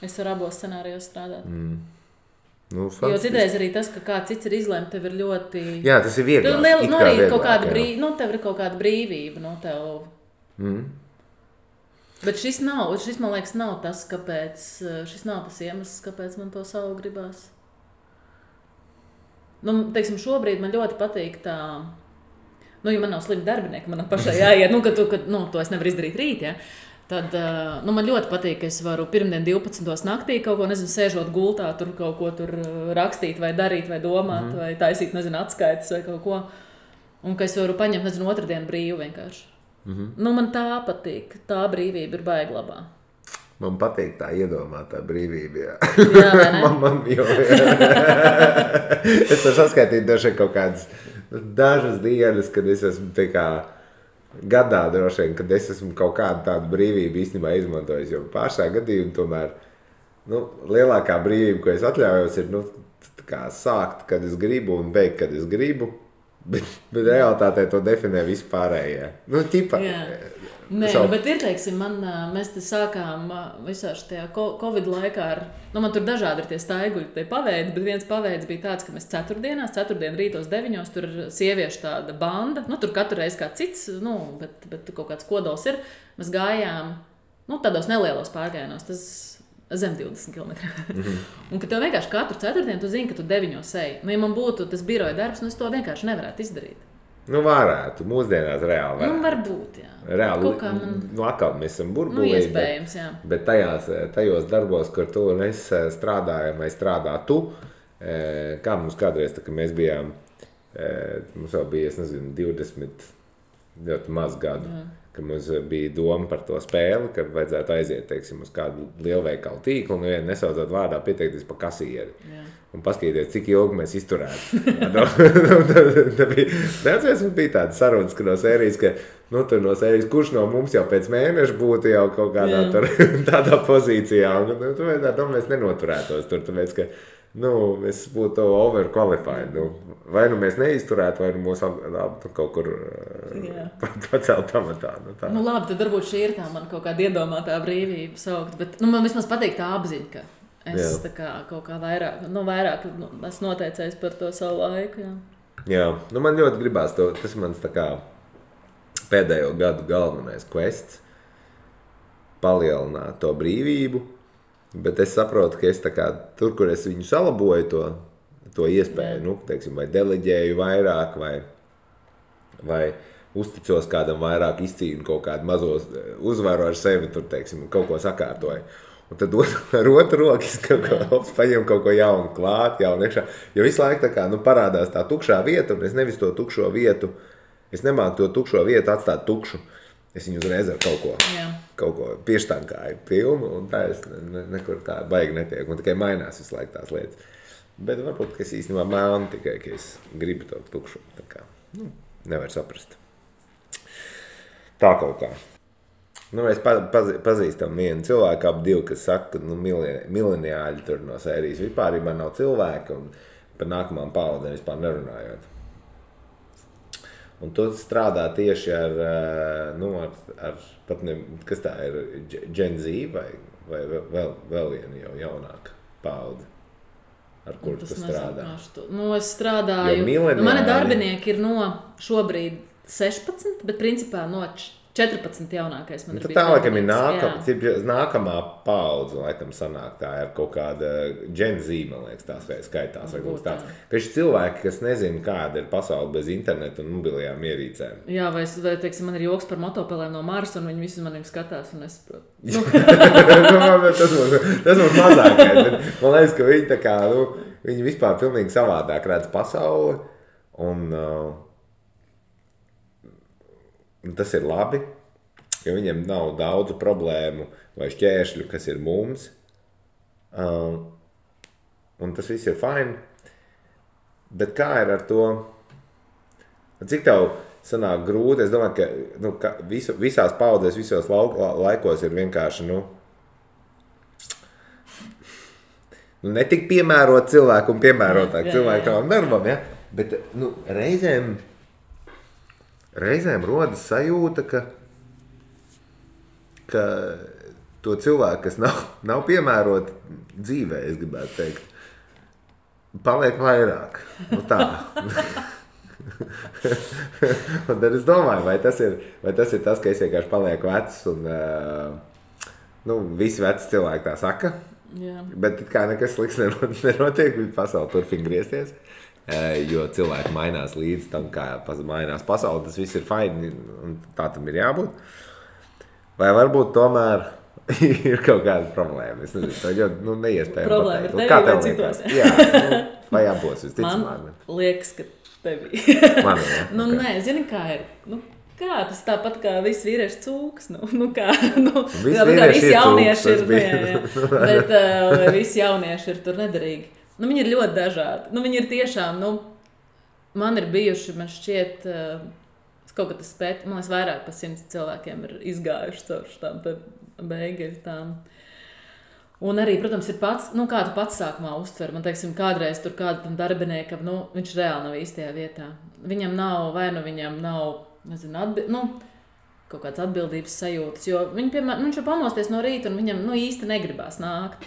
Es varu abos scenārijos strādāt. Jo citreiz arī tas, ka kāds cits ir izlēmis, tev ir ļoti... Jā, tas ir vieglāk. Arī kaut kāda tev ir kaut kāda brīvība, Bet šis, man liekas, nav tas, kāpēc, šis nav tas iemesls, kāpēc man to savu gribās. Teiksim, šobrīd man ļoti patīk tā, ja man nav slimi darbinieki, man pašai jāiet, ka to es nevaru izdarīt rīt, ja, tad, man ļoti patīk, ka es varu pirmdien 12. naktī kaut ko, sēžot gultā, tur kaut ko tur rakstīt vai darīt vai domāt, vai taisīt, atskaites vai kaut ko, un ka es varu paņemt, otrdienu brīvu vienkārši. Man tā patīk, tā brīvība ir baigi labā. Man patīk tā iedomātā brīvība, jā. Jā, vai ne? Es varu saskaitīt droši kaut kādas dažas dienas, kad es esmu tā kā gadā droši vien, kad es esmu kaut kādu tādu brīvību īstenībā izmantojis, jo pāršā gadījumā tomēr, lielākā brīvība, ko es atļaujos, ir, tā kā sākt, kad es gribu un beigt, kad es gribu, bet realitātē to definē vispārējie. Nē, bet ir, teiksim, mēs te sākām visā šajā Covid laikā man tur dažādi ir tie staiguļi, tie paveidi, bet viens paveids bija tāds, ka mēs ceturtdien rītos 9, tur ir sieviešu tāda banda, tur katru reizi kā cits, bet kaut kāds kodols ir, mēs gājām, tādos nelielos pārgājienos, tas zem 20 km. Un ka tev vienkārši katru ceturtdienu tu zini, ka tu 9 eji. Ja man būtu tas biroja darbs, es to vienkārši nevarētu izdarīt. Varētu, mūsdienās reāli varētu. Varbūt, jā. Reāli, atkal mēs esam burbulī, iespējams, jā. Bet tajos darbos, kur tu un es strādājam, vai strādā tu, kā mums kādreiz, tā, ka mēs bijām, mums vēl bija, 20, ļoti maz gadu, ka mums bija doma par to spēli, ka vajadzētu aiziet, teiksim, uz kādu lielveikalu tīklu, un vienu nesaudzot vārdā pieteikties pa kasieri. Jā. Un paskatīties, cik ilgi mēs izturētu. Neatceries, mums bija tāda sarunas, ka no sērijas, tur no sērijas, kurš no mums jau pēc mēneša būtu jau kaut kādā tādā pozīcijā. Un mēs nenoturētos tur, tāpēc, ka mēs būtu overqualified. Vai mēs neizturētu, vai mūs kaut kur pacelt amatā. Labi, tad varbūt šī ir tā man kaut kāda iedomātā brīvība saukt, bet man vismaz patīk tā apziņa, ka es tā kā kaut kā vairāk esmu noteicējis par to savu laiku. Jā, man ļoti gribās to, tas mans tā kā pēdējo gadu galvenais quests palielināt to brīvību Bet es saprotu, ka es tā kā tur, kur es viņu salaboju to iespēju, nu, teiksim, vai deleģēju vairāk, vai uzticos kādam vairāk, izcīnu kaut kādu mazo uzvaru ar sevi, tur, teiksim, kaut ko sakārtoju. Un tad ar otru roku es paņemu kaut ko jaunu klāt, jaunu iekšā. Jo visu laiku tā kā, nu, parādās tā tukšā vieta, un es nevis to tukšo vietu, es nemāku to tukšo vietu atstāt tukšu. Es viņu uzreiz ar kaut ko pieštankāju filmu, un tā es nekur tā baigi netiek. Un tikai mainās visu laiku tās lietas. Bet varbūt, ka es īstenībā mēlu tikai, ka es gribu to tukšu. Tā kā, nu, nevar saprast. Tā kaut kā. Nu, mēs pazīstam vienu cilvēku, ap divu, kas saka, ka nu, mileniāļi tur no sērijas vispārībā nav cilvēki, un par nākamām paudzēm vispār nerunājot. Un tu strādā tieši ar pat ne, kas tā ir, Gen Z vai vēl viena jau jaunāka paudze, ar kuru tu strādā? Nu, es strādāju, mani darbinieki ir no šobrīd 16, bet principā no 14 jaunākais man ir bijis. Tā laikam ir nākamā paudze, laikam sanāk tā ir kaut kāda Gen Z, man liekas, tās skaitās. Ka šis cilvēki, kas nezina, kāda ir pasaule bez interneta un mobilajām ierīcēm. Jā, vai teiksim, man ir joks par motopelēm no Marsa, un viņi visi maniem skatās, un es saprotu. Tas mums mazākais, bet man liekas, ka viņi tā kā, nu, viņi vispār pilnīgi savādāk redz pasauli, un tas ir labi, jo viņiem nav daudzu problēmu vai šķēršļu, kas ir mums. Un tas viss ir fine. Bet kā ir ar to? Cik tev sanāk grūti? Es domāju, ka visās paudzēs, visos laikos ir vienkārši, netik piemērot cilvēku un piemērotāk cilvēku tavam darbam, ja? Bet, reizēm rodas sajūta, ka to cilvēku, kas nav piemēroti dzīvē, es gribētu teikt, paliek vairāk. Nu tā. Un tad es domāju, vai tas ir tas, ka es vienkārši palieku vecs un visi veci cilvēki tā saka. Jā. Bet kā nekas slikts nenotiek, pasaule turpina griezties. Jo cilvēki mainās līdz tam, kā mainās pasaule, tas viss ir fine, un tā tam ir jābūt. Vai varbūt tomēr ir kaut kāda problēma? Es nezinu, tā ļoti neiespējami pateikt. Problēma ir tevi vai citos? Jā, vai abos, visticamāk. Man liekas, ka tevi. Man, jā. Nē, zini, kā ir? Kā tas tāpat kā visi vīrieši cūks? Visi jaunieši ir, bet visi jaunieši ir tur nederīgi. Viņi ir ļoti dažādi. Viņi ir tiešām, man ir bijuši, man šķiet, kaut kad es spētu, man liekas, vairāk par 100 cilvēkiem ir izgājuši caur tām beigeļtām. Un arī, protams, ir pats, kā tu pats sākumā uztver. Man, teiksim, kādreiz tur kādam darbiniekam, viņš reāli nav īstajā vietā. Viņam nav, viņam nav, nezinu, kaut kāds atbildības sajūtas, jo viņš var pamosties no rīta un viņam, īsti negribās nākt.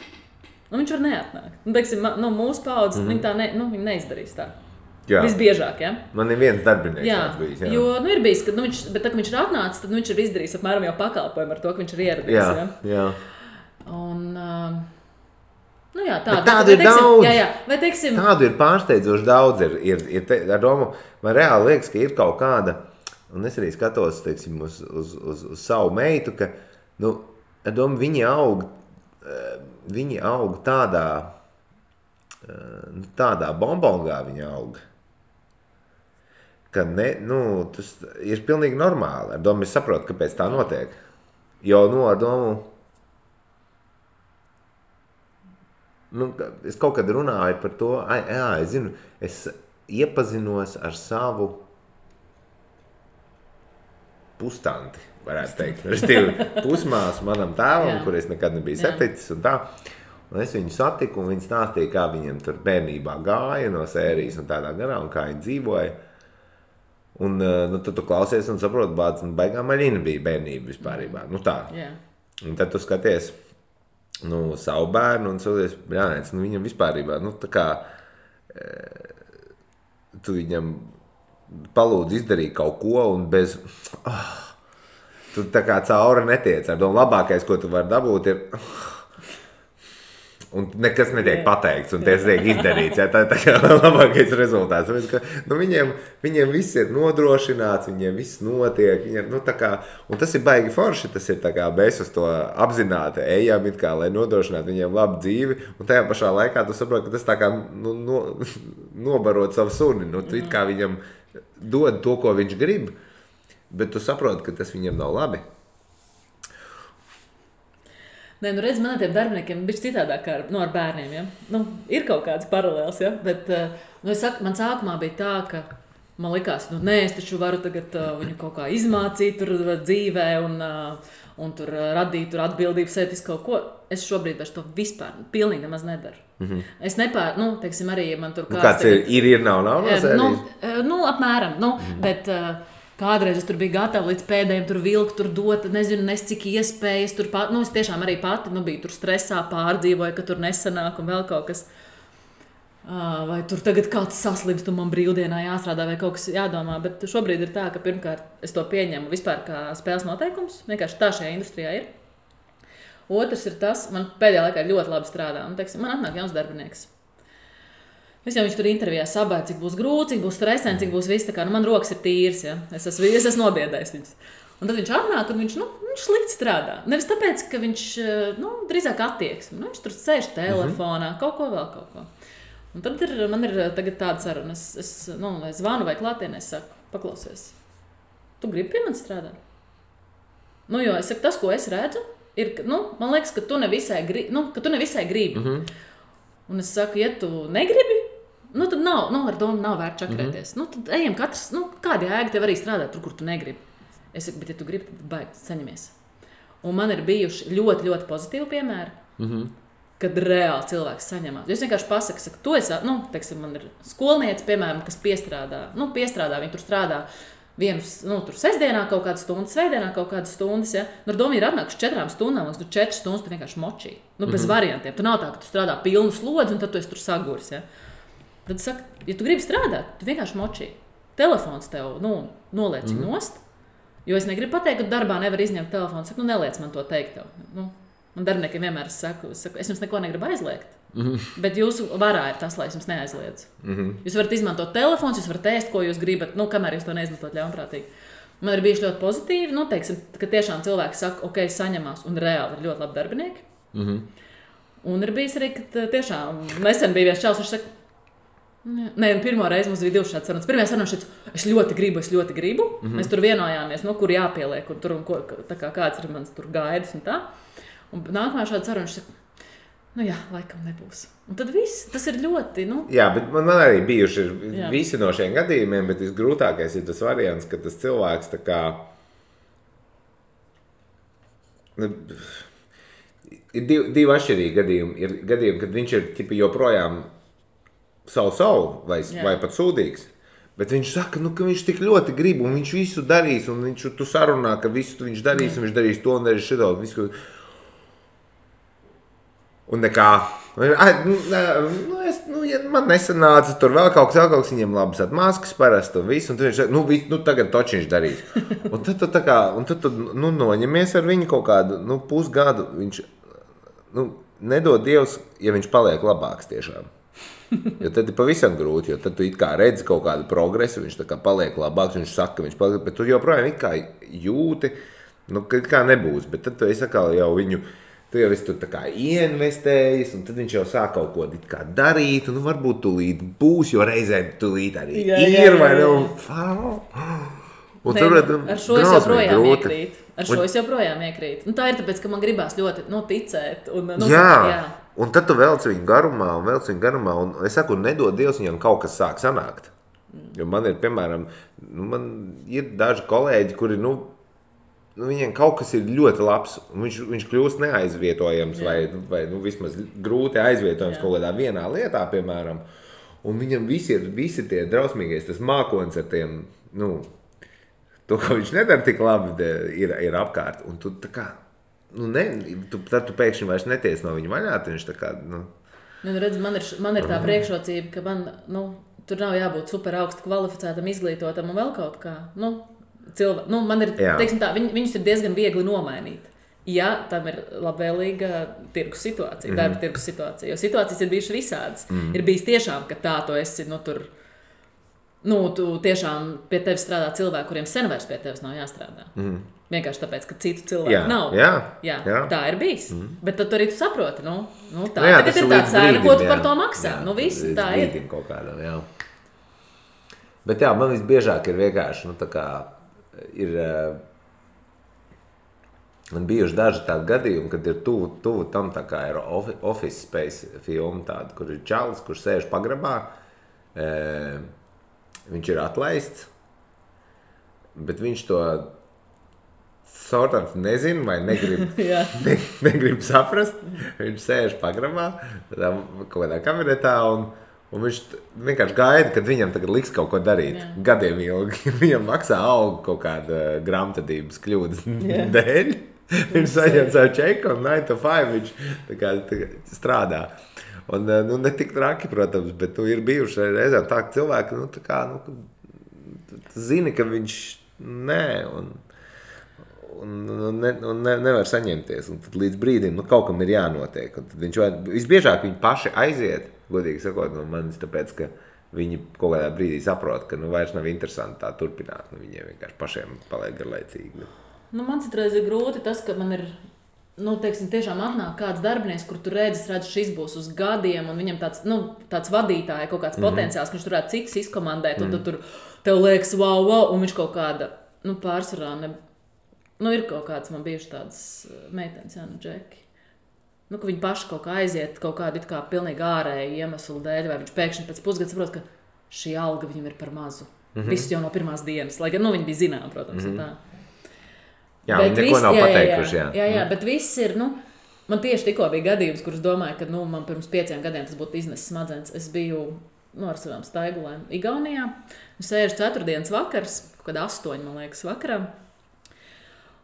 Viņš var neatnākt. Teiksim, mūsu paudzes, viņi tā viņi neizdarīs tā. Jā. Visbiežāk, ja? Man ir viens darbinieks tāds bijis. Jā. Jo, ir bijis, bet tā, ka viņš ir atnācis, tad viņš ir izdarījis apmēram jau pakalpojumu ar to, ka viņš ir ieradies. Jā. Un, tādu ir daudz. Vai, teiksim, tādu ir pārsteidzoši daudz. Ar domu, man reāli liekas, ka ir kaut kāda, un es arī skatos, teiksim, uz savu meitu, ka, ar domu, viņi aug tādā bombongā viņi aug, ka tas ir pilnīgi normāli. Ar domu es saprotu, kāpēc tā notiek. Jo, ar domu, es kaut kad runāju par to, es zinu, es iepazinos ar savu pustanti, varētu teikt. Pusmāsu manam tēvam, kur es nekad nebiju saticis un tā. Un es viņu satiku, un viņi stāstīja, kā viņiem tur bērnībā gāja no sērijas un tādā garā, un kā viņi dzīvoja. Un tad tu klausies un saproti, bāc, baigā maļina bija bērnība vispārībā. Tā. Yeah. Un tad tu skaties savu bērnu un savies, brānēts, viņam vispārībā, tā kā tu viņam palūdz izdarīt kaut ko un bez... tu tā kā cauri netiec. Ar domu labākais, ko tu vari dabūt, ir... un nekas netiek pateikts, un tas tiek izdarīts. Tā ir tā kā labākais rezultāts. Tāpēc, ka, viņiem viss ir nodrošināts, viņiem viss notiek. Viņiem, tā kā, un tas ir baigi forši, tas ir tā kā mēs uz to apzināti ejam, it kā, lai nodrošinātu viņiem labu dzīvi, un tajā pašā laikā tu saproti, ka tas tā kā nobarot savu suni. Tu it kā viņam dod to, ko viņš grib, bet tu saproti, ka tas viņam nav labi. Nē, redz, man ar tiem darbiniekiem bija citādāk kā ar bērniem. Ja? Ir kaut kāds paralēls, ja? Bet es saku, man sākumā bija tā, ka man likās, es taču varu tagad viņu kaut kā izmācīt tur dzīvē un tur radīt tur atbildību sev uz kaut ko. Es šobrīd vairs to vispār pilnīgi nemaz nedaru. Mm-hmm. Es nepār, teiksim, arī man tur kāds ir, nav apmēram, bet... Kādreiz es tur biju gatava līdz pēdējiem tur vilkt, tur dot, nezinu, cik iespējas tur pat, es tiešām arī pati, biju tur stresā, pārdzīvoju, ka tur nesanāk un vēl kaut kas. Vai tur tagad kāds saslims, tu man brīvdienā jāstrādā vai kaut kas jādomā, bet šobrīd ir tā, ka pirmkārt es to pieņemu vispār kā spēles noteikums, vienkārši tā šajā industrijā ir. Otrs ir tas, man pēdējā laikā ļoti labi strādā, un teiksim, man atnāk jauns darbinieks. Es jau viņš tur intervijā sabēju, cik būs grūti, cik būs stresēni, cik būs viss tā kā, man rokas ir tīras, ja? Es esmu nobiedējis viņus. Un tad viņš atnāk, un viņš slikti strādā. Nevis tāpēc, ka viņš, drīzāk attieksmi. Viņš tur sēž telefonā, kaut ko vēl, kaut ko. Un tad man ir tagad tāda saruna, es zvanu vai klātienē, es saku, paklausies, tu gribi pie manis strādāt? Jo es saku, tas, ko es redzu, ir, man liekas, ka tu nevisai gribi. Mm-hmm. Un es saku, ja tu negribi, tad nav, ar domu nav vērts čakrēties. Tad ejam katrs, kāda jēga tev arī strādāt tur, kur tu negribi. Es saku, bet ja tu gribi, tad baigi, saņemies. Un man ir bijuši ļoti, ļoti pozitīvi piemēri, kad reāli cilvēks saņemās. Es vienkārši pasaku, tu esi, teiksim, man ir skolniece, piemēram, kas piestrādā, viņi tur strādā tur sestdienā kaut kādas stundas, svētdienā kaut kādas stundas, ja? Ar domu ir atnākuši 4 stundām, un 4 stundas tu vienkārši močī. Bez variantiem. Tu nav tā, ka tu strādā pilnu slodzi, un tad tu esi tur saguris, ja? Tad saka, ja tu gribi strādāt, tu vienkārši močī. Telefons tev, noliec nost, jo es negribu pateikt, ka darbā nevar izņemt telefonu. Saku, neliec man to teikt tev. Man darbiniekiem vienmēr saku, es jums neko negribu aizliegt. Bet jūsu varā ir tas, lai es jums neaizliedzu. Jūs varat izmantot telefons, jūs varat ēst, ko jūs gribat, kamēr jūs to neizmantot ļaunprātīgi. Man ir bijuši ļoti pozitīvi, teiksim, ka tiešām cilvēki saka, ok, saņemās, un reāli ir ļoti labi darbinieki. Un ir bijis arī, ka tiešām nesen bija viens čalis, viņš saka, pirmo reizi mums bija 2 šādas sarunas. Pirmajā sarunā šeit, es ļoti gribu. Mēs tur vienojāmies, kur jāpieliek, un tur, tā kā kāds ir mans tur gaidas un tā. Un nākamā šāda saruna, viņš saka, laikam nebūs. Un tad viss, tas ir ļoti, Jā, bet man arī bijuši visi no šiem gadījumiem, bet visgrūtākais ir tas variants, ka tas cilvēks tā kā... Ir divi atšķirīgi gadījumi. Ir gadījumi, kad viņš ir tipi joprojām savu vai pat sūdīgs. Bet viņš saka, ka viņš tik ļoti grib, un viņš visu darīs, un tu sarunā, ka visu viņš darīs, un viņš darīs to un darīs šito, un visu... Un nekā, man nesanāca, tur vēl kaut kas, viņiem labas atmaskas parasti un visu, un viņš saka, tagad toči viņš darīs. Un tad tu noņemies ar viņu kaut kādu, pusgadu, viņš, nedod Dievs, ja viņš paliek labāks tiešām. Jo tad ir pavisam grūti, jo tad tu it kā redzi kaut kādu progresu, viņš tā kā paliek labāks, viņš saka, ka viņš paliek, bet tu joprojām it kā jūti, kā nebūs, bet tad tu esi atkal jau viņu, tu jau esi tur tā kā ieinvestējis, un tad viņš jau sāk kaut ko kā darīt, un varbūt tūlīt būs, jo reizēm tūlīt arī ir, vai ar šo es joprojām iekrīt. Es joprojām iekrīt. Tā ir tāpēc, ka man gribās ļoti ticēt. Jā, un tad tu velc viņu garumā, un es saku, nedod Dievs, viņam kaut kas sāk sanākt. Jo man ir, piemēram, man ir daži kolēģi, kuri, viņiem kaut kas ir ļoti labs, un viņš kļūst neaizvietojams vai vismaz grūti aizvietojams kaut kādā vienā lietā, piemēram. Un viņam visi tie drausmīgais, tas mākonis ar tiem, to, ko viņš nedara tik labi, ir apkārt. Un tu tā kā, tad tu pēkšņi vairs neties no viņa vaļā, tad viņš tā kā, redz, man ir tā priekšrocība, ka man, tur nav jābūt super augstu kvalificētam, izglītotam un vēl kaut kā, man ir, teiksim tā, viņus ir diezgan viegli nomainīt. ja tam ir labvēlīga tirgus situācija, darba tirgus situācija. Jo situācijas ir bijušas visādas. Ir bijis tiešām, ka tā tu esi, tu tiešām pie tevis strādā cilvēki, kuriem sen vairs pie tevis nav jāstrādā. Vienkārši tāpēc, ka citu cilvēku nav. Jā, tā ir bijis. Bet tad arī tu saproti, tā tagad ir tā cena, ko tu par to maksā. Viss tā ir. Kaut kādam, jā. Bet jā, man visbiežāk ir vienkārši, tā kā ir... Man bijuši daži tādi gadījumi, kad ir tuvu tam tā kā ir Office Space filma tāda, kur ir čalis, kurš sēž pagrabā. Viņš ir atlaists, bet viņš to sortants nezina vai negrib saprast. Viņš sēž pagrabā, kaut kādā kabinetā un viņš vienkārši gaida, kad viņam tagad liks kaut ko darīt. Gadiem ilgi. Viņam maksā algu kaut kāda grāmatvedības kļūdas dēļ. Viņš saņem savu čeku un 9 to 5 viņš tā kā strādā. Un, ne tik traki, protams, bet ir bijuši reizēm tā, ka cilvēki, zini, ka viņš nevar saņemties. Un tad līdz brīdim, kaut kam ir jānotiek. Un tad visbiežāk viņi paši aiziet, godīgi sakot, no manis, tāpēc, ka viņi kaut kādā brīdī saprot, ka vairs nav interesanti tā turpināt. Viņiem vienkārši pašiem paliek garlaicīgi. Man citreiz ir grūti tas, ka man ir, tiešām atnāk kāds darbinieks, kur tu redzi, šis būs uz gadiem, un viņam tāds vadītāja, kaut kāds potenciāls, ka viņš turētu citus izkomandēt, un tad tur tev liekas, wow, un viņš kaut kāda, pārsvarā, ir kaut kāds, man bijuši tādas meitenes, Džeki, ka viņi paši kaut kā aiziet, kaut kādu it kā pilnīgi ārēju iemeslu dēļ, vai viņš pēkšņi pēc pusgada saprot, ka šī alga viņam ir par mazu. Viss jau no pirmās dienas, lai gan, viņi bija zinām, protams, tā. Jā, bet neko nav pateikuši, jā, bet viss ir, man tieši tikko bija gadījums, kurus domāju, ka, man pirms 5 gadiem tas būtu iznesis smadzenes. Es biju, ar savām staigulēm Igaunijā, sēžu 4. vakars, kaut kad 8, man liekas, vakarā,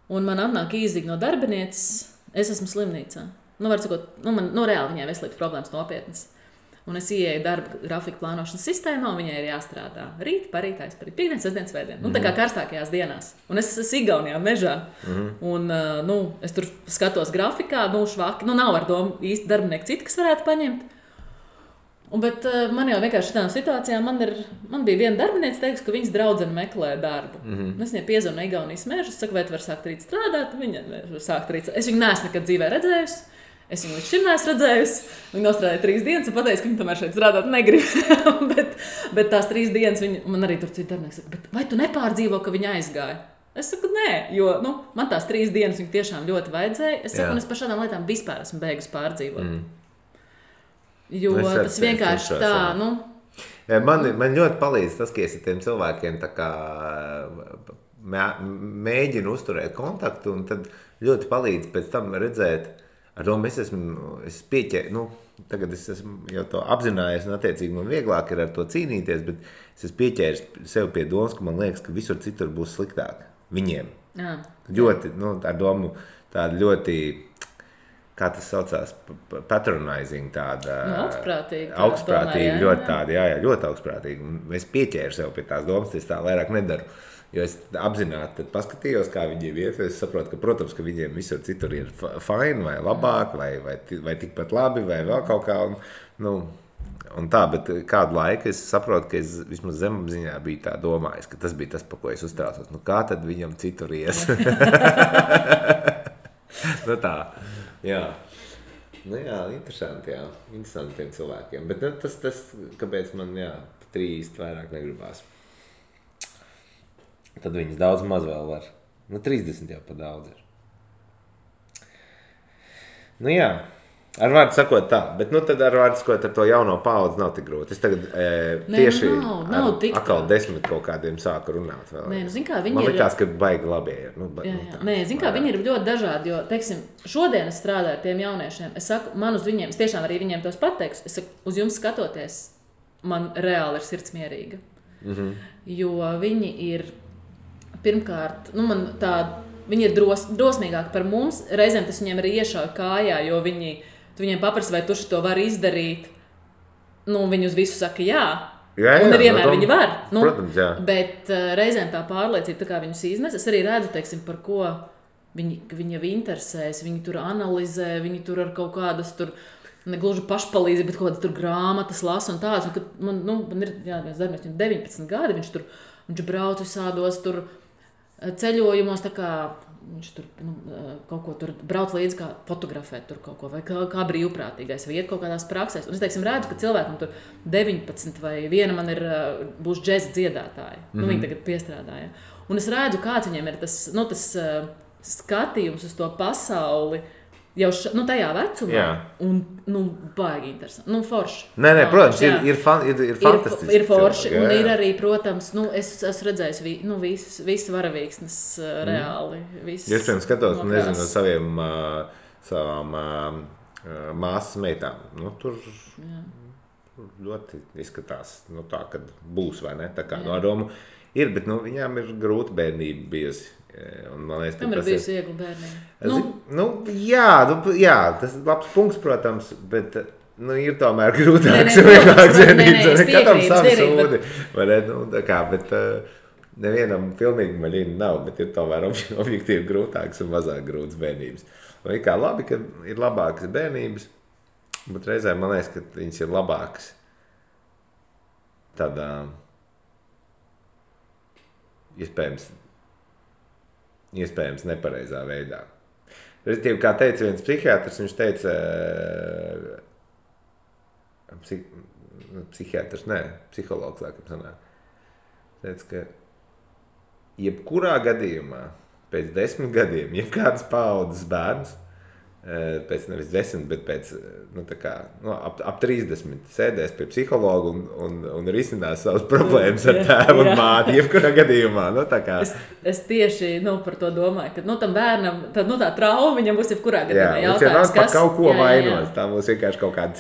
un man atnāk īzīgi no darbinieces, es esmu slimnīcā. Var sakot, reāli viņai veselības problēmas nopietnas. Un es ieeju darba grafika plānošanas sistēmā, un viņai ir jāstrādā rīt, parīt, aizparīt, piekdien, sestdien, svētdien. Tā kā karstākajās dienās. Un es esmu Igaunijā mežā. Un, es tur skatos grafikā, švaki. Nav ar domu īsti darbinieki citi, kas varētu paņemt. Bet man jau vienkārši šitām situācijām, man bija viena darbiniece, teiks, ka viņas draudzene meklē darbu. Es viņai piezvanu no Igaunijas meža, saku, vai tu vari sākt rīt strādāt? Viņa var sākt rīt. Es viņu neesmu nekad dzīvē redzējusi. Es viņu līdz šim neesmu redzējusi. Viņa nostrādāja 3 dienas un pateica, ka viņa tomēr šeit strādāt negrib. bet tās 3 dienas man arī tur citi darbinieki saka, vai tu nepārdzīvo, ka viņa aizgāja? Es saku, nē, jo man tās 3 dienas viņa tiešām ļoti vajadzēja. Es saku, un es par šādām lietām vispār esmu beigusi pārdzīvot. Jo tas vienkārši tā, Man ļoti palīdz tas, ka es ar tiem cilvēkiem tā kā mēģinu uzturēt kontaktu, un tad ļoti palīdz pēc tam redzēt. Ar to es pieķēru, tagad es esmu jau to apzinājies, un attiecīgi man vieglāk ir ar to cīnīties, bet es esmu pieķēris sev pie domas, ka man liekas, ka visur citur būs sliktāk viņiem. Ļoti, ar domu tāda ļoti, kā tas saucās, patronizing tāda. Augstprātīgi, ļoti tāda, ļoti augstprātīgi. Un es pieķēru sev pie tās domas, es tā vairāk nedaru. Jo es apzināti paskatījos, kā viņiem iet. Es saprotu, ka, protams, ka viņiem visur citur ir fine vai labāk, vai tikpat labi, vai vēl kaut kā. Un tā, bet kādu laiku es saprotu, ka es vismaz zemapziņā biju tā domājis, ka tas bija tas, pa ko es uztraucos. Kā tad viņam citur ies? Tā, jā. Interesanti, jā. Interesanti tiem cilvēkiem. Bet tas kāpēc man, pat īsti vairāk negribās. Tad viņas daudz maz vēl var. 30 jau pa daudz ir. Ar vārdu sakot tā, bet tad ar vārdu sakot ar to jauno paudzi nav tik grūti. Es tagad tieši nav tik atkal 10 kaut kādiem sāku runāt vēl. Man likās, ka baigi labie ir. Viņi ir ļoti dažādi, jo, teiksim, šodien es strādāju ar tiem jauniešiem. Es saku, man uz viņiem, es tiešām arī viņiem tos pateikšu, es saku, uz jums skatoties, man reāli ir sirds mierīga. Jo viņi ir pirmkārt, viņi ir drosmīgāki par mums. Reizēm tas viņiem arī iešauj kājā, jo tu viņiem paprasi, vai tu to vari izdarīt. Viņi uz visu saka jā. Un nevienmēr viņi var. Protams, jā. Bet reizēm tā pārliecība, tā kā viņus iznes, es arī redzu, teiksim, par ko viņi jau interesēs, viņi tur analizē, viņi tur ar kaut kādas tur, ne gluži pašpalīdzību, bet kaut kādas tur grāmatas lasa un tādas. Un, kad man ir, viens darbinieks, viņam 19 gadi, viņš brauc visādos tur ceļojumos, tā kā viņš tur kaut ko tur brauc līdzi, kā fotografēt tur kaut ko, vai kā brīvprātīgais, vai iet kaut kādās praksēs. Un es, teiksim, redzu, ka cilvēkam tur 19 vai viena man būs džeza dziedātāja. Viņi tagad piestrādāja. Un es redzu, kāds viņiem ir tas skatījums uz to pasauli jau tajā vecumā. Un, baigi interesanti. Forši. Nē, protams, ir fantastiski. Ir forši. Un ir arī, protams, es esmu redzējis visas varavīksnes reāli. Iespējams, skatos, nezinu, no savām māsas meitām. Tur ļoti izskatās tā, kad būs, vai ne? Tā kā no domu ir, bet viņām ir grūta bērnība bijusi. Liekas, tam ir bijusi viegla bērnība. Jā, tas ir labs punkts, protams, bet ir tomēr grūtāks un vieglāks bērnības. Katram savu sūdi. Bet nevienam pilnīgi maļīna nav, bet ir tomēr objektīvi grūtāks un mazāk grūts bērnības. Un ir kā labi, ka ir labākas bērnības, bet reizēm man liekas, ka viņas ir labākas tādā iespējams nepareizā veidā. Respektīvi, kā teica viens psihiatrs, viņš teica, psihologs, laikam sanāk, teica, ka jebkurā gadījumā, pēc 10 gadiem, jebkādas paaudzes bērns, pēc nevis 10, bet pēc ap 30 sēdēs pie psihologa un risinās savas problēmas ar tēvu un māti, jebkurā gadījumā. Es tieši par to domāju, ka tam bērnam tā trauma viņam būs jebkurā gadījumā jautājums, kas kaut ko vainos. Tā būs vienkārši kaut kāda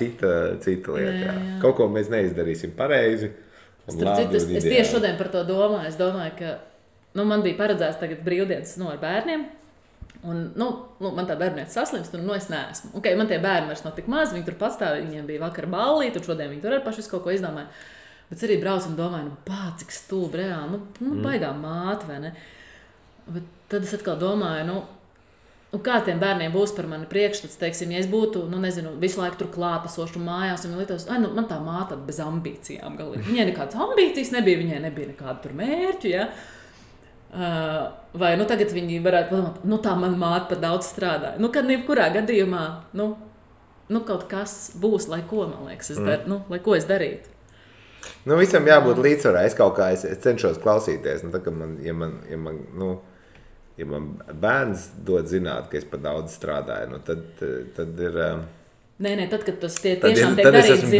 cita lieta. Kaut ko mēs neizdarīsim pareizi. Es tieši šodien par to domāju. Es domāju, ka man bija paredzēts tagad brīvdienas ar bērniem. Un, man tā bērnieta saslimst, un es neesmu. Man tie bērni vairs nav tik maz, viņi tur pastāv, viņiem bija vakar ballīti, un šodien viņi tur arī paši kaut ko izdomāja. Bet es arī braucu un domāju, cik stulbi reāli, baigā māte, vai ne? Bet tad es atkal domāju, kā tiem bērniem būs par mani priekšstats, teiksim, ja es būtu, visu laiku tur klātesošu mājās, un viņi lietos, man tā māte bez ambīcijām galīgi. Viņai nekādas ambīcijas nebija, viņai nebija nekāda tur mērķu, ja? Vai tagad viņi varētu padomāt, tā man māte pat daudz strādāja. Kad jebkurā gadījumā, kaut kas būs, lai ko, man liekas, lai ko es darītu. Visam jābūt līdzsvarā. Es kaut kā es cenšos klausīties. Ja man bērns dod zināt, ka es pat daudz strādāju, tad ir... Nē, tad, kad tas tiešām tiek darīts, tad es esmu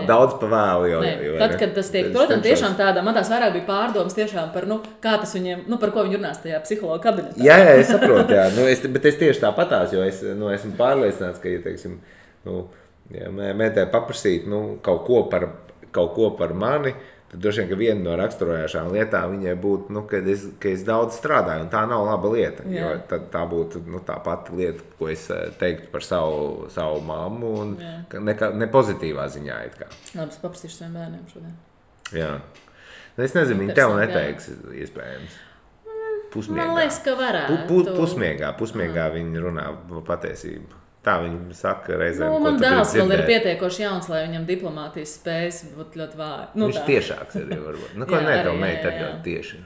daudz pa vēlu. Tad, kad tas tiek, protams, tiešām tādā, man tās vairāk bija pārdomas tiešām par, kā tas viņiem, par ko viņi runās tajā psihologa kabinetā. Jā, es saprotu, bet es tieši tāpatās, jo es esmu pārliecināts, ka, ja, teiksim, mētē paprasīt, kaut ko par mani, tad droši vien, ka viena no raksturojošām lietām viņai būtu, ka es daudz strādāju, un tā nav laba lieta. Jo tā būtu tā pati lieta, ko es teiktu par savu mammu, un ne pozitīvā ziņā. Labi, es paprasīšu saviem bērniem šodien. Jā. Es nezinu, viņi tev neteiks, iespējams. Pusmiegā. Man liekas, ka varētu. Pusmiegā viņi runā patiesību. Tā viņi saka reizēm, ko man dēls vēl ir pietiekoši jauns, lai viņam diplomātijas spējas būtu ļoti vāji. Viņš tiešāks arī varbūt. Tev meita ir ļoti tieši.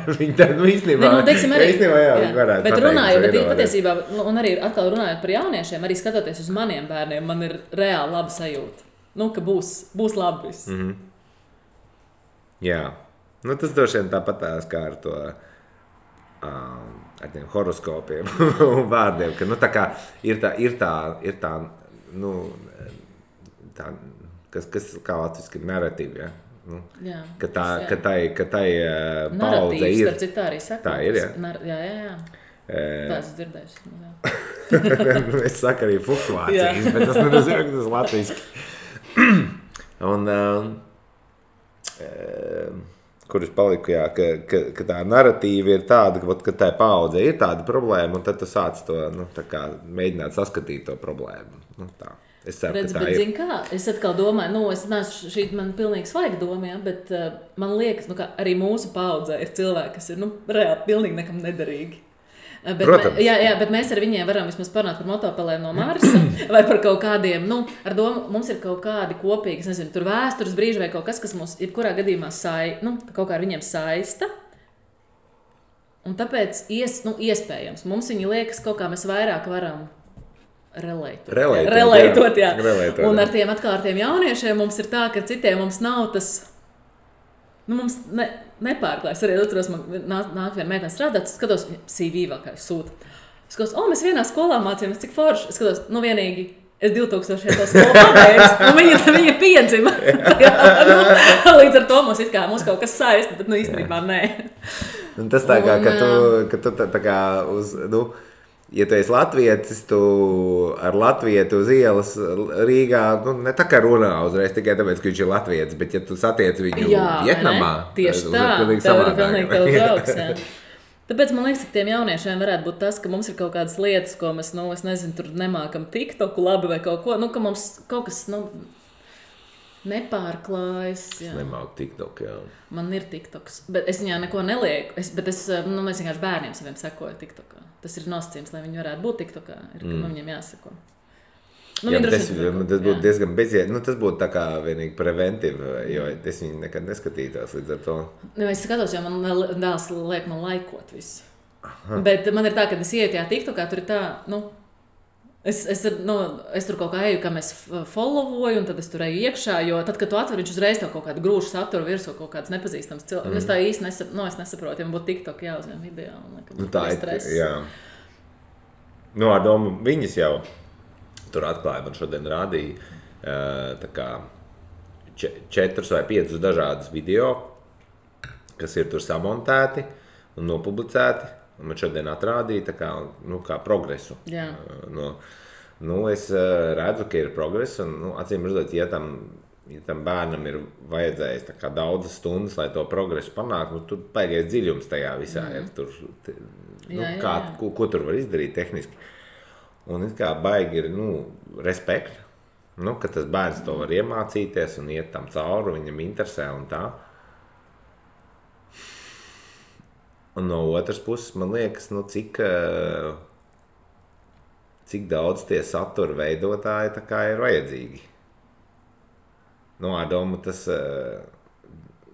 Viņi tā, īstenībā, viņi varētu bet runājot, bet patiesībā, un arī atkal runājot par jauniešiem, arī skatoties uz maniem bērniem, man ir reāli laba sajūta. Ka būs labi viss. Jā. Tas droši vien tāpatās kā ar to... ar tiem horoskopiem un vārdiem, ka, tā kā ir tā, kas kā latviski ir narratīva, ja? Ka tai paudze ir. Narratīvs, tā arī saka. Tā ir, jā. Jā. Tā es dzirdējusi. Es saku arī fluktuācijas, bet tas nenozīmē, ka tas latviski. Un, kur es paliku, ka tā narratīva ir tāda, ka tā paudze ir tāda problēma, un tad tu sāc to, mēģināt saskatīt to problēmu. Tā. Es ceru, ka tā ir. Zin kā, es atkal domāju, šī man pilnīgi svaiga doma, bet man liekas, ka arī mūsu paudzē ir cilvēki, kas ir, reāli pilnīgi nekam nederīgi. Protams. Bet mēs ar viņiem varam vismaz parunāt par motopelēm no Marsa vai par kaut kādiem, ar domu, mums ir kaut kādi kopīgi, es nezinu, tur vēstures brīži vai kaut kas mums jebkurā gadījumā kaut kā ar viņiem saista. Un tāpēc iespējams, mums viņi liekas kaut kā mēs vairāk varam relētot, jā. Un ar tiem jauniešiem mums ir tā, ka citiem mums nav tas, mums nepārklājas. Arī otros man nāk viena meitene strādāt, skatos, CV vēl kā sūta. Es skatos, mēs vienā skolā mācījāmies, cik forši. Es skatos, vienīgi, es 2000 to skolu pabeidzu, un viņa piedzima. Līdz ar to mums kaut kas saista, bet īstenībā nē. Un tas tā kā, ka tu tā kā ja tu esi latvietis, tu ar latvietu uz ielas Rīgā, ne tā kā runā uzreiz tikai tāpēc, ka viņš ir latvietis, bet ja tu satiec viņu Vietnamā, tieši tā, tev ir pilnīgi tev draugs, jā. Tāpēc man liekas, ka tiem jauniešiem varētu būt tas, ka mums ir kaut kādas lietas, ko mēs, es nezinu, tur nemākam TikToku labi vai kaut ko, ka mums kaut kas, nepārklājas. Es nemāku TikTok, jā. Man ir TikToks, bet es viņā neko nelieku, bet mēs vienkārši bērniem saviem sekoju TikTokā. Tas ir nosacījums, lai viņi varētu būt TikTokā, ka viņiem jāsako. Tas būtu diezgan bezjēdzīgi. Tas būtu tā kā vienīgi preventīvi, jo es viņu nekad neskatītos līdz ar to. Es skatos, jo man dēls liek man laikot visu. Bet man ir tā, kad es ieju tajā TikTokā, tur ir tā, es tur kaut kā eju, kā mēs followoju, un tad es tur eju iekšā, jo tad, kad tu atver, viņš uzreiz tev kaut kādu grūšu saturu virsū, kaut kāds nepazīstams cilvēks. Es tā īsti nesaprotu, ja man būtu TikTok jāuzņem video. Tā ir, jā. Ar domu viņas jau tur atklāja, man šodien rādīja tā kā 4 vai 5 dažādas video, kas ir tur samontēti un nopublicēti. Un man šodien atrādīja tā kā progresu. Jā. Es redzu, ka ir progress, un acīm redzot, ja tam bērnam ir vajadzējis tā kā daudzas stundas, lai to progresu panāktu, tur baigais dziļums tajā visā ir. Ko tur var izdarīt tehniski. Un it kā baigi ir, respekt, ka tas bērns to var iemācīties un iet tam cauri, viņam interesē un tā. Un no otras puses, man liekas, cik daudz tie satura veidotāji tā kā ir vajadzīgi. Domu tas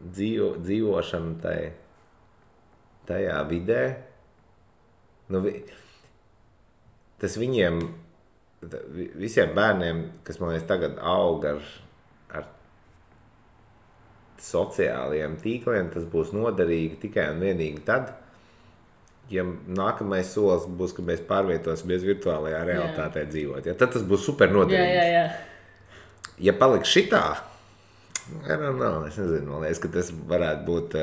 dzīvošana tajā vidē, tas viņiem, visiem bērniem, kas man liekas tagad aug ar sociālajiem tīkliem, tas būs noderīgi tikai un vienīgi tad, ja nākamais solis būs, ka mēs pārvietosimies virtuālajā realitātē dzīvot. Ja, tad tas būs super noderīgi. Jā. Ja paliks šitā, es nezinu, man liekas, ka tas varētu būt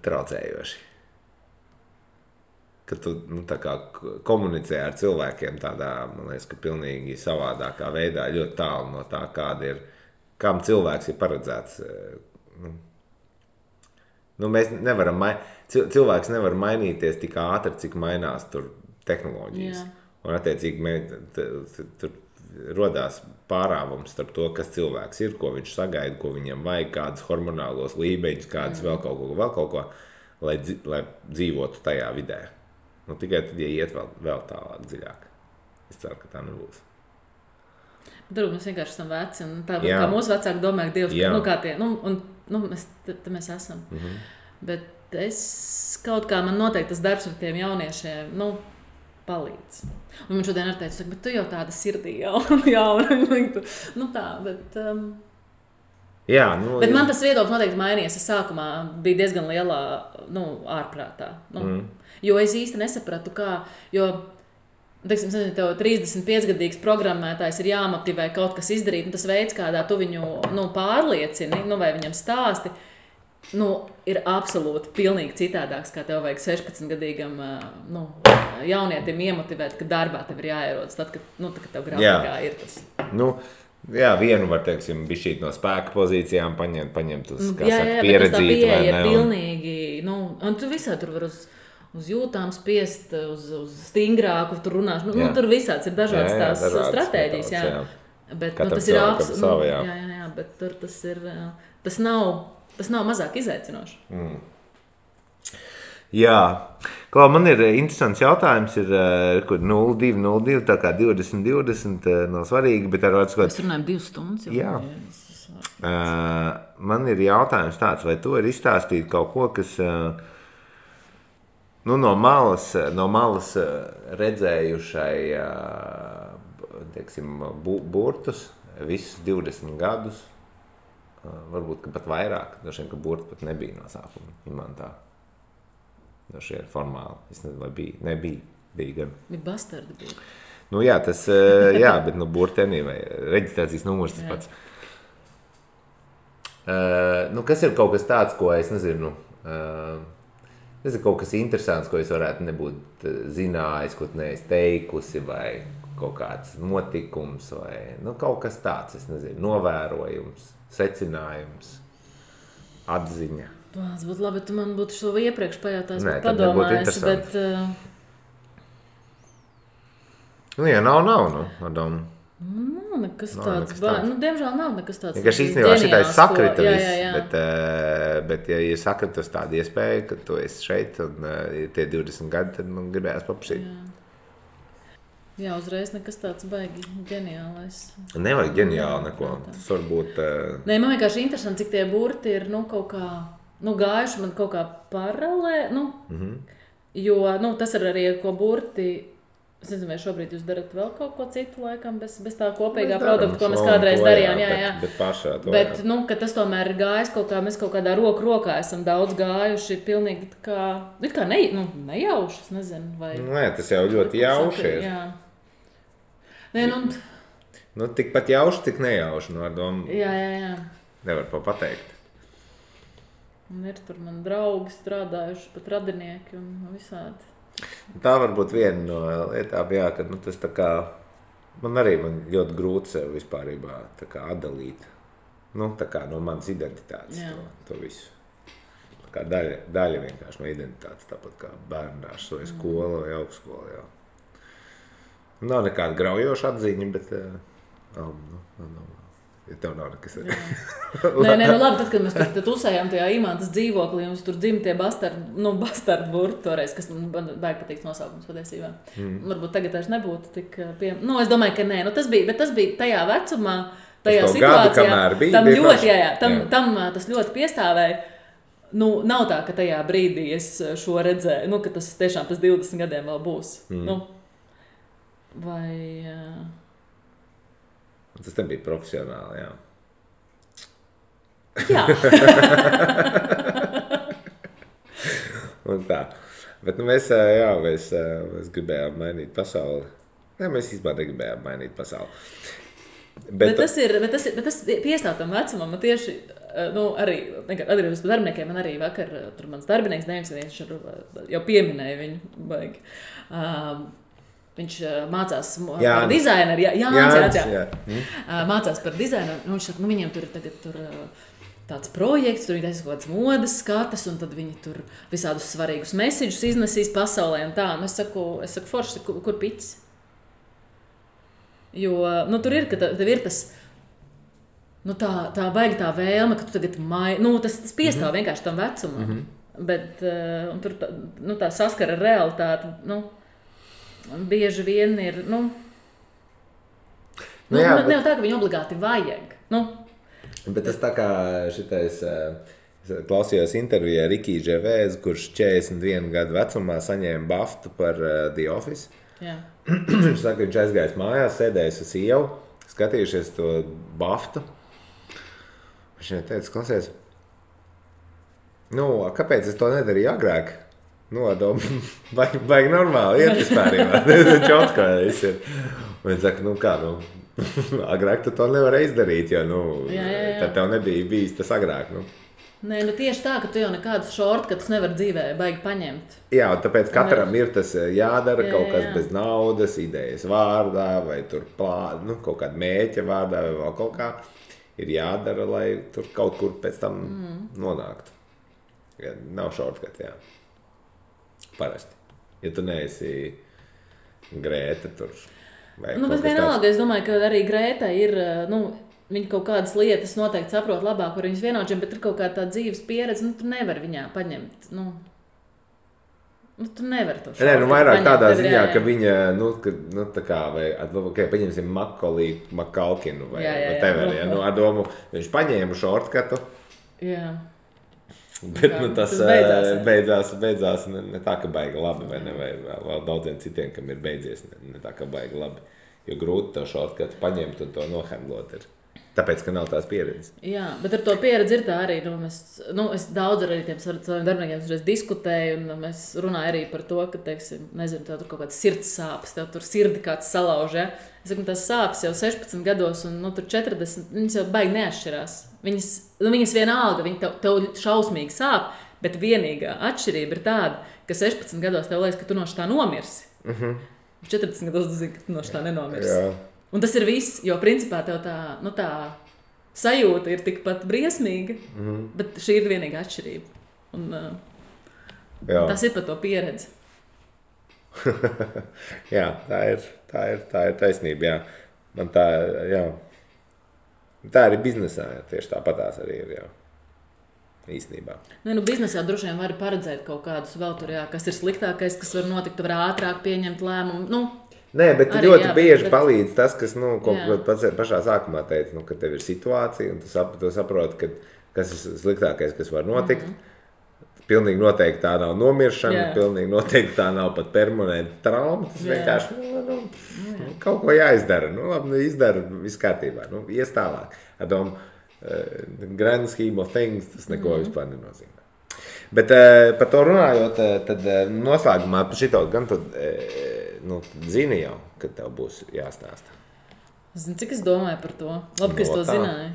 traucējoši. Ka tu tā kā komunicē ar cilvēkiem tādā, man liekas, ka pilnīgi savādākā veidā, ļoti tālu no tā, kāda ir, kam cilvēks ir paredzēts. Mēs nevaram cilvēks nevar mainīties tik ātri, cik mainās tur tehnoloģijas. Jā. Un attiecīgi tur rodās pārāvums starp to, kas cilvēks ir, ko viņš sagaida, ko viņam vajag, kādus hormonālos līmeņus, kādus vēl kaut ko, lai dzīvotu tajā vidē. Tikai tad, ja iet vēl tālāk dziļāk. Es ceru, ka tā nebūs. Mēs vienkārši esam veci, un tā kā mūsu vecāki domā, ka Dievs, kā tie, mēs esam. Mm-hmm. Bet es kaut kā, man noteikti tas darbs ar tiem jauniešiem, palīdz. Un man šodien arī teica, bet tu jau tāda sirdī jauna. Tā, bet... Bet man tas viedoklis noteikti mainījies. Es sākumā biju diezgan lielā, ārprātā. Jo es īsti nesapratu, kā, jo, teiksim, tev 35-gadīgs programmētājs ir jāmotivē kaut kas izdarīt, un tas veids, kādā tu viņu, pārliecini, vai viņam stāsti, ir absolūti pilnīgi citādāks, kā tev vajag 16-gadīgam, jaunietim iemotivēt, ka darbā tev ir jāierodas, tad, kad tev grafikā ir tas. Vienu var, teiksim, bišķīt no spēka pozīcijām paņemt uz, pieredzīt, vai ne? Tā pieeja ir pilnīgi, un tu visā tur var uz jūtām spiest, uz stingrāku, tur runāšu, tur visāds ir dažādas tās stratēģijas, Bet, tas ir bet tur tas nav mazāk izaicinoši. Jā, Klau, man ir interesants jautājums, kur 0202, tā kā 2020 nav svarīgi, bet ar otru Mēs runājam 2 stundas. Jā. Man ir jautājums tāds, vai tu vari izstāstīt kaut ko, kas no malas redzējušai, teiksim, burtus visus 20 gadus, varbūt pat vairāk, dažiem, ka burti pat nebija no sākuma imantā. Dažiem ir formāli. Es nezinu, vai bija. Nebija. Bija gan. Bija bastardi bija. Nu jā, tas, bet burtenī vai reģistrācijas numurs tas pats. Kas ir kaut kas tāds, ko es nezinu, kaut kas interesants, ko es varētu nebūt zinājis, ko tu neesi teikusi, vai kaut kāds notikums, vai kaut kas tāds, es nezinu, novērojums, secinājums, atziņa. Tas būtu labi, tu man būtu šo iepriekš pajautājis, bet padomājis, bet... Ja nav, Adam. Nekas tāds. Diemžēl nav nekas tāds. Vienkārši īstenībā šitais sakrita viss, bet ja ir sakritus tāda iespēja, ka tu esi šeit un tie 20 gadi, tad man gribējās paprasīt. Jā, uzreiz nekas tāds baigi ģeniālais. Nevajag ģeniāli neko. Tas varbūt... Nē, man vienkārši interesanti, cik tie burti ir, kaut kā, gājuši man kaut kā paralē, jo, tas ir arī, ko burti... Es nezinu, vai šobrīd jūs darat vēl kaut ko citu laikam, bez tā kopīgā produkta, ko mēs kādreiz darījām. Jā. Bet pašā to. Bet, ka tas tomēr ir gājis kaut kā, mēs kaut kādā rokā esam daudz gājuši, pilnīgi kā nejauši, es nezinu, vai... Nē, tas jau ļoti jauši ir. Jā. Nē, tikpat jauši, tik nejauši, ar domu. Jā. Nevar pateikt. Un ir tur man draugi strādājuši, pat radinieki un visādi. Tā var būt viena no lietām, jā, ka tas tā kā, man ļoti grūti sev vispārībā tā kā atdalīt, tā kā no manas identitātes to visu. Tā kā daļa vienkārši no identitātes, tāpat kā bērndārs vai skola vai augstskola, jā. Nav nekāda graujoša atziņa, bet, ja tev nav nekas. Nē, labi, tad, kad mēs tur tusējām tajā Imantas dzīvoklī, un tur dzim tie bastardu burti toreiz, kas man baigi patīk nosaukums patiesībā. Varbūt tagad vairs nebūtu tik es domāju, ka nē, tas bija tajā vecumā, tajā situācijā. Tam ļoti, tam tas ļoti piestāvēja. Nav tā, ka tajā brīdī es šo redzēju, ka tas tiešām pēc 20 gadiem vēl būs. Vai... Tas nebija profesionāli, jā. Jā. Un tā. Bet mēs gribējām mainīt pasauli. Nē, mēs īstenībā negribējām mainīt pasauli. Bet tas piestāv tam vecumam, man tieši, arī atgriežos pie darbiniekiem, man arī vakar, tur mans darbinieks, viņš jau pieminēja viņu baigi. Viņš mācās par dizaineru, Jānis. Mācās par dizaineru, un viņš saka, viņiem tur ir tagad tāds projekts, tur viņi taisa kaut kādas modes skatas, un tad viņi tur visādus svarīgus mesiģus iznesīs pasaulē un tā. Un es saku forši, kur piķis? Jo, tur ir, ka tev ir tas, tā baigi tā vēlme, ka tu tagad tas piestāv vienkārši tam vecumam. Bet, un tur tā saskara ar realitāti, bieži vien ir, nav tā, ka viņu obligāti vajag, Bet tas tā kā šitais, klausījos intervijā Rikī Ževēz, kurš 41 gadu vecumā saņēma baftu par The Office. Jā. Viņš saka, viņš aizgājis mājās, sēdējis uz ievu, skatījušies to baftu. Viņš viņai teica, klausies, kāpēc es to nedarīju agrāk? Baigi normāli, iet vispārībā. Čotkā viss ir. Un viņš saka, agrāk tu to nevarēji izdarīt, jo, tad tev nebija bijis tas agrāk, Nē, tieši tā, ka tu jau nekādus shortcuts nevar dzīvē baigi paņemt. Jā, un tāpēc katram ir tas jādara kaut kas bez naudas, idejas vārdā, vai tur kaut kāda mēķa vārdā, vai vēl kaut kā. Ir jādara, lai tur kaut kur pēc tam nonāktu. Ja, nav shortcut, jā. Parasti. Ja tu neesi Grēta tur. Bet vienalga, es domāju, ka arī Grēta ir, viņa kaut kādas lietas noteikti saprot labāk par viņas vienaudžiem, bet ir kaut kāda tā dzīves pieredze, tu nevar viņā paņemt, Nu, tu nevari to Nē, nu vairāk paņemt, tādā tev ir ziņā, jāiet. ka viņa, tā kā, vai, paņemsim Makalkinu vai whatever, ja, ar domu, viņš paņēma šortkatu, Jā. bet, tas beidzās. beidzās ne tā, ka baigi labi, vai ne, vai vēl daudziem citiem, kam ir beidzies, ne tā, ka baigi labi, jo grūti to šortkatu paņemt un to nohandlot ir. Tāpēc, ka nav tās pieredzes. Jā, bet ar to pieredzi ir tā arī. Es daudz ar tiem saviem darbiniekiem diskutēju, un mēs runājam arī par to, ka, teiksim, nezinu, tev tur kaut kāds sirds sāpes, tev tur sirdi kāds salauž. Ja? Es saku, tās sāpes jau 16 gados, un tur 40, viņas jau baigi neatšķirās. Viņas vienalga, viņi tev šausmīgi sāp, bet vienīgā atšķirība ir tāda, ka 16 gados tev liekas, ka tu no šitā nomirsi. 40 gados tu zini, ka tu no šitā nenomirsi. Jā. Un tas ir viss, jo principā tev tā sajūta ir tikpat briesmīga, bet šī ir vienīgā atšķirība. Un, tas ir par to pieredzi. Jā, tā ir taisnība, jā. Man tā, jā. Tā arī biznesā, jā, tieši tāpatās arī ir, jā. Īstenībā. Biznesā droši vien var paredzēt kaut kādus vēl tur, jā, kas ir sliktākais, kas var notikt, tu var ātrāk pieņemt lēmumu, Nē, bet arī, ļoti jā, bieži bet palīdz tas, kas, ko pats pašā sākumā teica, ka tev ir situācija, un tu saproti, kas ir sliktākais, kas var notikt. Pilnīgi noteikti tā nav nomiršana, pilnīgi noteikti tā nav pat permanenta trauma. Tas vienkārši kaut ko jāizdara. Labi, izdara, viss kārtībā. Ies tālāk. Grand scheme of things, tas neko vispār nenozīmē. Bet par to runājot, tad noslēgumā par šito gan tu zini jau, kad tev būs jāstāsta. Zini, cik es domāju par to? Labi, ka es to zināju.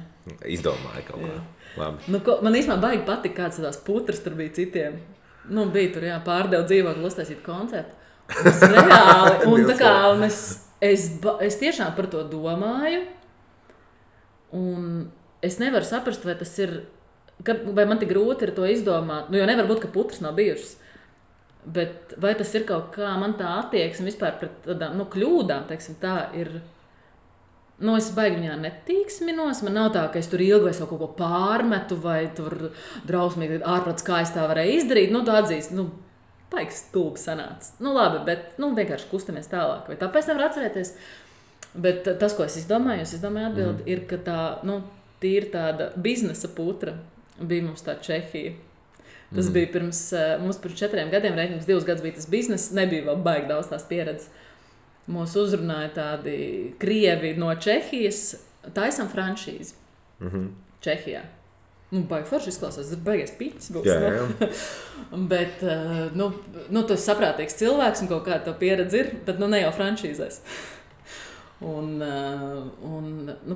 Izdomāju kaut kā. Labi. Man īstenībā baigi patika, kāds tās putras tur bija citiem. Bija tur, pārdevu dzīvokli uztaisīt koncertu. Tas reāli. Un tā kā es tiešām par to domāju. Un es nevaru saprast, vai tas ir, vai man tik grūti ir to izdomāt. Jo nevar būt, ka putras nav bijušas. Bet vai tas ir kaut kā, man tā attieksme vispār pret tādām kļūdām, teiksim, tā ir. Es baigi viņā netīksminos. Man nav tā, ka es tur ilgi vai kaut ko pārmetu, vai tur drausmīgi ārprāts, kā es tā varēju izdarīt. Tu atzīst, baigi stulbi sanāca. Labi, bet vienkārši kustamies tālāk. Vai tāpēc nevar atcerēties? Bet tas, ko es izdomāju atbildi, ir, ka tā, tīri tāda biznesa putra bija mums tā Čehija. Tas bija mums pirms 4 gadiem, mums 2 gadus bija tas bizness, nebija vēl baigi daudz tās pieredzes. Mūs uzrunāja tādi krievi no Čehijas, taisam franšīzi Čehijā. Baigi forši izklausās, tas baigies piķis būs. Jā. Bet, tu esi saprātīgs cilvēks un kaut kāda tev pieredze ir, bet ne jau franšīzēs. Un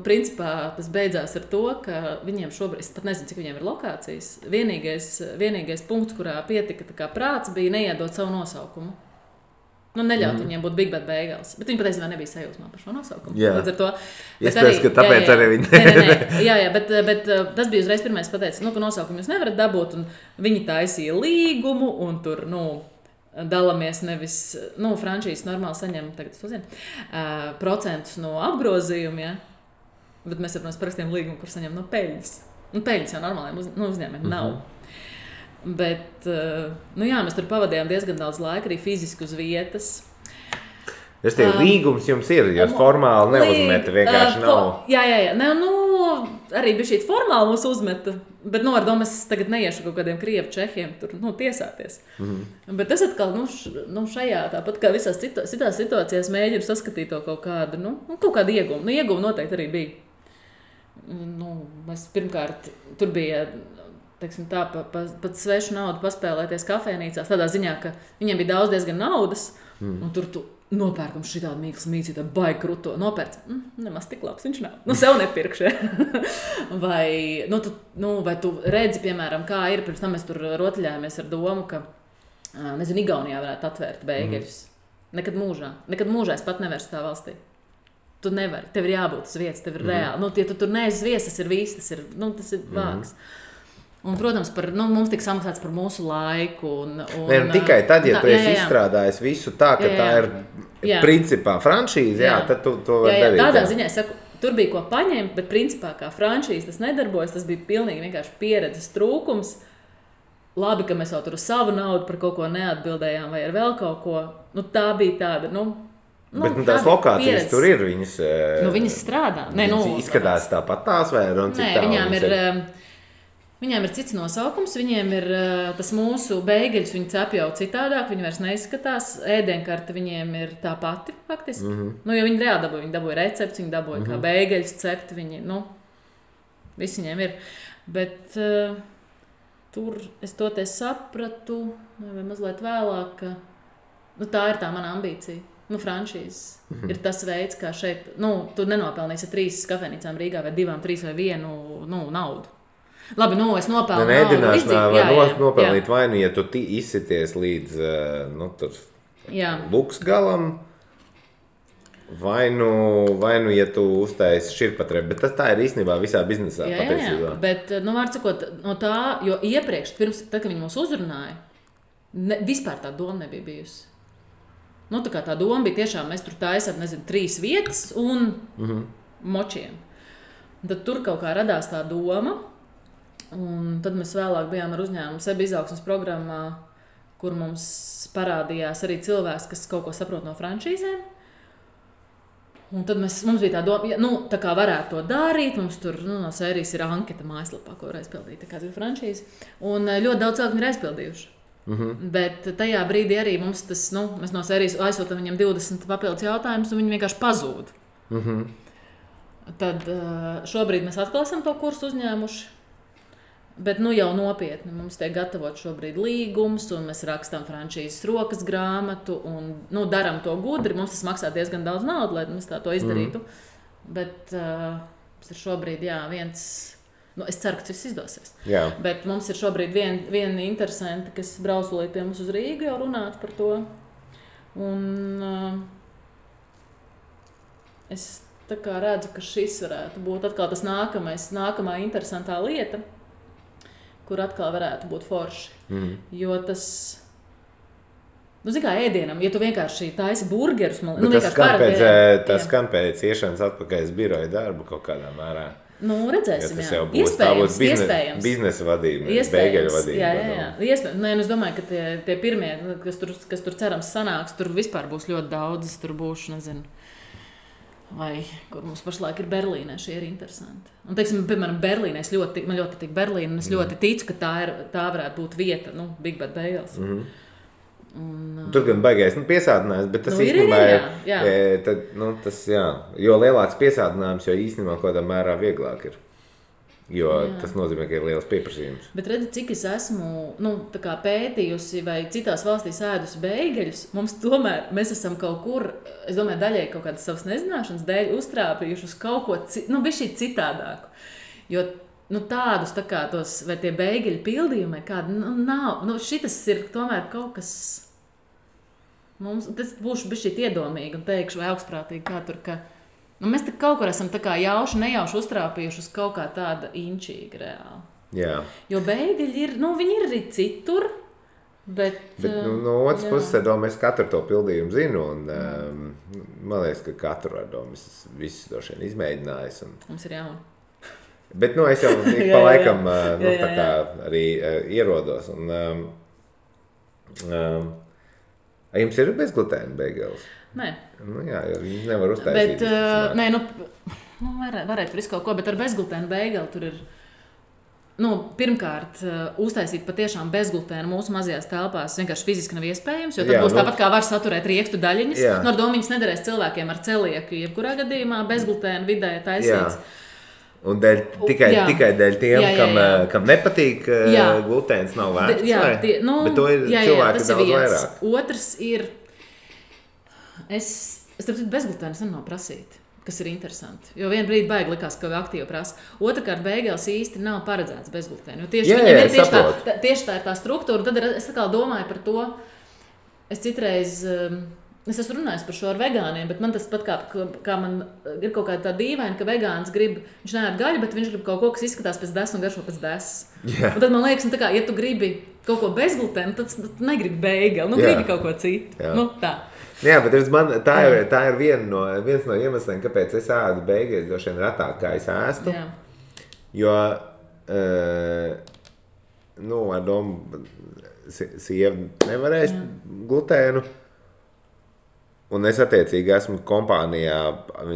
principā tas beidzās ar to, ka viņiem šobrīd, es pat nezinu, cik viņiem ir lokācijas, vienīgais punkts, kurā pietika tā kā prāts, bija neiedot savu nosaukumu. Neļaut viņiem būt Big Bad Bagels. Bet viņi patiesībā nebija sajūsmā par šo nosaukumu. Jā. Līdz ar to. Iespējams, ka tāpēc arī viņi. Jā, bet tas bija uzreiz pirmais pateicis, ka nosaukumu jūs nevarat dabūt. Un viņi taisīja līgumu un tur, dalāmies nevis, franšīzes normāli saņem, tagad es to zinu, procentus no apgrozījuma, ja? Bet mēs ar parakstiem līgumu, kur saņem no peļņas. Peļņas jau normāliem uzņēmumiem nav. Bet, mēs tur pavadījām diezgan daudz laika, arī fiziski uz vietas. Tas tie līgums jums ir, jūs formāli neuzmeta, vienkārši nav. Jā. Arī bija šī formāli mūs uzmeta, bet, ar domu es tagad neiešu kaut kādiem krievu čehiem tur, tiesāties. Bet es atkal, šajā, tāpat kā visās citās situācijās mēģinu saskatīt to kaut kādu, kaut kādu ieguvumu. Ieguvumu noteikti arī bija. Mēs pirmkārt, tur bija, teiksim tā, pat svešu naudu paspēlēties kafejnīcās, tādā ziņā, ka viņiem bija daudz diezgan naudas, un tur tu nopērkam šitādu mīklas mīcītu, baigi kruto, nopērc, nemaz tik labs viņš nav. Sev nepirkšu. Vai tu redzi, piemēram, kā ir, pirms tam mēs tur rotaļājāmies ar domu, ka, Igaunijā varētu atvērt beigeļus. Nekad mūžā es pat nevaru tā valstī. Tu nevari, tev ir jābūt uz vietas, tev ir reāli. Ja tu tur neesi vies, tas ir viss, tas ir vāks. Un, protams, mums tika samaksāts par mūsu laiku. Tikai tad, ja tu esi izstrādājis visu tā, ka tā ir principā franšīze, tad tu to vari darīt. Tādā ziņā es saku, tur bija ko paņemt, bet principā kā franšīze tas nedarbojas, tas bija pilnīgi vienkārši pieredzes trūkums. labi, ka mēs jau tur uz savu naudu par kaut ko neatbildējām vai ar vēl kaut ko. Nu, tā bija tāda, bet tās lokācijas pieredze. Tur ir, viņas strādā. Viņas izskatās tāpat tās vai nē, viņām ir cits nosaukums, viņiem ir tas mūsu beigeļus, viņi cep jau citādāk, viņi vairs neizskatās, ēdienkarte viņiem ir tā pati, faktiski. Jo viņi reāli viņi dabūja recepts, viņi dabūja kā beigeļus cept, viņi, viss viņiem ir. Bet tur es toties sapratu, vai mazliet vēlāk, ka tā ir tā mana ambīcija. Franšīzes ir tas veids, kā šeit, tu nenopelnīsi 3 kafejnīcām Rīgā vai 2, 3 vai 1 naudu. Labi, es nopelnu naudu. Nopelnīt vai ja tu izsities līdz luks galam, vai ja tu uztaisi širpatrepu, bet tā ir īstenībā visā biznesā patiesībā. Bet, var sakot, no tā, jo iepriekš, tad, kad viņi mūs uzrunāja, vispār tā doma nebija bijusi. Tā doma bija tiešām, mēs tur taisām, 3 vietas un močiem. Tad tur kaut kā radās tā doma. Un tad mēs vēlāk bijām ar uzņēmumu sebi izaugsmes programmā, kur mums parādījās arī cilvēks, kas kaut ko saprot no franšīzēm. Un tad mums bija tā doma, tā kā varētu to darīt, mums tur no sērijas ir anketa mājaslapā, ko var aizpildīt, kāds ir franšīze. Un ļoti daudz cilvēku ir aizpildījuši. Bet tajā brīdī arī mums tas, mēs no sērijas aizsūtam viņiem 20 papildus jautājumus, un viņi vienkārši pazūd. Tad šobrīd mēs atkal esam to kursu uzņēmuši. Bet jau nopietni mums tiek gatavot šobrīd līgums, un mēs rakstām franšīzes rokas grāmatu, un daram to gudri. Mums tas maksā diezgan daudz naudu, lai mēs to izdarītu. Bet tas ir šobrīd viens, es ceru, ka tas izdosies. Jā. Bet mums ir šobrīd viena interesanta, kas brausulīt pie mums uz Rīgu jau runāt par to. Un es tā kā redzu, ka šis varētu būt atkal tas nākamā interesantā lieta, kur atkal varētu būt forši. Jo tas, kā ēdienam, ja tu vienkārši taisi burgerus, tas skan pēc iešanas atpakaļ uz biroja darbu kaut kādā mērā. Redzēsim, tas jau būs iespējams. Biznesa vadība, beigeļu vadība. Jā. Iespējams. Es domāju, ka tie pirmie, kas tur cerams sanāks, tur vispār būs ļoti daudz, tur būšu, vai kur mums pašlaik ir Berlīnē, šie ir interesanti. Un, piemēram, Berlīnē, man ļoti patīk Berlīna, un es ļoti ticu, ka tā varētu būt vieta, Big Bad Bagels. Tur gan baigais piesātinājums, bet tas īstenībā jo lielāks piesātinājums, jo īstenībā kaut kādā mērā vieglāk ir. Jo tas nozīmē, ka ir liels pieprasījums. Bet redzi, cik es esmu pētījusi vai citās valstīs ēdusi beigeļus, mēs esam kaut kur, es domāju, daļai kaut kādas savas nezināšanas dēļ uztrāpījuši uz kaut ko bišķi citādāku. Jo tādus tos, vai tie beigeļu pildījumi, kādi nav, šitas ir tomēr kaut kas, tas būšu bišķi iedomīgi un teikšu vai augstprātīgi, kā tur, ka mēs kaut kur esam nejauši uztrāpījuši uz kaut kā tāda inčīga reāli. Jā. Jo beigeļi ir, viņi ir arī citur, bet no otras puses, mēs katru to pildījumu zinu, un man liekas, ka katru ar domu visus droši vien izmēģinājis. Mums ir jauni. Bet, es jau pa laikam tā kā arī ierodos. Un, jums ir bezglutēna beigelis? Nē. Jā, jo viņi nevar uztaisīt. Bet, varētu visu kaut ko, bet ar bezglutēnu beigeli tur ir, pirmkārt, uztaisīt patiešām bezglutēnu mūsu mazajās telpās vienkārši fiziski nav iespējams, jo tad būs tāpat kā var saturēt riekstu daļiņas. Ar domu viņas nederēs cilvēkiem ar celieku, jebkurā gadījumā bezglutēnu vidē taisīts. Un tikai dēļ tiem, kam nepatīk glutēns, nav vērts. Bet to ir cilvēki daudz vairāk. Otrs ir, es bezglutēnas nav prasīt, kas ir interesanti. Jo vienu brīdi baigi likās, ka aktīvi prasa. Otrakārt, beigās īsti nav paredzēts bezglutēnu. Tieši tā ir tā struktūra. Tad es domāju par to, es citreiz... Es esmu runājis par šo ar vegāniem, bet man tas pat kā man ir kaut kāda tā dīvaina, ka vegāns viņš neēd gaļu, bet viņš grib kaut ko, kas izskatās pēc desas un garšo pēc desas. Un tad man liekas, ja tu gribi kaut ko bezglutēnu, tad negribi beigeli, gribi kaut ko citu. Tā. Jā, bet tā ir viens no iemesliem, kāpēc es ēdu beigeļus droši vien retāk, kā es ēstu. Jo ar domu, sieva nevarēs glutēnu. Un es attiecīgi esmu kompānijā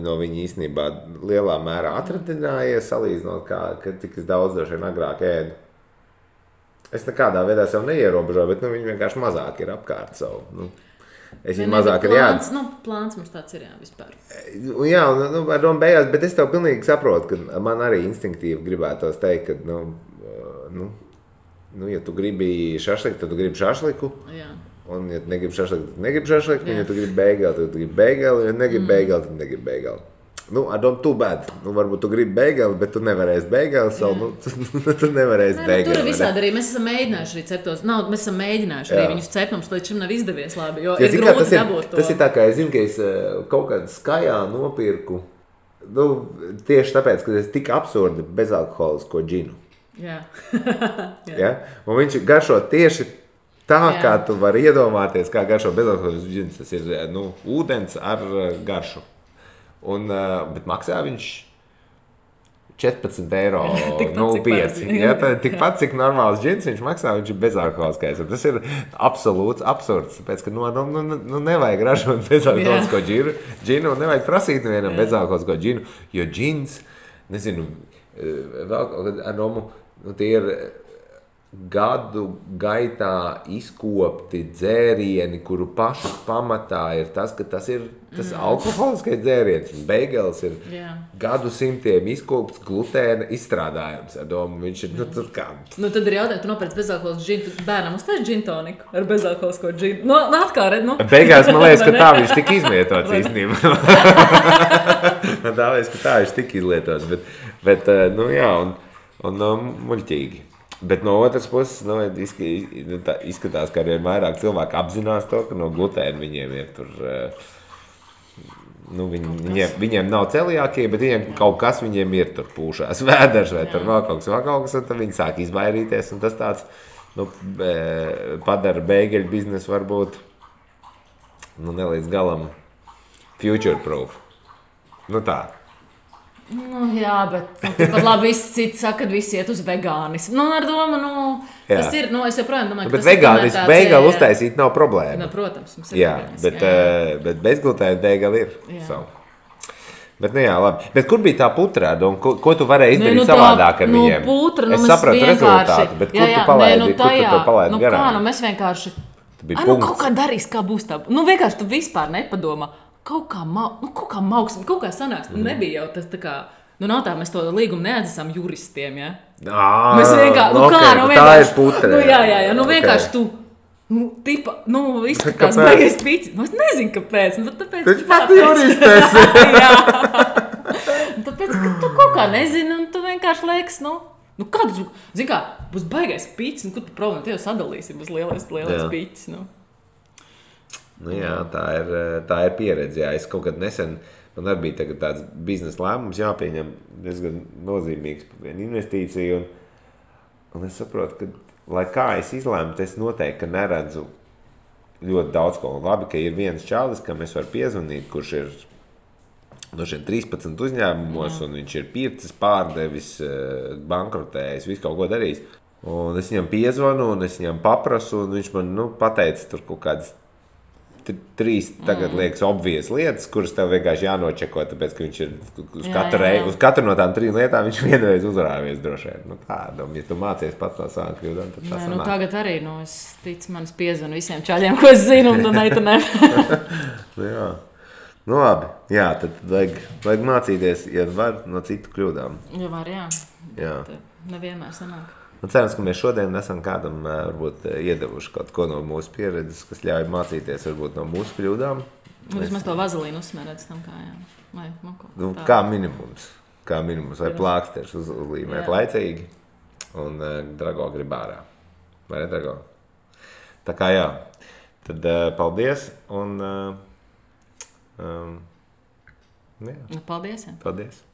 no viņa īstenībā lielā mērā atradinājies, salīdzinot, cik es daudz droši vien agrāk ēdu. Es nekādā veidā sev neierobežoju, bet viņi vienkārši mazāk ir apkārt savu. Es viņu mazāk ir jāatdzīst. Plāns mums tāds ir vispār. Jā, ar domu beigās, bet es tev pilnīgi saprotu, ka man arī instinktīvi gribētos teikt, ka, ja tu gribi šašliku, tad tu gribi šašliku. Jā. Un, ja tu negribi šašliku, tad negribi šašliku. Un, ja tu gribi beigeli, tad tu gribi beigeli. Un, ja negribi beigeli, tad negribi beigeli. Ar domu too bad. Varbūt tu gribi beigeli, bet tu nevarēsi beigeli savu. Tu nevarēsi beigeli. Tur visādi arī mēs esam mēģinājuši arī ceptos. Mēs esam mēģinājuši arī viņus cept. Mums līdz šim nav izdevies labi, jo ir grūti dabūt to. Tas ir tā, kā es zinu, ka es kaut kādā skajā nopirku. Tieši tāpēc, ka es tik absurdi bezalkoholisko džinu. Jā. Ja? Un viņš garšo tieši tā, kā tu vari iedomāties, kā garšo bezalkoholisks džins. Tas ir ūdens ar garšu. Bet maksā viņš 14,05 €. Ja, tikpat, cik normāls džins viņš maksā, viņš ir bezalkoholiskais. Tas ir absolūts absurds, tāpēc, ka nevajag ražot bezalkoholisko džinu un nevajag prasīt nevienam bezalkoholisko džinu, jo džins, nezinu, vēl ar domu, tie ir gadu gaitā izkopti dzērieni, kuru pašu pamatā ir tas, ka tas ir tas alkoholiskais dzēriens. Beigels ir gadu simtiem izkopts glutēna izstrādājums. Ar domu, viņš ir, tas kā... tad ir jautājums, tu nopērc bezalkoholisku džinu, tu bērnam uztais džintoniku ar bezalkoholisko džinu. Atkal, red, Beigās man liekas, ka tā viņš tik izlietots īstenībā. Tā liekas, ka tā viņš tik izlietots. Bet jā, un muļķīgi. Bet no otras puses, izskatās, ka arī vairāk cilvēki apzinās to, ka no glutēna viņiem ir tur, viņiem nav celiākie, bet viņiem kaut kas viņiem ir tur pūšās vēders vai tur vēl kaut kas, un tad viņi sāk izvairīties, un tas tāds, padara bēgeļu biznesu varbūt, nelīdz galam future proof. Tā. Jā, bet pat labi visi citi saka, ka visi iet uz vegānismu. Ar domu, tas ir, es joprojām domāju, ka bet vegānismu beigeli uztaisīt nav problēma. Protams, mums ir bet bezglutēna beigeli ir. Bet, jā, labi. Bet kur bija tā putra? Ko tu varēji izdarīt savādāk ar viņiem? Putra, es sapratu rezultātu, bet kur tu palaidi? Kur tu to palaidi garām? Mēs vienkārši... kaut kā darīs, kā būs tā. Vienkārši tu vispār nepadomā. Kaut kā mauksim, kaut kā sanāks. Nebija jau tas tā kā, nav tā, mēs to līgumu neatzīstam juristiem, ja? Mēs vienkārši, tā ir putra. Jā, vienkārši tu, izskatās baigais piķis. Es nezinu, kāpēc. Taču pat juristēs. Jā. Tāpēc, ka tu kaut kā nezini, un tu vienkārši liekas, kāds, zini kā, būs baigais piķis, kur tu problēma, te jau sadalīsi, būs lielais piķis, Jā, tā ir pieredze. Jā. Es kaut kad nesen, man arī bija tāds biznesa lēmums jāpieņem diezgan nozīmīgs investīcija, un es saprotu, ka, lai kā es izlēmu, es noteikti neredzu ļoti daudz ko. Labi, ka ir viens čalis, kam es varu piezvanīt, kurš ir no šiem 13 uzņēmumos, un viņš ir pircis, pārdevis, bankrotējis, visu kaut ko darījis. Un es viņam piezvanu, un es viņam paprasu, un viņš man pateica tur kaut kādas 3 tagad liekas obvies lietas, kuras tev vienkārši jānočeko, tāpēc, ka viņš ir uz katru no tām 3 lietām viņš vienreiz uzrāvies droši vien. Ja tu mācies pats no savām kļūdām, tad tas sanāk. Tagad arī, es ticu, manis piezvanu visiem čaļiem, ko es zinu, un ne. Jā. Labi. Jā, tad vajag mācīties, ja var, no citu kļūdām. Ja var, jā. Jā. Nevienmēr sanāk. Cerams, ka mēs šodien esam kādam varbūt iedevuši kaut ko no mūsu pieredzes, kas ļauj mācīties varbūt no mūsu kļūdām. Vismaz to vazelīnu uzsmērēt tam kājām. Vai, kā minimums. Vai plāksters uzlīmēt laicīgi un Drago grib ārā. Vai ne, Drago? Tā kā jā. Tad paldies un... Paldies. Paldies.